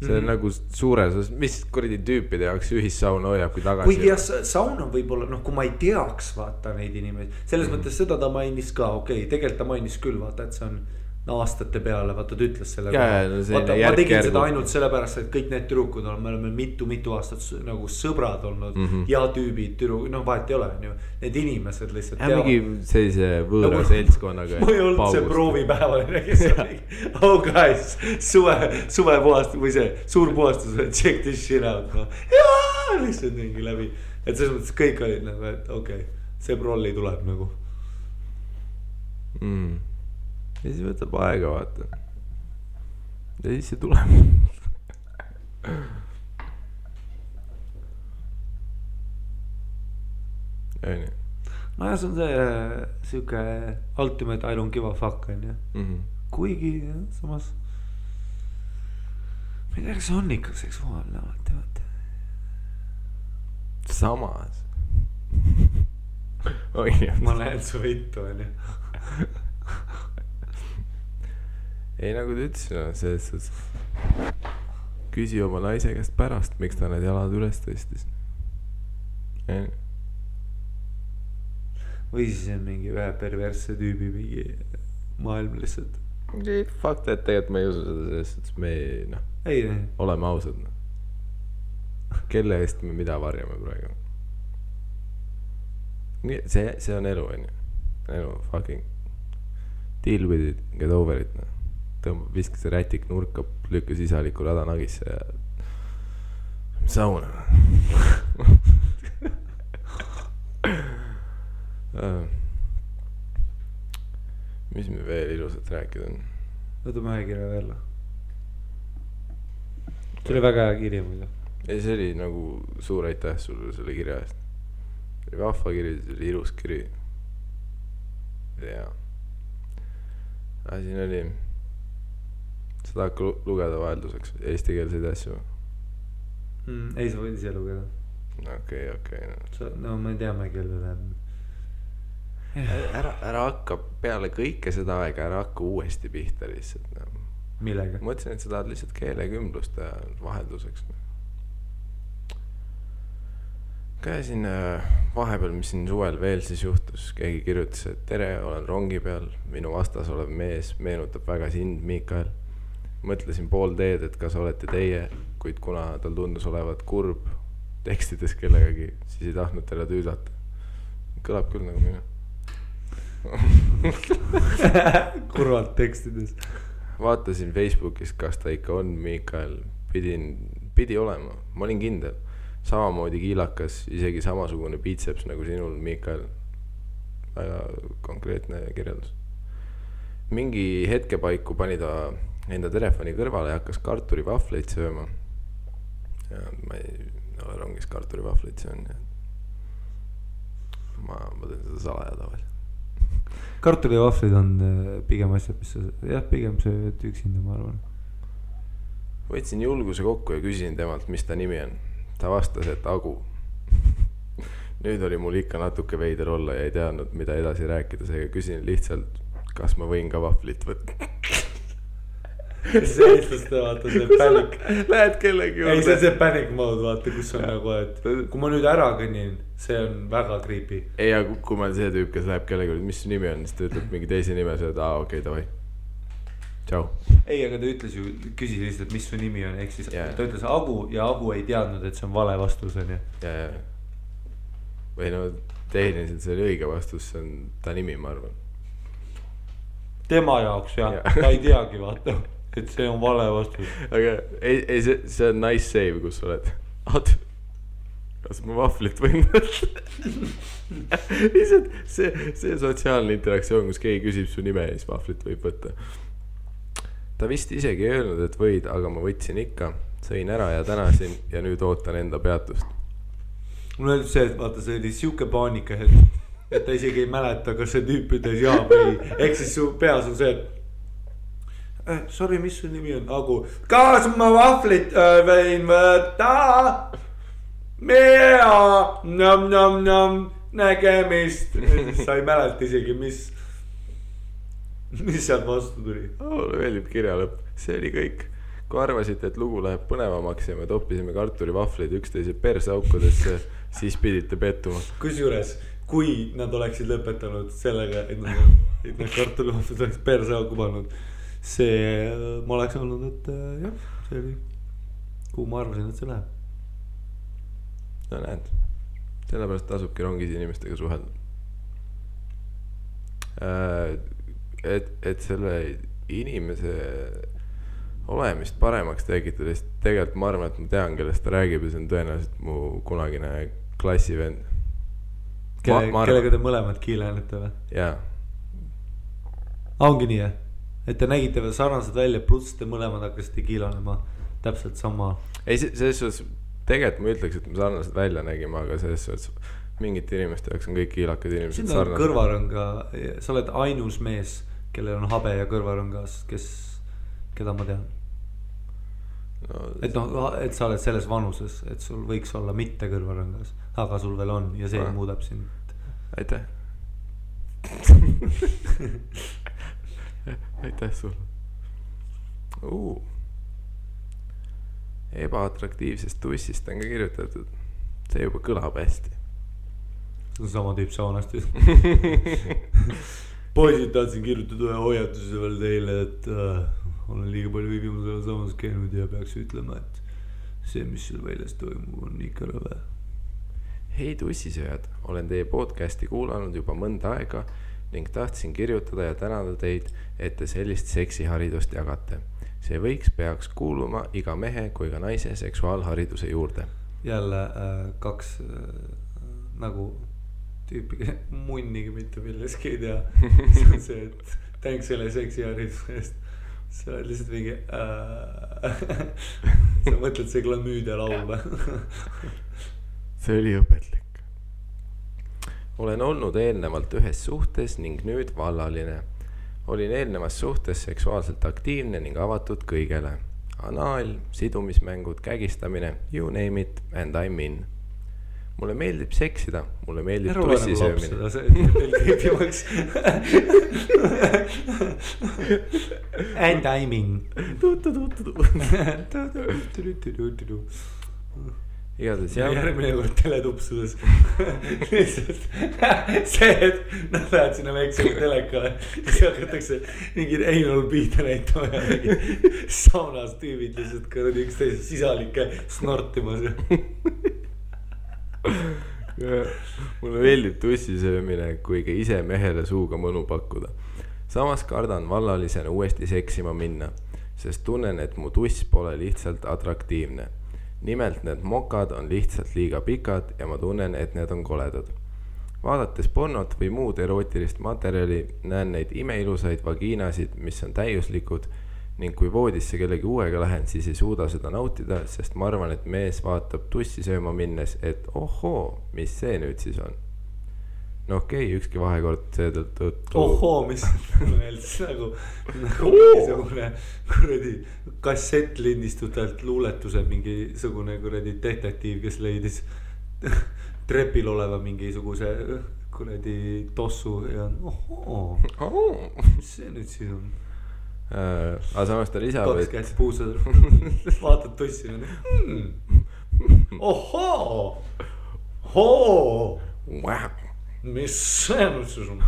See on nagu suures, mis kuradi tüüpide jaoks ühissaun hoiab, kui tagasi. Kuigi jah, saun on võib-olla, kui ma ei teaks vaata neid inimesi. Selles mõttes seda ta mainis ka, okei, tegelikult ta mainis küll vaata, et see on aastate peale, vaata ta ütles selle vaata, ma tegin seda ainult sellepärast, et kõik need tüdrukud on, me oleme mitu aastat nagu sõbrad olnud ja tüübid, vahet ei ole, on ju, need inimesed lihtsalt mingi sellise võõra seltskonnaga. Ma ei olnud see proovipäevaline, kes oli oh guys, suve puhastus või see suur puhastus, check this shit out jaa, lihtsalt mingi läbi, et selles mõttes kõik olid nagu, et okei, see prolli tuleb nagu ja siis võtab aega, vaata. Ja siis see tuleb. No ja see on see siuke ultimate I don't give a fuck, on ju. Kuigi samas ma ei tea, kas see on ikka seksuaalne, vaata. Samas. Ma lähen su vittu, on ju. Ei, nagu ta ütlesin, küsi oma naise käest pärast, miks ta need jalad üles tõstis. Või siis on mingi ühe perversse tüübi mingi maailm lihtsalt. Fakt, et tegelikult ma ei usu seda sellest, et me oleme ausad. Kelle eest me mida varjame praegu. See on elu, on ju. Elu, fucking deal with it, get over it, viskas see rätik nurka, lükkas isaliku rada nagisse ja sauna. Mis me veel ilusat rääkida on? Võtame ühe kirja veel. See oli väga hea kirja muidu. Ei, see oli nagu suur aitäh sulle selle kirja eest. See oli vahva kiri, see oli ilus kiri. Ja siin oli seda hakka lugeda vahelduseks eestikeelseid asju. Ei, sa võid ise lugeda. Okei. No me teame, kellele. Ära hakka peale kõike seda aega, ära hakka uuesti pihta lihtsalt. Millega? Ma mõtlesin, et sa tahad lihtsalt keelekümblust ja vahelduseks. Käisin vahepeal, mis siin suvel veel siis juhtus, keegi kirjutas, et tere, olen rongi peal, minu vastas olev mees meenutab väga sind, Mikael. Mõtlesin pool teed, et kas olete teie, kuid kuna tal tundus olevat kurb tekstides kellegagi, siis ei tahtnud talle tüüdata. Kõlab küll nagu minu. Kurvalt tekstides. Vaatasin Facebookis, kas ta ikka on Mikael. Pidi olema, ma olin kindel. Samamoodi kiilakas, isegi samasugune biitseps nagu sinul, Mikael. Väga konkreetne kirjeldus. Mingi hetke paiku pani ta enda telefoni kõrvale ja hakkas kartulivahvleid sööma. Ja ma ei ole rongis kartulivahvleid söön. Ma teen seda salaja tavaliselt. Kartulivahvleid on pigem asjad, mis sa, pigem see üksinda, ma arvan. Võtsin julguse kokku ja küsisin temalt, mis ta nimi on. Ta vastas, et Agu. Nüüd oli mul ikka natuke veider olla ja ei teadnud, mida edasi rääkida, seega küsin lihtsalt, kas ma võin ka vahvlit võtta. See eestlaste vaata, see panic. Lähed kellegi juurde. Ei, see panic mode, vaata, kus on nagu, et kui ma nüüd ära kõnnin, see on väga creepy. Ei, ja kui ma see tüüp, kes läheb kellegi juurde, mis su nimi on, siis ta ütleb mingi teise nime, sa oled, okei, davai. Tšau. Ei, aga ta ütles ju, küsis lihtsalt, mis su nimi on, ehk siis ta ütles Agu ja Agu ei teadnud, et see on vale vastus, on ju. Ja. Või no, tehniliselt see oli õige vastus, see on ta nimi, ma arvan. Tema jaoks, jah. Ta ei teagi, vaata, et see on vale vastus. Aga ei, see on nice save, kus sa oled. Kas ma vahvlit võin võtta? Lihtsalt see sotsiaalne interaktsioon, kus keegi küsib su nime ja siis vahvlit võib võtta. Ta vist isegi ei öelnud, et võid, aga ma võtsin ikka, sõin ära ja tänasin ja nüüd ootan enda peatust. Mul öeldud see, et vaata, see oli siuke paanika, et ta isegi ei mäleta, kas see tüüp ütles jaa või. Ehk siis su peas on see, et sorry, mis su nimi on? Agu. Kas ma vahvlit võin võtta? Mea, nägemist. Sa ei mäleta isegi, mis sealt vastu tuli? Mulle meeldib kirja lõpp. See oli kõik. Kui arvasite, et lugu läheb põnevamaks ja me toppisime kartulivahvleid üksteise persaukudesse, siis pidite pettuma. Kusjuures, kui nad oleksid lõpetanud sellega, et nad kartulivahvleid oleks persauku pannud, see ma oleks olnud, et jah, see oli, kuhu ma arvasin, et see läheb. No näed, sellepärast tasubki rongis inimestega suhelda. Et selle inimese olemist paremaks tekitada, siis tegelikult ma arvan, et ma tean, kellest ta räägib ja see on tõenäoliselt mu kunagine klassivend. Kellega te mõlemad kiilenete või? Jaa. Ongi nii, et te nägite veel sarnased välja, pluss te mõlemad hakkasite kiilanema täpselt sama. Ei, selles suhtes, tegelikult ma ütleks, et me sarnased välja nägime, aga selles suhtes mingite inimeste jaoks on kõik kiilakad inimesed sarnased. Siin on kõrvarõnga, sa oled ainus mees, kellel on habe ja kõrvarõngas, keda ma tean. No, et sa oled selles vanuses, et sul võiks olla mitte kõrvarõngas, aga sul veel on ja see muudab sind. Aitäh. Aitäh sulle. Ebaatraktiivsest tussist on ka kirjutatud. See juba kõlab hästi. See on sama tüüp saunast. Poisid, tahtsin kirjutada ühe hoiatuse veel teile, et olen liiga palju viimasel samas käinud ja peaks ütlema, et see, mis seal väljas toimub, on ikka rõve. Hei tussisööjad, olen teie podcasti kuulanud juba mõnda aega ning tahtsin kirjutada ja tänada teid, et te sellist seksiharidust jagate. See peaks kuuluma iga mehe kui ka naise seksuaalhariduse juurde. Jälle kaks nagu tüüpi munnigi mitte milleski ei tea. See on see, et tänks selle seksihariduse eest. Sa oled lihtsalt mingi sa mõtled see glamüüdia laul. See oli õpetlik. Olen olnud eelnevalt ühes suhtes ning nüüd vallaline. Olin eelnevas suhtes seksuaalselt aktiivne ning avatud kõigele. Anaal, sidumismängud, kägistamine, you name it and I'm in. Mulle meeldib seksida, mulle meeldib tussisöömine. And I'm in. Igatahes jah. Järgmine kord teletupsudes. See, et nad lähevad sinna väiksema teleka. Siis hakatakse mingi Einol Piita näitama ja mingi saunas tüübid lihtsalt kõrdi üksteise sisalikke snortimas. Mulle meeldib tussisöömine, kui ka ise mehele suuga mõnu pakkuda. Samas kardan vallalisena uuesti seksima minna, sest tunnen, et mu tuss pole lihtsalt atraktiivne. Nimelt need mokad on lihtsalt liiga pikad ja ma tunnen, et need on koledad. Vaadates pornot või muud erootilist materjali, näen neid imeilusaid vagiinasid, mis on täiuslikud ning kui voodisse kellegi uuega lähen, siis ei suuda seda nautida, sest ma arvan, et mees vaatab tussi sööma minnes, et ohoo, mis see nüüd siis on. No okei, ükski vahekord seetõttu. Ohoo, mis meeldis nagu mingisugune kuradi kassett lindistutelt luuletuse mingisugune kuradi detektiiv, kes leidis trepil oleva mingisuguse kuradi tossu ja ohoo, mis see nüüd siis on? Aga samas ta lisab, kaks käest puusad, vaatad tussi ohoo, mis see nüüd siis on?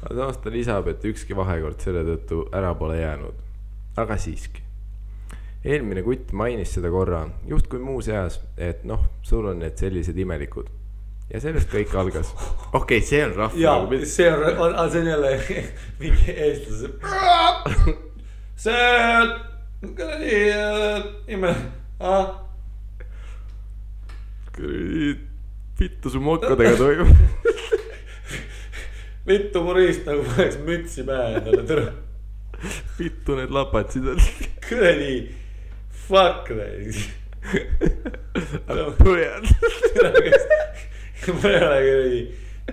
Aga samas ta lisab, et ükski vahekord selle tõttu ära pole jäänud. Aga siiski. Eelmine kutt mainis seda korra, just kui muus eas, et noh, sul on need sellised imelikud. Ja sellest kõik algas. Okei, see on rahva. Jaa, see on jälle mingi eestlase. See kuradi imelik. Kuradi vittu su mokkadega toimub. Vittu murist nagu paneks mütsi pähe endale tõra. Vittu need lapatsid on. Kuradi fuck näis. Põhjad. Ma ei ole kuradi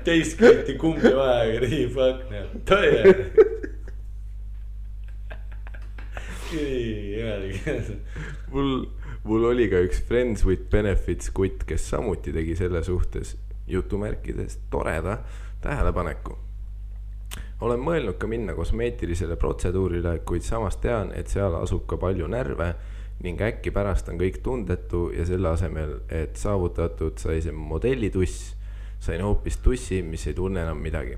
teist kõiti kumbi vaja kuradi fuck näib. Tõe. Mul oli ka üks Friends with Benefits kutt, kes samuti tegi selle suhtes jutumärkides toreda tähelepaneku. Olen mõelnud ka minna kosmeetilisele protseduurile, kuid samas tean, et seal asub ka palju närve ning äkki pärast on kõik tundetu ja selle asemel, et saavutatud sai see modellituss, sain hoopis tussi, mis ei tunne enam midagi.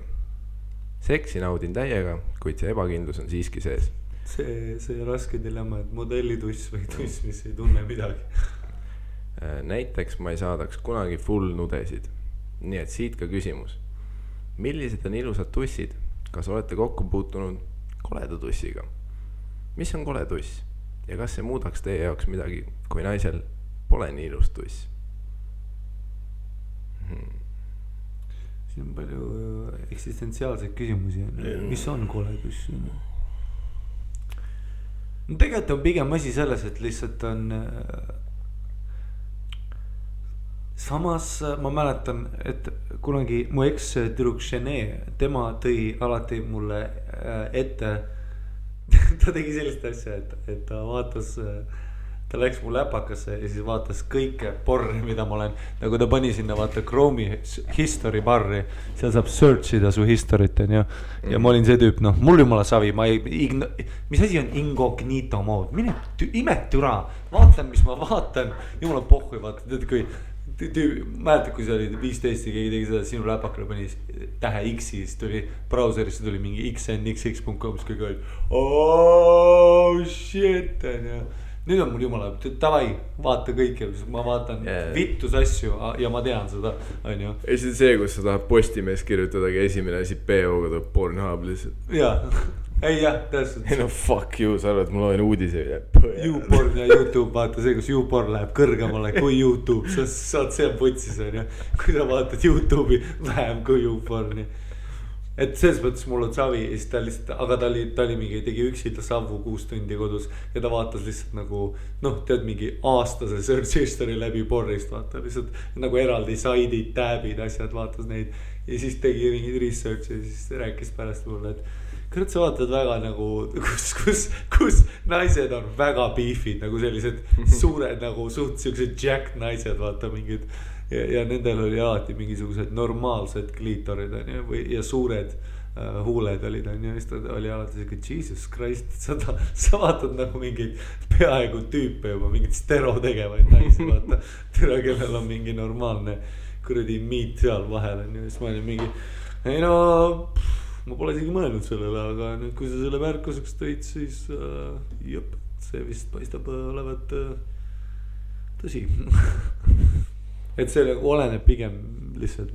Seksi naudin täiega, kuid see ebakindlus on siiski sees. See raske dilemma, et modellituss või tuss, mis ei tunne midagi. Näiteks ma ei saadaks kunagi full nudesid. Nii et siit ka küsimus. Millised on ilusad tussid? Kas olete kokku puutunud koleda tussiga? Mis on kole tuss? Ja kas see muudaks teie jaoks midagi, kui naisel pole nii ilus tuss? Siin on palju eksistentsiaalseid küsimusi. Mis on kole tuss? No tegelikult on pigem asi selles, et lihtsalt on samas ma mäletan, et kunagi mu eks-tüdruk Shene, tema tõi alati mulle ette, ta tegi sellist asja, et ta vaatas, ta läks mu läpakasse ja siis vaatas kõike porri, mida ma olen, nagu ta pani sinna vaata Chrome'i history barri, seal saab searchida su history't, on ju. Ja ma olin see tüüp, noh, mul jumala savi, mis asi on incognito mode, mine imetüra, vaatan, mis ma vaatan, jumala pohhui, vaata, tead kui mäletad, kui see oli 15 ja keegi tegi seda, sinu läpakale pani tähe X-i, siis tuli brauserisse tuli mingi xnxx.com, siis kõik oli oh shit, on ju. Nüüd on mul jumala, tavai, vaata kõike, ma vaatan vittus asju ja ma tean seda, on ju. Ei see, kus sa tahad Postimees kirjutadagi esimene asi PO-ga tuleb Pornhub lihtsalt. Jaa, ei jah, täpselt. Ei no fuck you, sa arvad, et mul on uudise. YouPorn ja YouTube, vaata see, kus YouPorn läheb kõrgemale kui YouTube, saad see on putsis, on ju. Kui sa vaatad YouTube'i vähem kui YouPorni. Et selles mõttes mul on savi ja siis ta lihtsalt, aga ta oli mingi, tegi üksilda savu 6 tundi kodus ja ta vaatas lihtsalt nagu, noh, tead mingi aastase search history läbi porrist, vaata lihtsalt nagu eraldi saidid, tabid, asjad, vaatas neid ja siis tegi mingid research ja siis rääkis pärast mulle, et kurat, sa vaatad väga nagu, kus naised on väga beefid, nagu sellised suured nagu suht siuksed jacked naised, vaata mingid ja nendel oli alati mingisugused normaalsed kliitorid on ju, ja suured huuled olid on ju, siis ta oli alati selline Jesus Christ, sa vaatad nagu mingeid peaaegu tüüpe juba, mingid stero tegevaid naisi, vaata, tere, kellel on mingi normaalne kuradi meat seal vahel on ju, siis ma olin mingi, ei no, ma pole isegi mõelnud sellele, aga nüüd, kui sa selle märkuseks tõid, siis jõp, see vist paistab olevat tõsi. Et see oleneb pigem lihtsalt,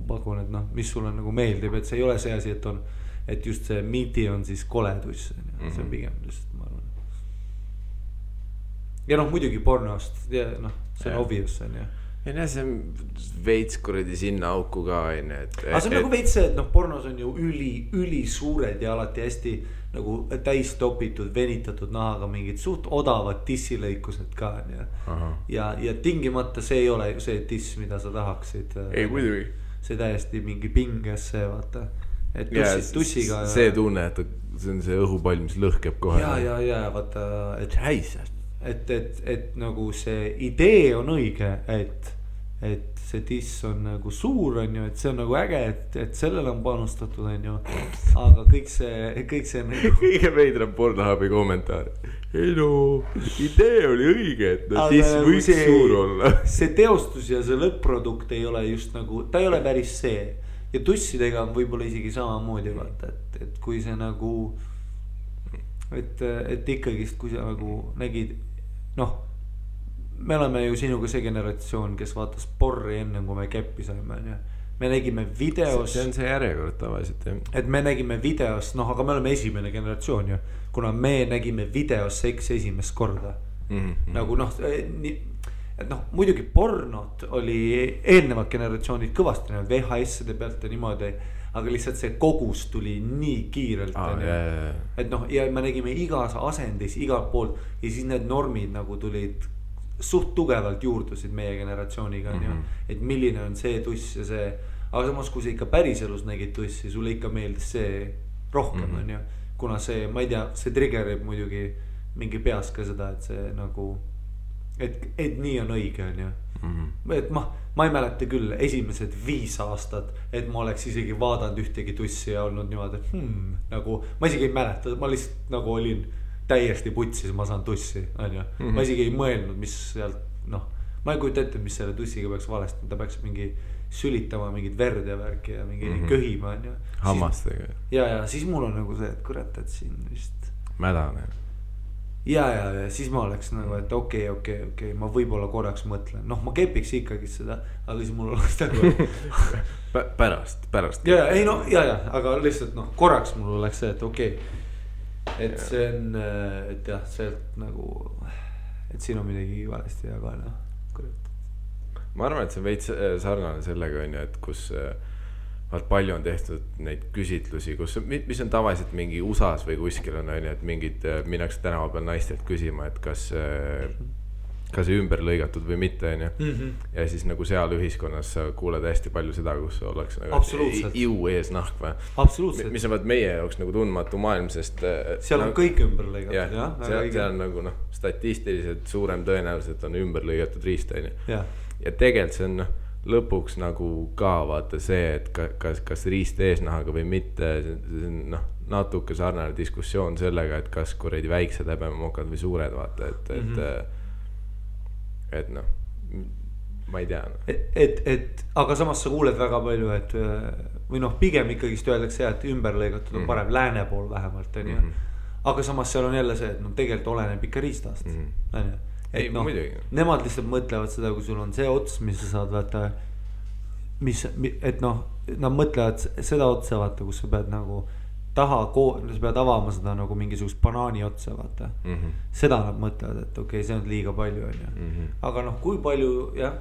pakun, et noh, mis sulle nagu meeldib, et see ei ole see asi, et on, et just see meati on siis koleduss, see on pigem lihtsalt, ma arvan. Ja noh, muidugi pornost, ja noh, see on obvious on ju. ei näe, see on veits kuradi sinna auku ka onju, et. aga see on nagu veits see, et noh, pornos on ju üli suured ja alati hästi nagu täis topitud, venitatud nahaga mingid suht odavad tissilõikused ka onju. ja tingimata see ei ole ju see tiss, mida sa tahaksid. ei muidugi. see täiesti mingi pinges see vaata. et tussiga. see tunne, et see on see õhupall, mis lõhkeb kohe. ja vaata, et nagu see idee on õige, et see tiss on nagu suur on ju, et see on nagu äge, et sellele on panustatud on ju. aga kõik see nagu. kõige veidram Pornhubi kommentaar. ei no, idee oli õige, et no tiss võiks suur olla. see teostus ja see lõpp-produkt ei ole just nagu, ta ei ole päris see. ja tussidega on võib-olla isegi samamoodi vaata, et kui see nagu. et ikkagist, kui sa nagu nägid, noh, me oleme ju sinuga see generatsioon, kes vaatas porri enne, kui me käppi saime, on ju. me nägime videos. see on see järjekord tavaliselt, jah. et me nägime videos, noh, aga me oleme esimene generatsioon ju. kuna me nägime videos seksi esimest korda. Nagu noh, et noh, muidugi pornot oli eelnevad generatsioonid kõvasti näinud VHS-ide pealt ja niimoodi. aga lihtsalt see kogus tuli nii kiirelt. et noh, ja me nägime igas asendis, igalt poolt. ja siis need normid nagu tulid suht tugevalt juurdusid meie generatsiooniga on ju. et milline on see tuss ja see. aga samas, kui sa ikka päriselus nägid tussi, sulle ikka meeldis see rohkem on ju. kuna see, ma ei tea, see triggerib muidugi mingi peas ka seda, et see nagu. et nii on õige on ju. et ma ei mäleta küll esimesed 5 aastat, et ma oleks isegi vaadanud ühtegi tussi ja olnud niimoodi, nagu ma isegi ei mäleta, ma lihtsalt nagu olin täiesti putsis, ma saan tussi, on ju. ma isegi ei mõelnud, mis sealt, noh, ma ei kujuta ette, mis selle tussiga peaks valesti, ta peaks mingi sülitama mingit verd ja värki ja mingi köhima, on ju. Hammastega. ja siis mul on nagu see, et kurat, et siin vist. Mädane. ja siis ma oleks nagu, et okei, ma võib-olla korraks mõtlen, noh, ma kepiks ikkagi seda, aga siis mul oleks nagu. pärast. ei no, aga lihtsalt noh, korraks mul oleks see, et okei. et see on, et jah, sealt nagu, et siin on midagi valesti ja ka noh, kurat. ma arvan, et see on veits sarnane sellega on ju, et kus vaat palju on tehtud neid küsitlusi, kus, mis on tavaliselt mingi USAs või kuskil on ju, et mingid minnakse tänava peal naistelt küsima, et kas see ümber lõigatud või mitte on ju. ja siis nagu seal ühiskonnas sa kuuled hästi palju seda, kus oleks nagu iu ees nahk või. Absoluutselt. mis on vaat meie jaoks nagu tundmatu maailm, sest seal on kõik ümber lõigatud, jah. seal on nagu noh, statistiliselt suurem tõenäoliselt on ümber lõigatud riist on ju. ja tegelikult see on noh, lõpuks nagu ka vaata see, et kas riist eesnahaga või mitte, see on noh, natuke sarnane diskussioon sellega, et kas kuradi väiksed häbemokad või suured vaata, et noh, ma ei tea no.. et aga samas sa kuuled väga palju, et või noh, pigem ikkagist öeldakse, et ümber lõigatud on parem lääne pool vähemalt on ju. aga samas seal on jälle see, et noh, tegelikult oleneb ikka riistast on ju. et noh, nemad lihtsalt mõtlevad seda, kui sul on see ots, mis sa saad vaata, et noh, nad mõtlevad seda otsa vaata, kus sa pead nagu sa pead avama seda nagu mingisugust banaani otsa vaata. seda nad mõtlevad, et okei, see on liiga palju on ju. aga noh, kui palju jah,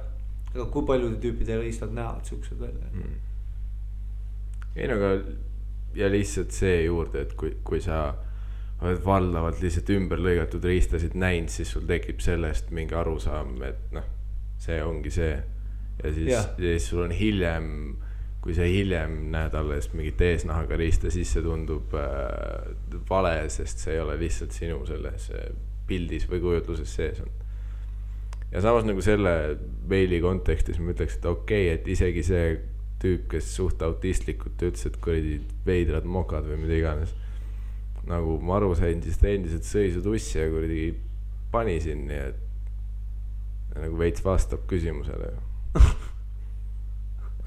aga kui paljude tüüpide riistad näevad siuksed välja. ei no aga ja lihtsalt see juurde, et kui sa oled valdavalt lihtsalt ümber lõigatud riistasid näinud, siis sul tekib sellest mingi arusaam, et noh, see ongi see. ja siis sul on hiljem, kui sa hiljem näed alles mingit eesnahaga riista, siis see tundub vale, sest see ei ole lihtsalt sinu selles pildis või kujutluses sees on. ja samas nagu selle meili kontekstis ma ütleks, et okei, et isegi see tüüp, kes suht autistlikult ütles, et kuradi veidrad mokad või mida iganes. nagu ma aru sain, siis ta endiselt sõi su tussi ja kuradi pani sinni, et nagu veits vastab küsimusele.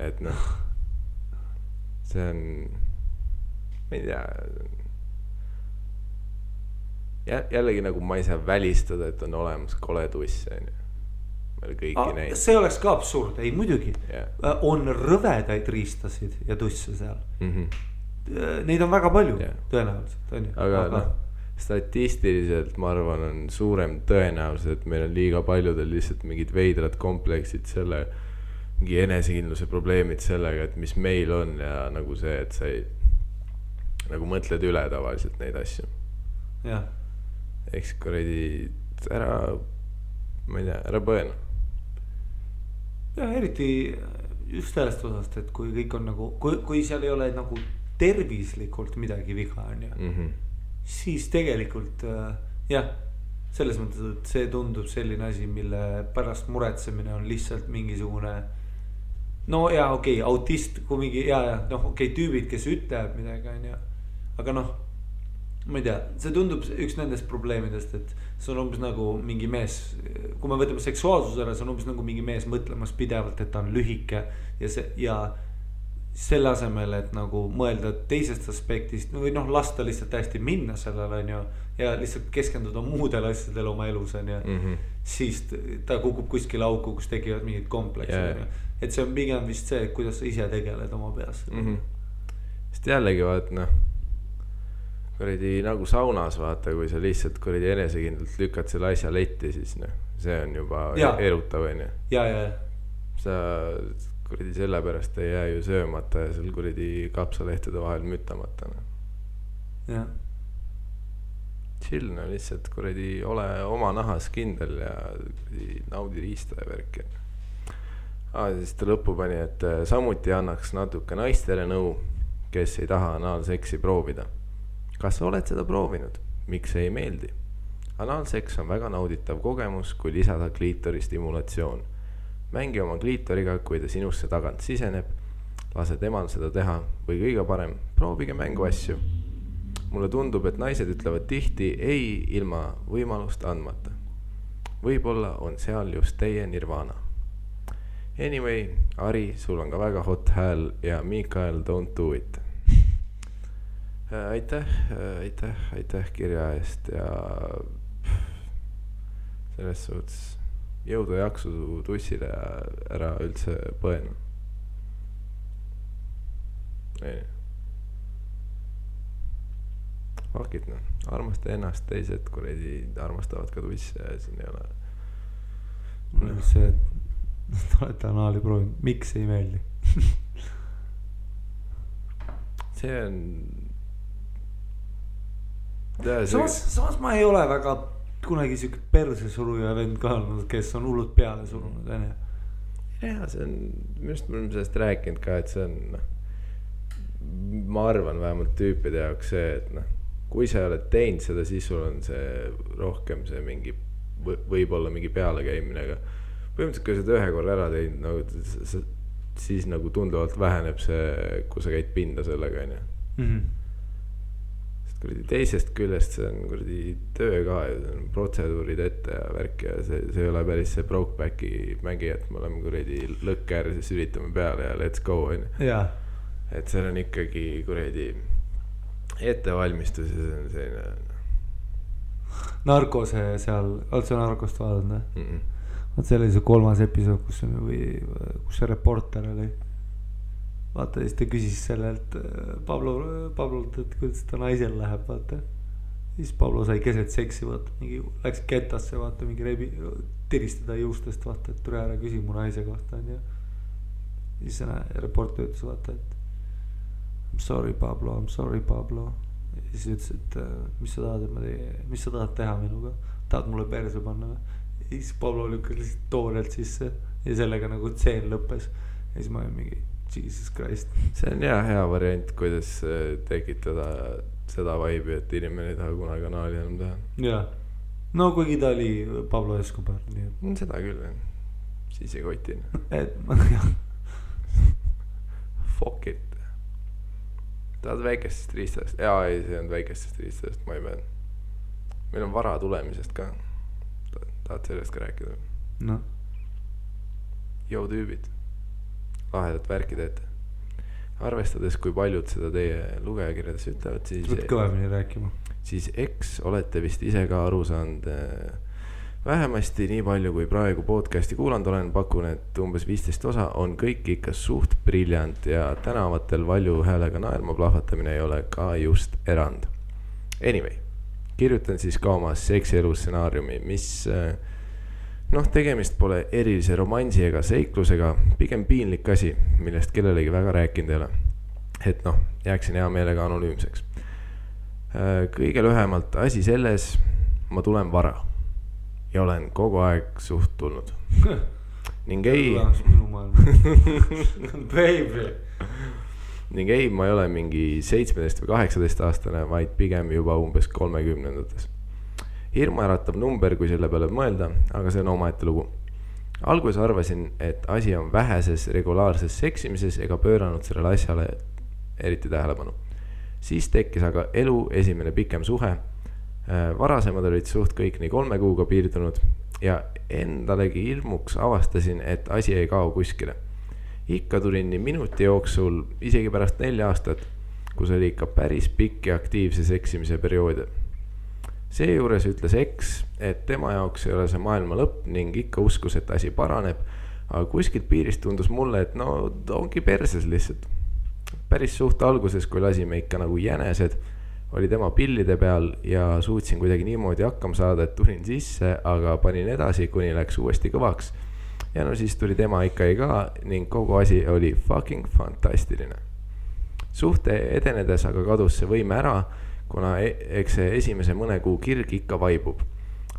et noh, see on, ma ei tea, jällegi nagu ma ei saa välistada, et on olemas kole tuss, on ju. Meil kõiki neid. See oleks ka absurd, ei muidugi. On rõvedaid riistasid ja tusse seal. Neid on väga palju tõenäoliselt on ju. aga noh, statistiliselt ma arvan on suurem tõenäosus, et meil on liiga paljudel lihtsalt mingid veidrad kompleksid selle, mingi enesekindluse probleemid sellega, et mis meil on ja nagu see, et sa ei nagu mõtled üle tavaliselt neid asju. jah. Eks kuradi ära, ma ei tea, ära põena. ja eriti just sellest osast, et kui kõik on nagu, kui seal ei ole nagu tervislikult midagi viga on ju, siis tegelikult jah, selles mõttes, et see tundub selline asi, mille pärast muretsemine on lihtsalt mingisugune no ja okei, autist, kui mingi ja noh okei, tüübid, kes ütlevad midagi on ju, aga noh, ma ei tea, see tundub üks nendest probleemidest, et see on umbes nagu mingi mees, kui me võtame seksuaalsuse ära, see on umbes nagu mingi mees mõtlemas pidevalt, et ta on lühike ja see ja selle asemel, et nagu mõelda teisest aspektist või noh, lasta lihtsalt hästi minna sellele on ju ja lihtsalt keskenduda muudele asjadele oma elus on ju, siis ta kukub kuskile auku, kus tekivad mingid kompleksid et see on pigem vist see, kuidas sa ise tegeled oma peas sest jällegi vaat noh, kuradi nagu saunas vaata, kui sa lihtsalt kuradi enesekindlalt lükkad selle asja letti, siis noh, see on juba erutav on ju ja sa kuradi selle pärast ei jää ju söömata ja seal kuradi kapsalehtede vahel mütamata no. jah chill no, lihtsalt kuradi ole oma nahas kindel ja kuradi naudi riista ja värki siis ta lõppu pani, et samuti annaks natuke naistele nõu, kes ei taha anaalseksi proovida. Kas sa oled seda proovinud? Miks ei meeldi? Anaalseks on väga nauditav kogemus, kui lisada kliitori stimulatsioon. Mängi oma kliitoriga, kui ta sinusse tagant siseneb, lase temal seda teha või kõige parem, proovige mängu asju. Mulle tundub, et naised ütlevad tihti ei ilma võimalust andmata. Võib-olla on seal just teie nirvana. Anyway, Ari, sul on ka väga hot hääl ja Mikael, don't do it. Aitäh kirja eest ja selles suhtes jõudu ja jaksu tussile ja ära üldse põena. Fuck it, noh, armasta ennast, teised kuradi armastavad ka tusse ja siin ei ole. Mul on see, et olete anaali proovinud, miks ei meeldi? See on samas ma ei ole väga kunagi siuke perse suruja vend ka olnud, kes on hullult peale surunud ja see on, minust me oleme sellest rääkinud ka, et see on ma arvan vähemalt tüüpide jaoks see, et noh, kui sa oled teinud seda, siis sul on see rohkem see mingi võib-olla mingi pealekäimine, aga põhimõtteliselt kui sa seda ühe korra ära teinud nagu, siis nagu tunduvalt väheneb see, kui sa käid pinda sellega on ju teisest küljest see on kuradi töö ka ja see on protseduurid ette ja värk ja see ei ole päris see Brokebacki mängi, et me oleme kuradi lõkker, siis üritame peale ja let's go on ju. Et see on ikkagi kuradi ettevalmistus ja see on selline Narkose seal, oled sa Narkost vaadanud? Vaat see oli see 3. episood, kus see reporter oli. Vaata, siis ta küsis sellelt Pablolt, et kuidas ta naisel läheb, vaata. Siis Pablo sai keset seksi, vaata, mingi läks ketasse, vaata, mingi tiristada juustest, vaata, et tule ära küsi mu naise kohta, on ju. Siis reporter ütles, vaata, et I'm sorry, Pablo. Ja siis ütles, et mis sa tahad teha minuga? Tahad mulle perse panna või? Ja siis Pablo lükkas lihtsalt toorelt sisse ja sellega nagu tseen lõppes. Ja siis ma olin mingi Jesus Christ. See on hea variant, kuidas tekitada seda vibe'i, et inimene ei taha kunagi kanaali enam teha. Jaa. No kuigi ta oli Pablo Escobar. Seda küll, siis ei kotin. Fuck it. Tahad väikestest riistadest? Jaa, ei, see on väikestest riistadest, ma ei pean. Meil on vara tulemisest ka. Tahad sellest ka rääkida? No. Jou tüübid. Lahedat värki teete. Arvestades, kui paljud seda teie lugejakirjades ütlevad, siis võt kõvemini rääkima. Siis eks olete vist ise ka aru saanud vähemasti nii palju, kui praegu podcasti kuulanud olen, pakun, et umbes 15 osa on kõik ikka suht briljant ja tänavatel valju häälega naerma plahvatamine ei ole ka just erand. Anyway, kirjutan siis ka oma seksielu stsenaariumi, mis noh, tegemist pole erilise romansi ega seiklusega, pigem piinlik asi, millest kellelegi väga rääkinud ei ole. Et noh, jääksin hea meelega anonüümseks. Kõige lühemalt asi selles, ma tulen vara ja olen kogu aeg suht tulnud. Ning ei, ma ei ole mingi 17 või 18 aastane, vaid pigem juba umbes 30-ndates. Hirmuäratav number, kui selle peale mõelda, aga see on omaette lugu. Alguses arvasin, et asi on väheses regulaarses seksimises ega pööranud sellele asjale eriti tähelepanu. Siis tekkis aga elu esimene pikem suhe. Varasemad olid suht kõik nii 3 kuuga piirdunud ja endalegi hirmuks avastasin, et asi ei kao kuskile. Ikka tulin nii minuti jooksul, isegi pärast 4 aastat, kus oli ikka päris pikk ja aktiivse seksimise perioode. Seejuures ütles eks, et tema jaoks ei ole see maailma lõpp ning ikka uskus, et asi paraneb, aga kuskilt piirist tundus mulle, et no ongi perses lihtsalt. Päris suht alguses, kui lasime ikka nagu jänesed, oli tema pillide peal ja suutsin kuidagi niimoodi hakkama saada, et tulin sisse, aga panin edasi, kuni läks uuesti kõvaks. Ja no siis tuli tema ikka ei ka ning kogu asi oli fucking fantastiline. Suhte edenedes aga kadus see võime ära, kuna eks see esimese mõne kuu kirg ikka vaibub.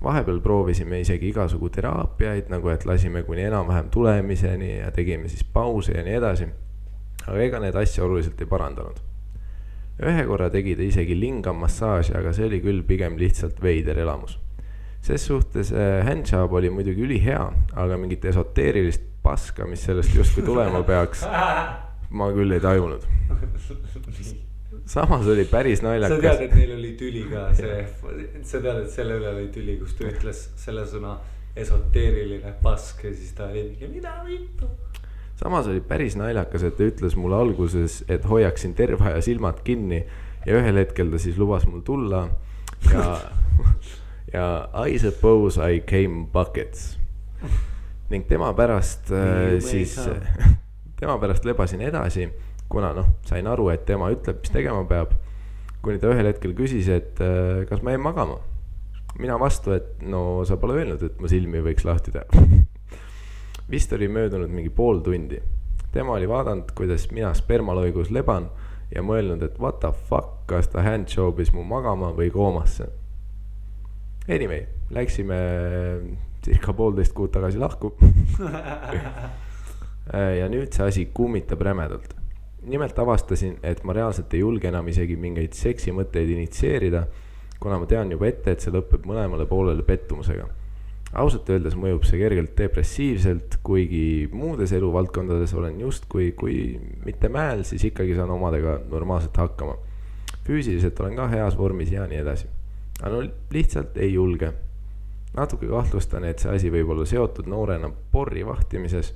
Vahepeal proovisime isegi igasugu teraapiaid, nagu et lasime kuni enam-vähem tulemiseni ja tegime siis pause ja nii edasi. Aga ega need asja oluliselt ei parandanud. Ühe korra tegi ta isegi lingam massaaži, aga see oli küll pigem lihtsalt veider elamus. Ses suhtes handjob oli muidugi üli hea, aga mingit esoteerilist paska, mis sellest justkui tulema peaks, ma küll ei tajunud. Samas oli päris naljakas. Sa tead, et neil oli tüli ka sa tead, et selle üle oli tüli, kus ta ütles selle sõna esoteeriline pask ja siis ta oli mingi mida vittu. Samas oli päris naljakas, et ta ütles mulle alguses, et hoiaksin terve aja silmad kinni ja ühel hetkel ta siis lubas mul tulla ja I suppose I came buckets. Ning tema pärast lebasin edasi, kuna sain aru, et tema ütleb, mis tegema peab, kuni ta ühel hetkel küsis, et kas ma jäin magama. Mina vastu, et no sa pole öelnud, et ma silmi võiks lahti teha. Vist oli möödunud mingi pool tundi. Tema oli vaadanud, kuidas mina spermaloigus leban ja mõelnud, et what the fuck, kas ta handjobis mu magama või koomasse. Anyway, läksime circa 1,5 kuud tagasi lahku. Ja nüüd see asi kummitab rämedalt. Nimelt avastasin, et ma reaalselt ei julge enam isegi mingeid seksimõtteid initseerida, kuna ma tean juba ette, et see lõpeb mõlemale poolele pettumusega. Ausalt öeldes mõjub see kergelt depressiivselt, kuigi muudes eluvaldkondades olen just kui mitte mäel, siis ikkagi saan omadega normaalselt hakkama. Füüsiliselt olen ka heas vormis ja nii edasi. Aga no lihtsalt ei julge. Natuke kahtlustan, et see asi võib olla seotud noorena porri vahtimises,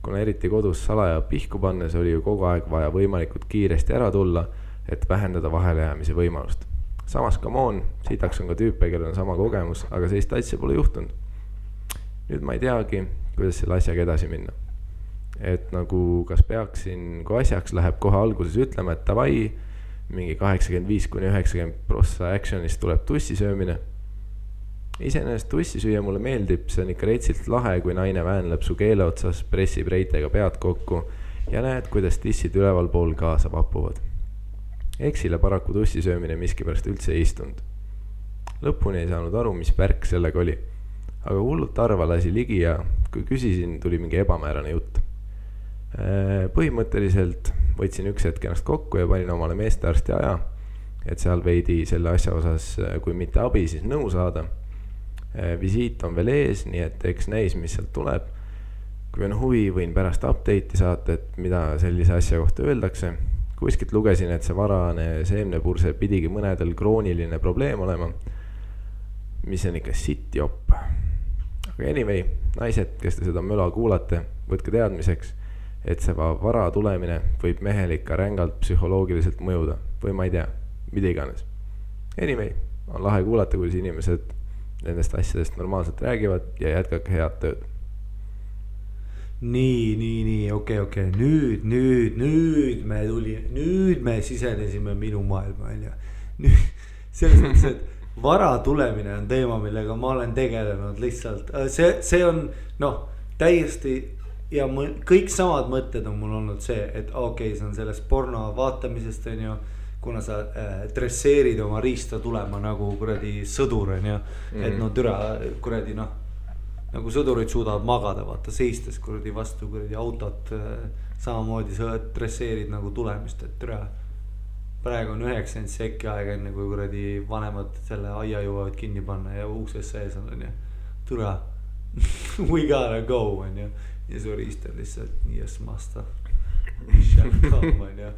kuna eriti kodus salaja pihku pannes oli ju kogu aeg vaja võimalikult kiiresti ära tulla, et vähendada vahelejäämise võimalust. Samas come on, sitaks on ka tüüpe, kellel on sama kogemus, aga sellist asja pole juhtunud. Nüüd ma ei teagi, kuidas selle asjaga edasi minna. Et nagu kas peaksin, kui asjaks läheb kohe alguses ütlema, et tavai, mingi 85-90% actionist tuleb tussisöömine. Iseenesest tussisüüa mulle meeldib, see on ikka reitsilt lahe, kui naine väänleb su keele otsas, pressib reitega pead kokku ja näed, kuidas tissid üleval pool kaasa vapuvad. Eksile paraku tussisöömine miskipärast üldse ei istunud. Lõpuni ei saanud aru, mis värk sellega oli. Aga hullult arva lasi ligi ja kui küsisin, tuli mingi ebamäärane jutt. Põhimõtteliselt võtsin üks hetk ennast kokku ja panin omale meestearsti aja, et seal veidi selle asja osas, kui mitte abi, siis nõu saada. Visiit on veel ees, nii et eks näis, mis sealt tuleb. Kui on huvi, võin pärast update'i saata, et mida sellise asja kohta öeldakse. Kuskilt lugesin, et see varane seemnepurse pidigi mõnedel krooniline probleem olema, mis on ikka sitt jopp. Aga anyway, naised, kes te seda möla kuulate, võtke teadmiseks, et see vara tulemine võib mehel ikka rängalt psühholoogiliselt mõjuda või ma ei tea, mida iganes. Anyway, on lahe kuulata, kuidas inimesed nendest asjadest normaalselt räägivad ja jätkake head tööd. Nii, okei. Nüüd me sisenesime minu maailma, välja. Selles mõttes, et vara tulemine on teema, millega ma olen tegelenud lihtsalt, see on noh, täiesti ja kõik samad mõtted on mul olnud see, et okei, see on sellest porno vaatamisest on ju, kuna sa dresseerid oma riista tulema nagu kuradi sõdur on ju, et no türa kuradi noh, nagu sõdurid suudavad magada, vaata seistes kuradi vastu kuradi autot, samamoodi sa dresseerid nagu tulemist, et türa praegu on 90 sekki aega enne kui kuradi vanemad selle aia jõuavad kinni panna ja ukses sees on ju, türa we gotta go on ju, ja su riist on lihtsalt yes master on ju,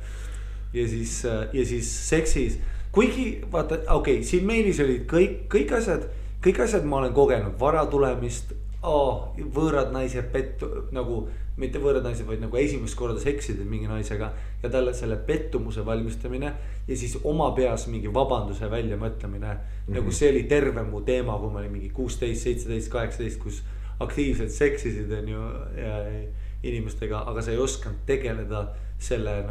ja siis seksis, kuigi vaata, okei, siin meilis olid kõik asjad ma olen kogenud, vara tulemist, võõrad naised nagu, mitte võõrad naised, vaid nagu esimest korda seksisid mingi naisega ja talle selle pettumuse valmistamine ja siis oma peas mingi vabanduse välja mõtlemine. Nagu see oli terve mu teema, kui ma olin mingi 16, 17, 18, kus aktiivselt seksisid on ju inimestega, aga sa ei osanud tegeleda selle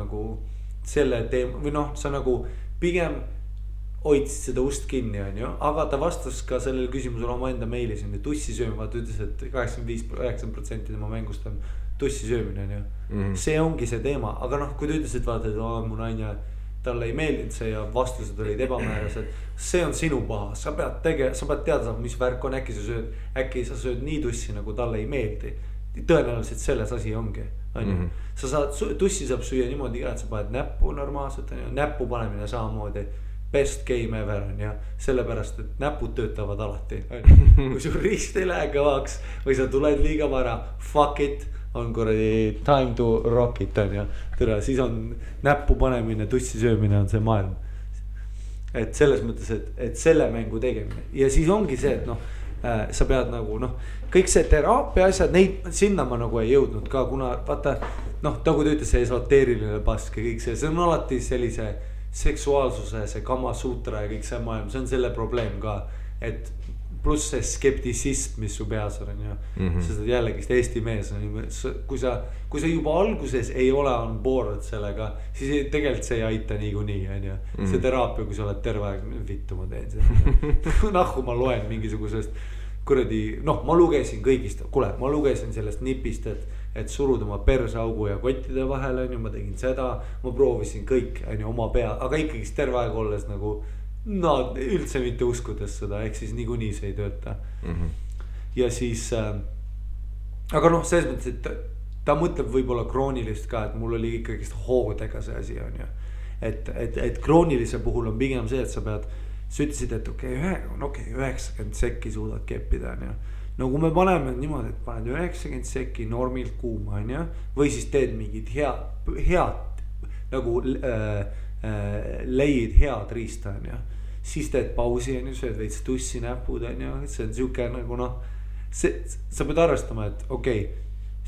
teema või noh, sa nagu pigem hoidsid seda ust kinni on ju, aga ta vastas ka sellele küsimusele oma enda meilis on ju, tussi sööma, ta ütles, et 85% tema mängust on tussi söömine on ju, see ongi see teema, aga noh, kui ta ütles, et vaata, et mu naine, talle ei meeldinud see ja vastused olid ebamäärased, see on sinu paha, sa pead teada saama, mis värk on, äkki sa sööd nii tussi, nagu talle ei meeldi, tõenäoliselt selles asi ongi on ju, sa saad, tussi saab süüa niimoodi ka, et sa paned näppu normaalselt on ju, näppu panemine samamoodi best game ever on ja sellepärast, et näpud töötavad alati. Kui sul riist ei lähe kõvaks või sa tuled liiga vara, fuck it, on kuradi time to rock it on ja tere, siis on näppu panemine, tussi söömine on see maailm. Et selles mõttes, et selle mängu tegemine ja siis ongi see, et noh, sa pead nagu noh, kõik see teraapia asjad, neid sinna ma nagu ei jõudnud ka, kuna vaata noh, nagu ta ütles, see esoteeriline pask ja kõik see on alati sellise seksuaalsuse, see Kama Sutra ja kõik see maailm, see on selle probleem ka, et pluss see skeptisism, mis su peas on ju, sest jällegist Eesti mees on ju, kui sa juba alguses ei ole on board sellega, siis tegelikult see ei aita niikuinii on ju, see teraapia, kui sa oled terve aeg, vittu ma teen seda nahku ma loen mingisugusest kuradi, noh, ma lugesin kõigist, kuule, ma lugesin sellest nipist, et suruda oma persaugu ja kottide vahel on ju, ma tegin seda, ma proovisin kõik on ju oma pea, aga ikkagist terve aeg olles nagu no üldse mitte uskudes seda, ehk siis niikuinii see ei tööta ja siis aga noh, selles mõttes, et ta mõtleb võib-olla kroonilist ka, et mul oli ikkagist hoodega see asi on ju, et kroonilise puhul on pigem see, et sa ütlesid, et okei, 90 sekki suudad keppida on ju. No kui me paneme niimoodi, et paned 90 sekki normilt kuuma on ju, või siis teed mingid head nagu leid head riista on ju, siis teed pausi on ju, sööd veits tussi näpud on ju, see on siuke nagu noh, sa pead arvestama, et okei,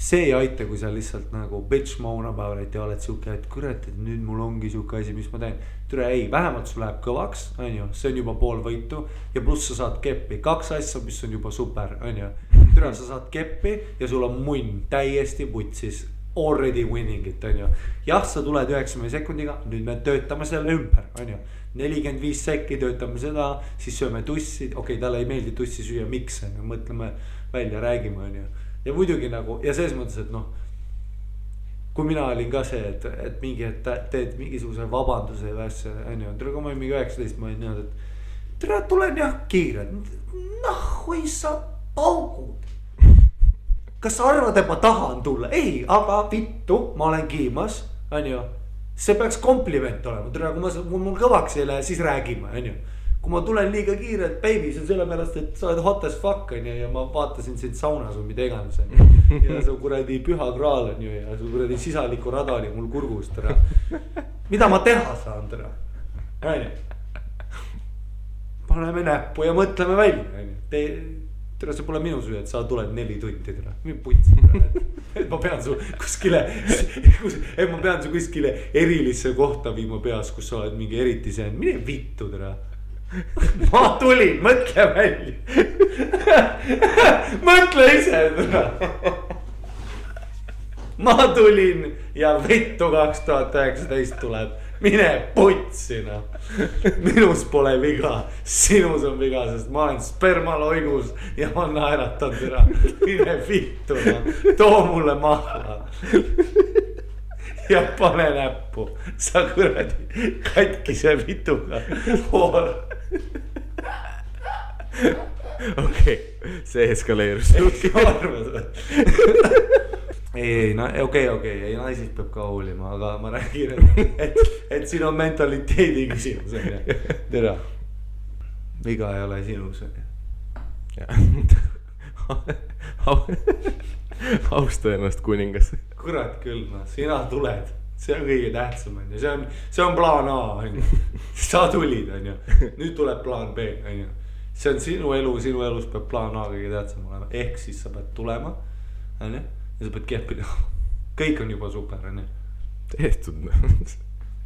see ei aita, kui sa lihtsalt nagu bitch moan about it ja oled siuke, et kurat, et nüüd mul ongi siuke asi, mis ma teen. Türa ei, vähemalt sul läheb kõvaks, on ju, see on juba pool võitu ja pluss sa saad keppi, 2 asja, mis on juba super, on ju. Türa, sa saad keppi ja sul on munn täiesti putsis, already winning it, on ju. Jah, sa tuled 90 sekundiga, nüüd me töötame selle ümber, on ju. 45 sekki töötame seda, siis sööme tussi, okei, talle ei meeldi tussi süüa, miks, on ju, mõtleme välja, räägime, on ju. Ja muidugi nagu, ja selles mõttes, et noh, kui mina olin ka see, et mingi, et teed mingisuguse vabanduse või asja, on ju, tere, kui ma olin mingi 19, ma olin niimoodi, et tere, tulen jah kiired, nahhui sa paugud. Kas sa arvad, et ma tahan tulla? Ei, aga vittu, ma olen kiimas, on ju, see peaks kompliment olema, tere, kui mul kõvaks ei lähe, siis räägime, on ju. Kui ma tulen liiga kiirelt, baby, see on selle pärast, et sa oled hot as fuck on ju, ja ma vaatasin sind saunas või mida iganes on ju. Ja su kuradi püha kraal on ju ja su kuradi sisaliku rada oli mul kurgus, tere. Mida ma teha saan, tere? On ju. Paneme näppu ja mõtleme välja, on ju. Tere, see pole minu süü, et sa tuled 4 tundi, tere. Mind putsi, tere. Et ma pean su kuskile, et ma pean su kuskile erilisse kohta viima peas, kus sa oled mingi eriti see, mine vittu, tere. Ma tulin, mõtle välja. Mõtle ise. Ma tulin ja vittu 2019 tuleb mine putsi noh. Minus pole viga, sinus on viga, sest ma olen spermaloigus ja ma naeratan türa. Mine vittu noh, too mulle maha. Ja pane näppu, sa kuradi katkise vituga hool. Okei, see eskaleerus. Ei, ei, naisist peab ka hoolima, aga ma räägin, et siin on mentaliteedi küsimus. Tere, viga ei ole sinus. Austa ennast kuningas. Kurat küll, no, sina tuled, see on kõige tähtsam, see on plaan A, sa tulid, nüüd tuleb plaan B, see on sinu elu, sinu elus peab plaan A kõige tähtsam olema, ehk siis sa pead tulema, ja sa pead kehpida, kõik on juba super, tehtud.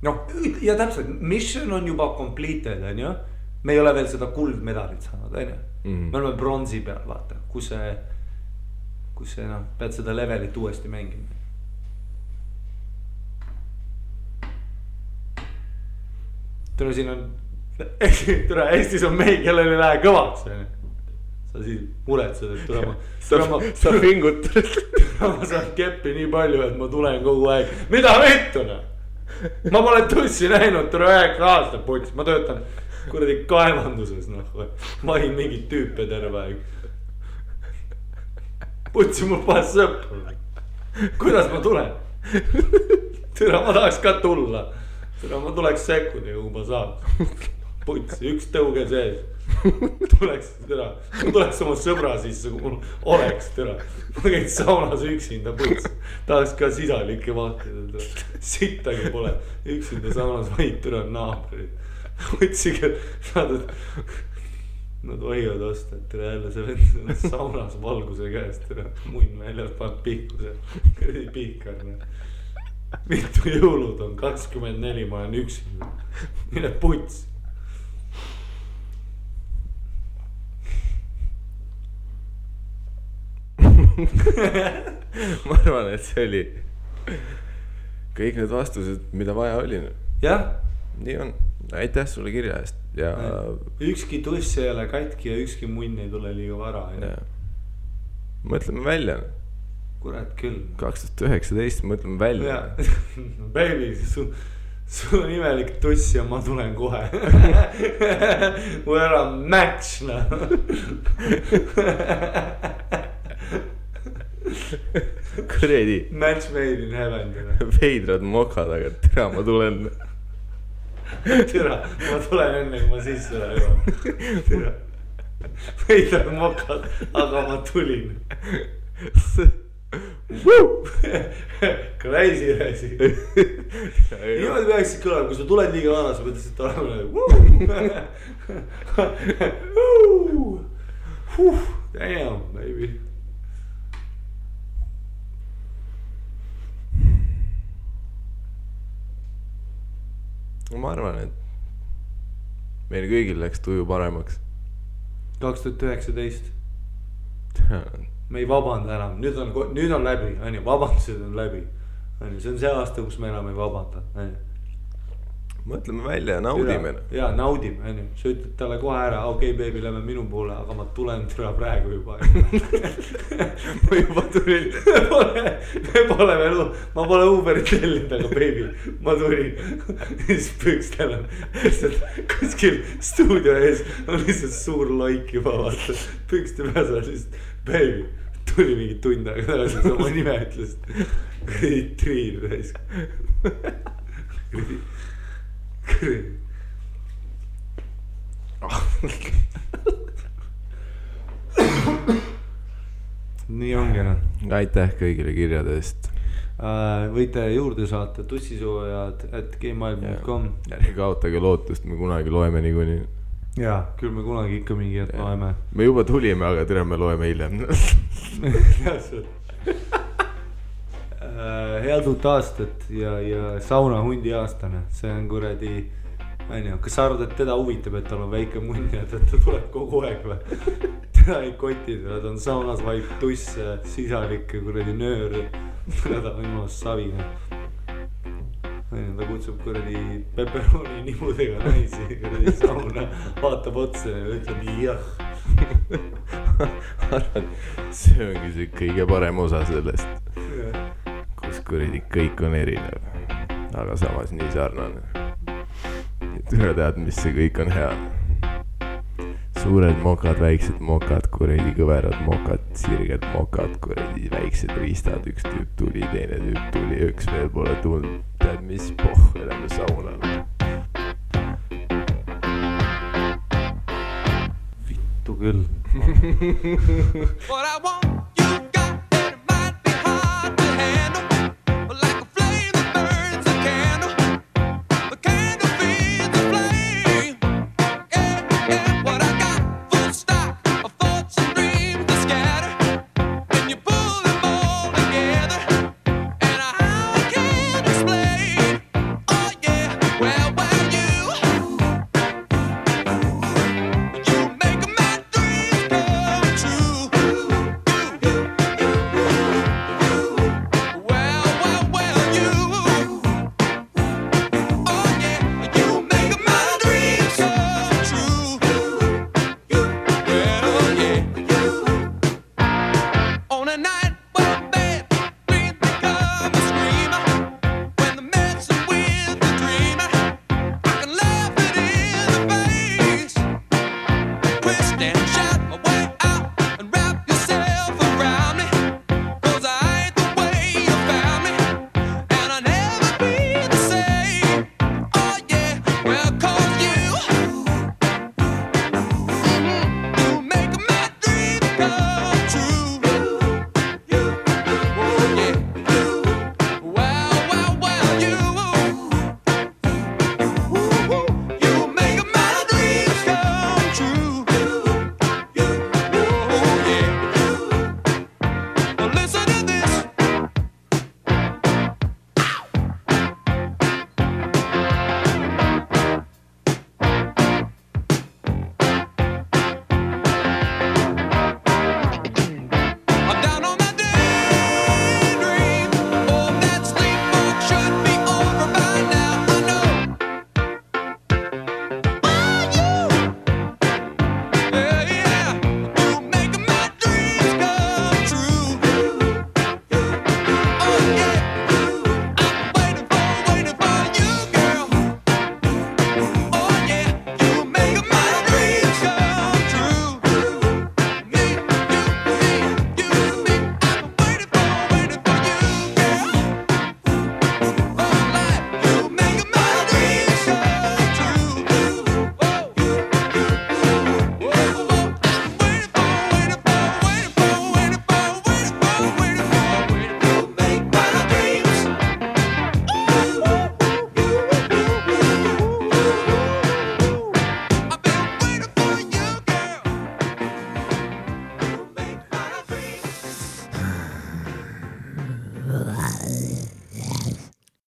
No, ja täpselt, mission on juba completed, me ei ole veel seda kuldmedalit saanud, me oleme bronsi peal, vaata, kus see pead seda levelit uuesti mängima. Tere, siin on, tere, Eestis on mehi, kellel ei lähe kõvaks. Sa siis muretsed, et sa pingutad. Ma saan keppi nii palju, et ma tulen kogu aeg. Mida vittuna? Ma pole tussi näinud, tere 9 aastat puts, ma töötan kuradi kaevanduses, ma olin mingit tüüpe terve aeg. Putsi mul paas sõpru. Kuidas ma tulen? Tere, ma tahaks ka tulla. Tere, ma tuleks sekundiga, kui ma saaks. Putsi, üks tõuge sees. Tuleks oma sõbra sisse, kui mul oleks, tere. Ma käin saunas üksinda, putsi. Tahaks ka sisalikke vahtida. Sittagi pole. Üksinda saunas vaid tere naabrid. Putsi, nad hoiavad osta, et tere jälle see vend saunas valguse käest, tere munn väljas pannud pihkuse. Kõrdi pihkarne. Mitu jõulud on 24, ma olen üksinda. Mine puts. Ma arvan, et see oli kõik need vastused, mida vaja oli. Jah. Nii on. Aitäh sulle kirja eest. Ja... Ükski tuss ei ole katki ja ükski munn ei tule liiga vara. Mõtleme välja. Kurat küll. 2019 mõtleme välja. Baby, sul on imelik tuss ja ma tulen kohe. We're a match, Kuredi. Match made in heaven. Veidrad mokad, aga tere, ma tulen. Tere, ma tulen enne, kui ma sisse lähen. Tere. Veidrad mokad, aga ma tulin. Crazy asi. Niimoodi peaksid kõlama, kui sa tuled liiga vana, sa pead lihtsalt olema. Damn, baby. Ma arvan, et meil kõigil läks tuju paremaks. 2019. Me ei vabanda enam, nüüd on läbi, vabandused on läbi. See on see aasta, kus me enam ei vabanda. Mõtleme välja ja naudime. Ja naudime, sa ütled talle kohe ära, okei, baby, lähme minu poole, aga ma tulen türa praegu juba. Ma juba tulin. Ma pole Uberit tellinud, aga baby, ma tulin. Siis pükstel on kuskil stuudio ees on lihtsalt suur loik juba vaata. Pükste peas on lihtsalt, baby, tuli mingi tund aega tagasi, sa oma nime ütlesid. Triin raisk. Nii ongi Aitäh kõigile kirjade eest. Võite juurde saata tussisoojad@gmail.com. Ärge kaotage lootust, me kunagi loeme niikuinii. Jaa, küll me kunagi ikka mingi hetk loeme. Me juba tulime, aga tere, me loeme hiljem. Head uut aastat ja sauna hundi aastane. See on kuradi, kas sa arvad, et teda huvitab, et tal on väike munn ja ta tuleb kogu aeg või? Teda ei kotid, ta on saunas vaid tuss, sisalik kuradi nöör. Ta on ilmas savine. ta kutsub kuradi pepperoni nimudega naisi kuradi sauna, vaatab otsa ja ütleb jah. arvan, see ongi see kõige parem osa sellest, kus kuradi kõik on erinev, aga samas nii sarnane. Tule tead, mis see kõik on hea. Suured mokad, väiksed mokad, kuradi kõverad mokad, sirged mokad, kuradi väiksed riistad, üks tüüp tuli, teine tüüp tuli, üks veel pole tulnud, tead mis lähme saunale. Vittu küll. What I want, you got, and it might be hard to handle, but like a flame that burns a candle, the candle feeds the flame. Yeah, what I got, full stock of thoughts and dreams to scatter, and you pull them all together, and I can't explain. Oh yeah, well you make my dreams come true. Well, you. Oh yeah, you make my dreams come true. Well, yeah. On a night when bad dreams become a screamer, when the messing with the dreamer, I can laugh it in the face, twist and shout.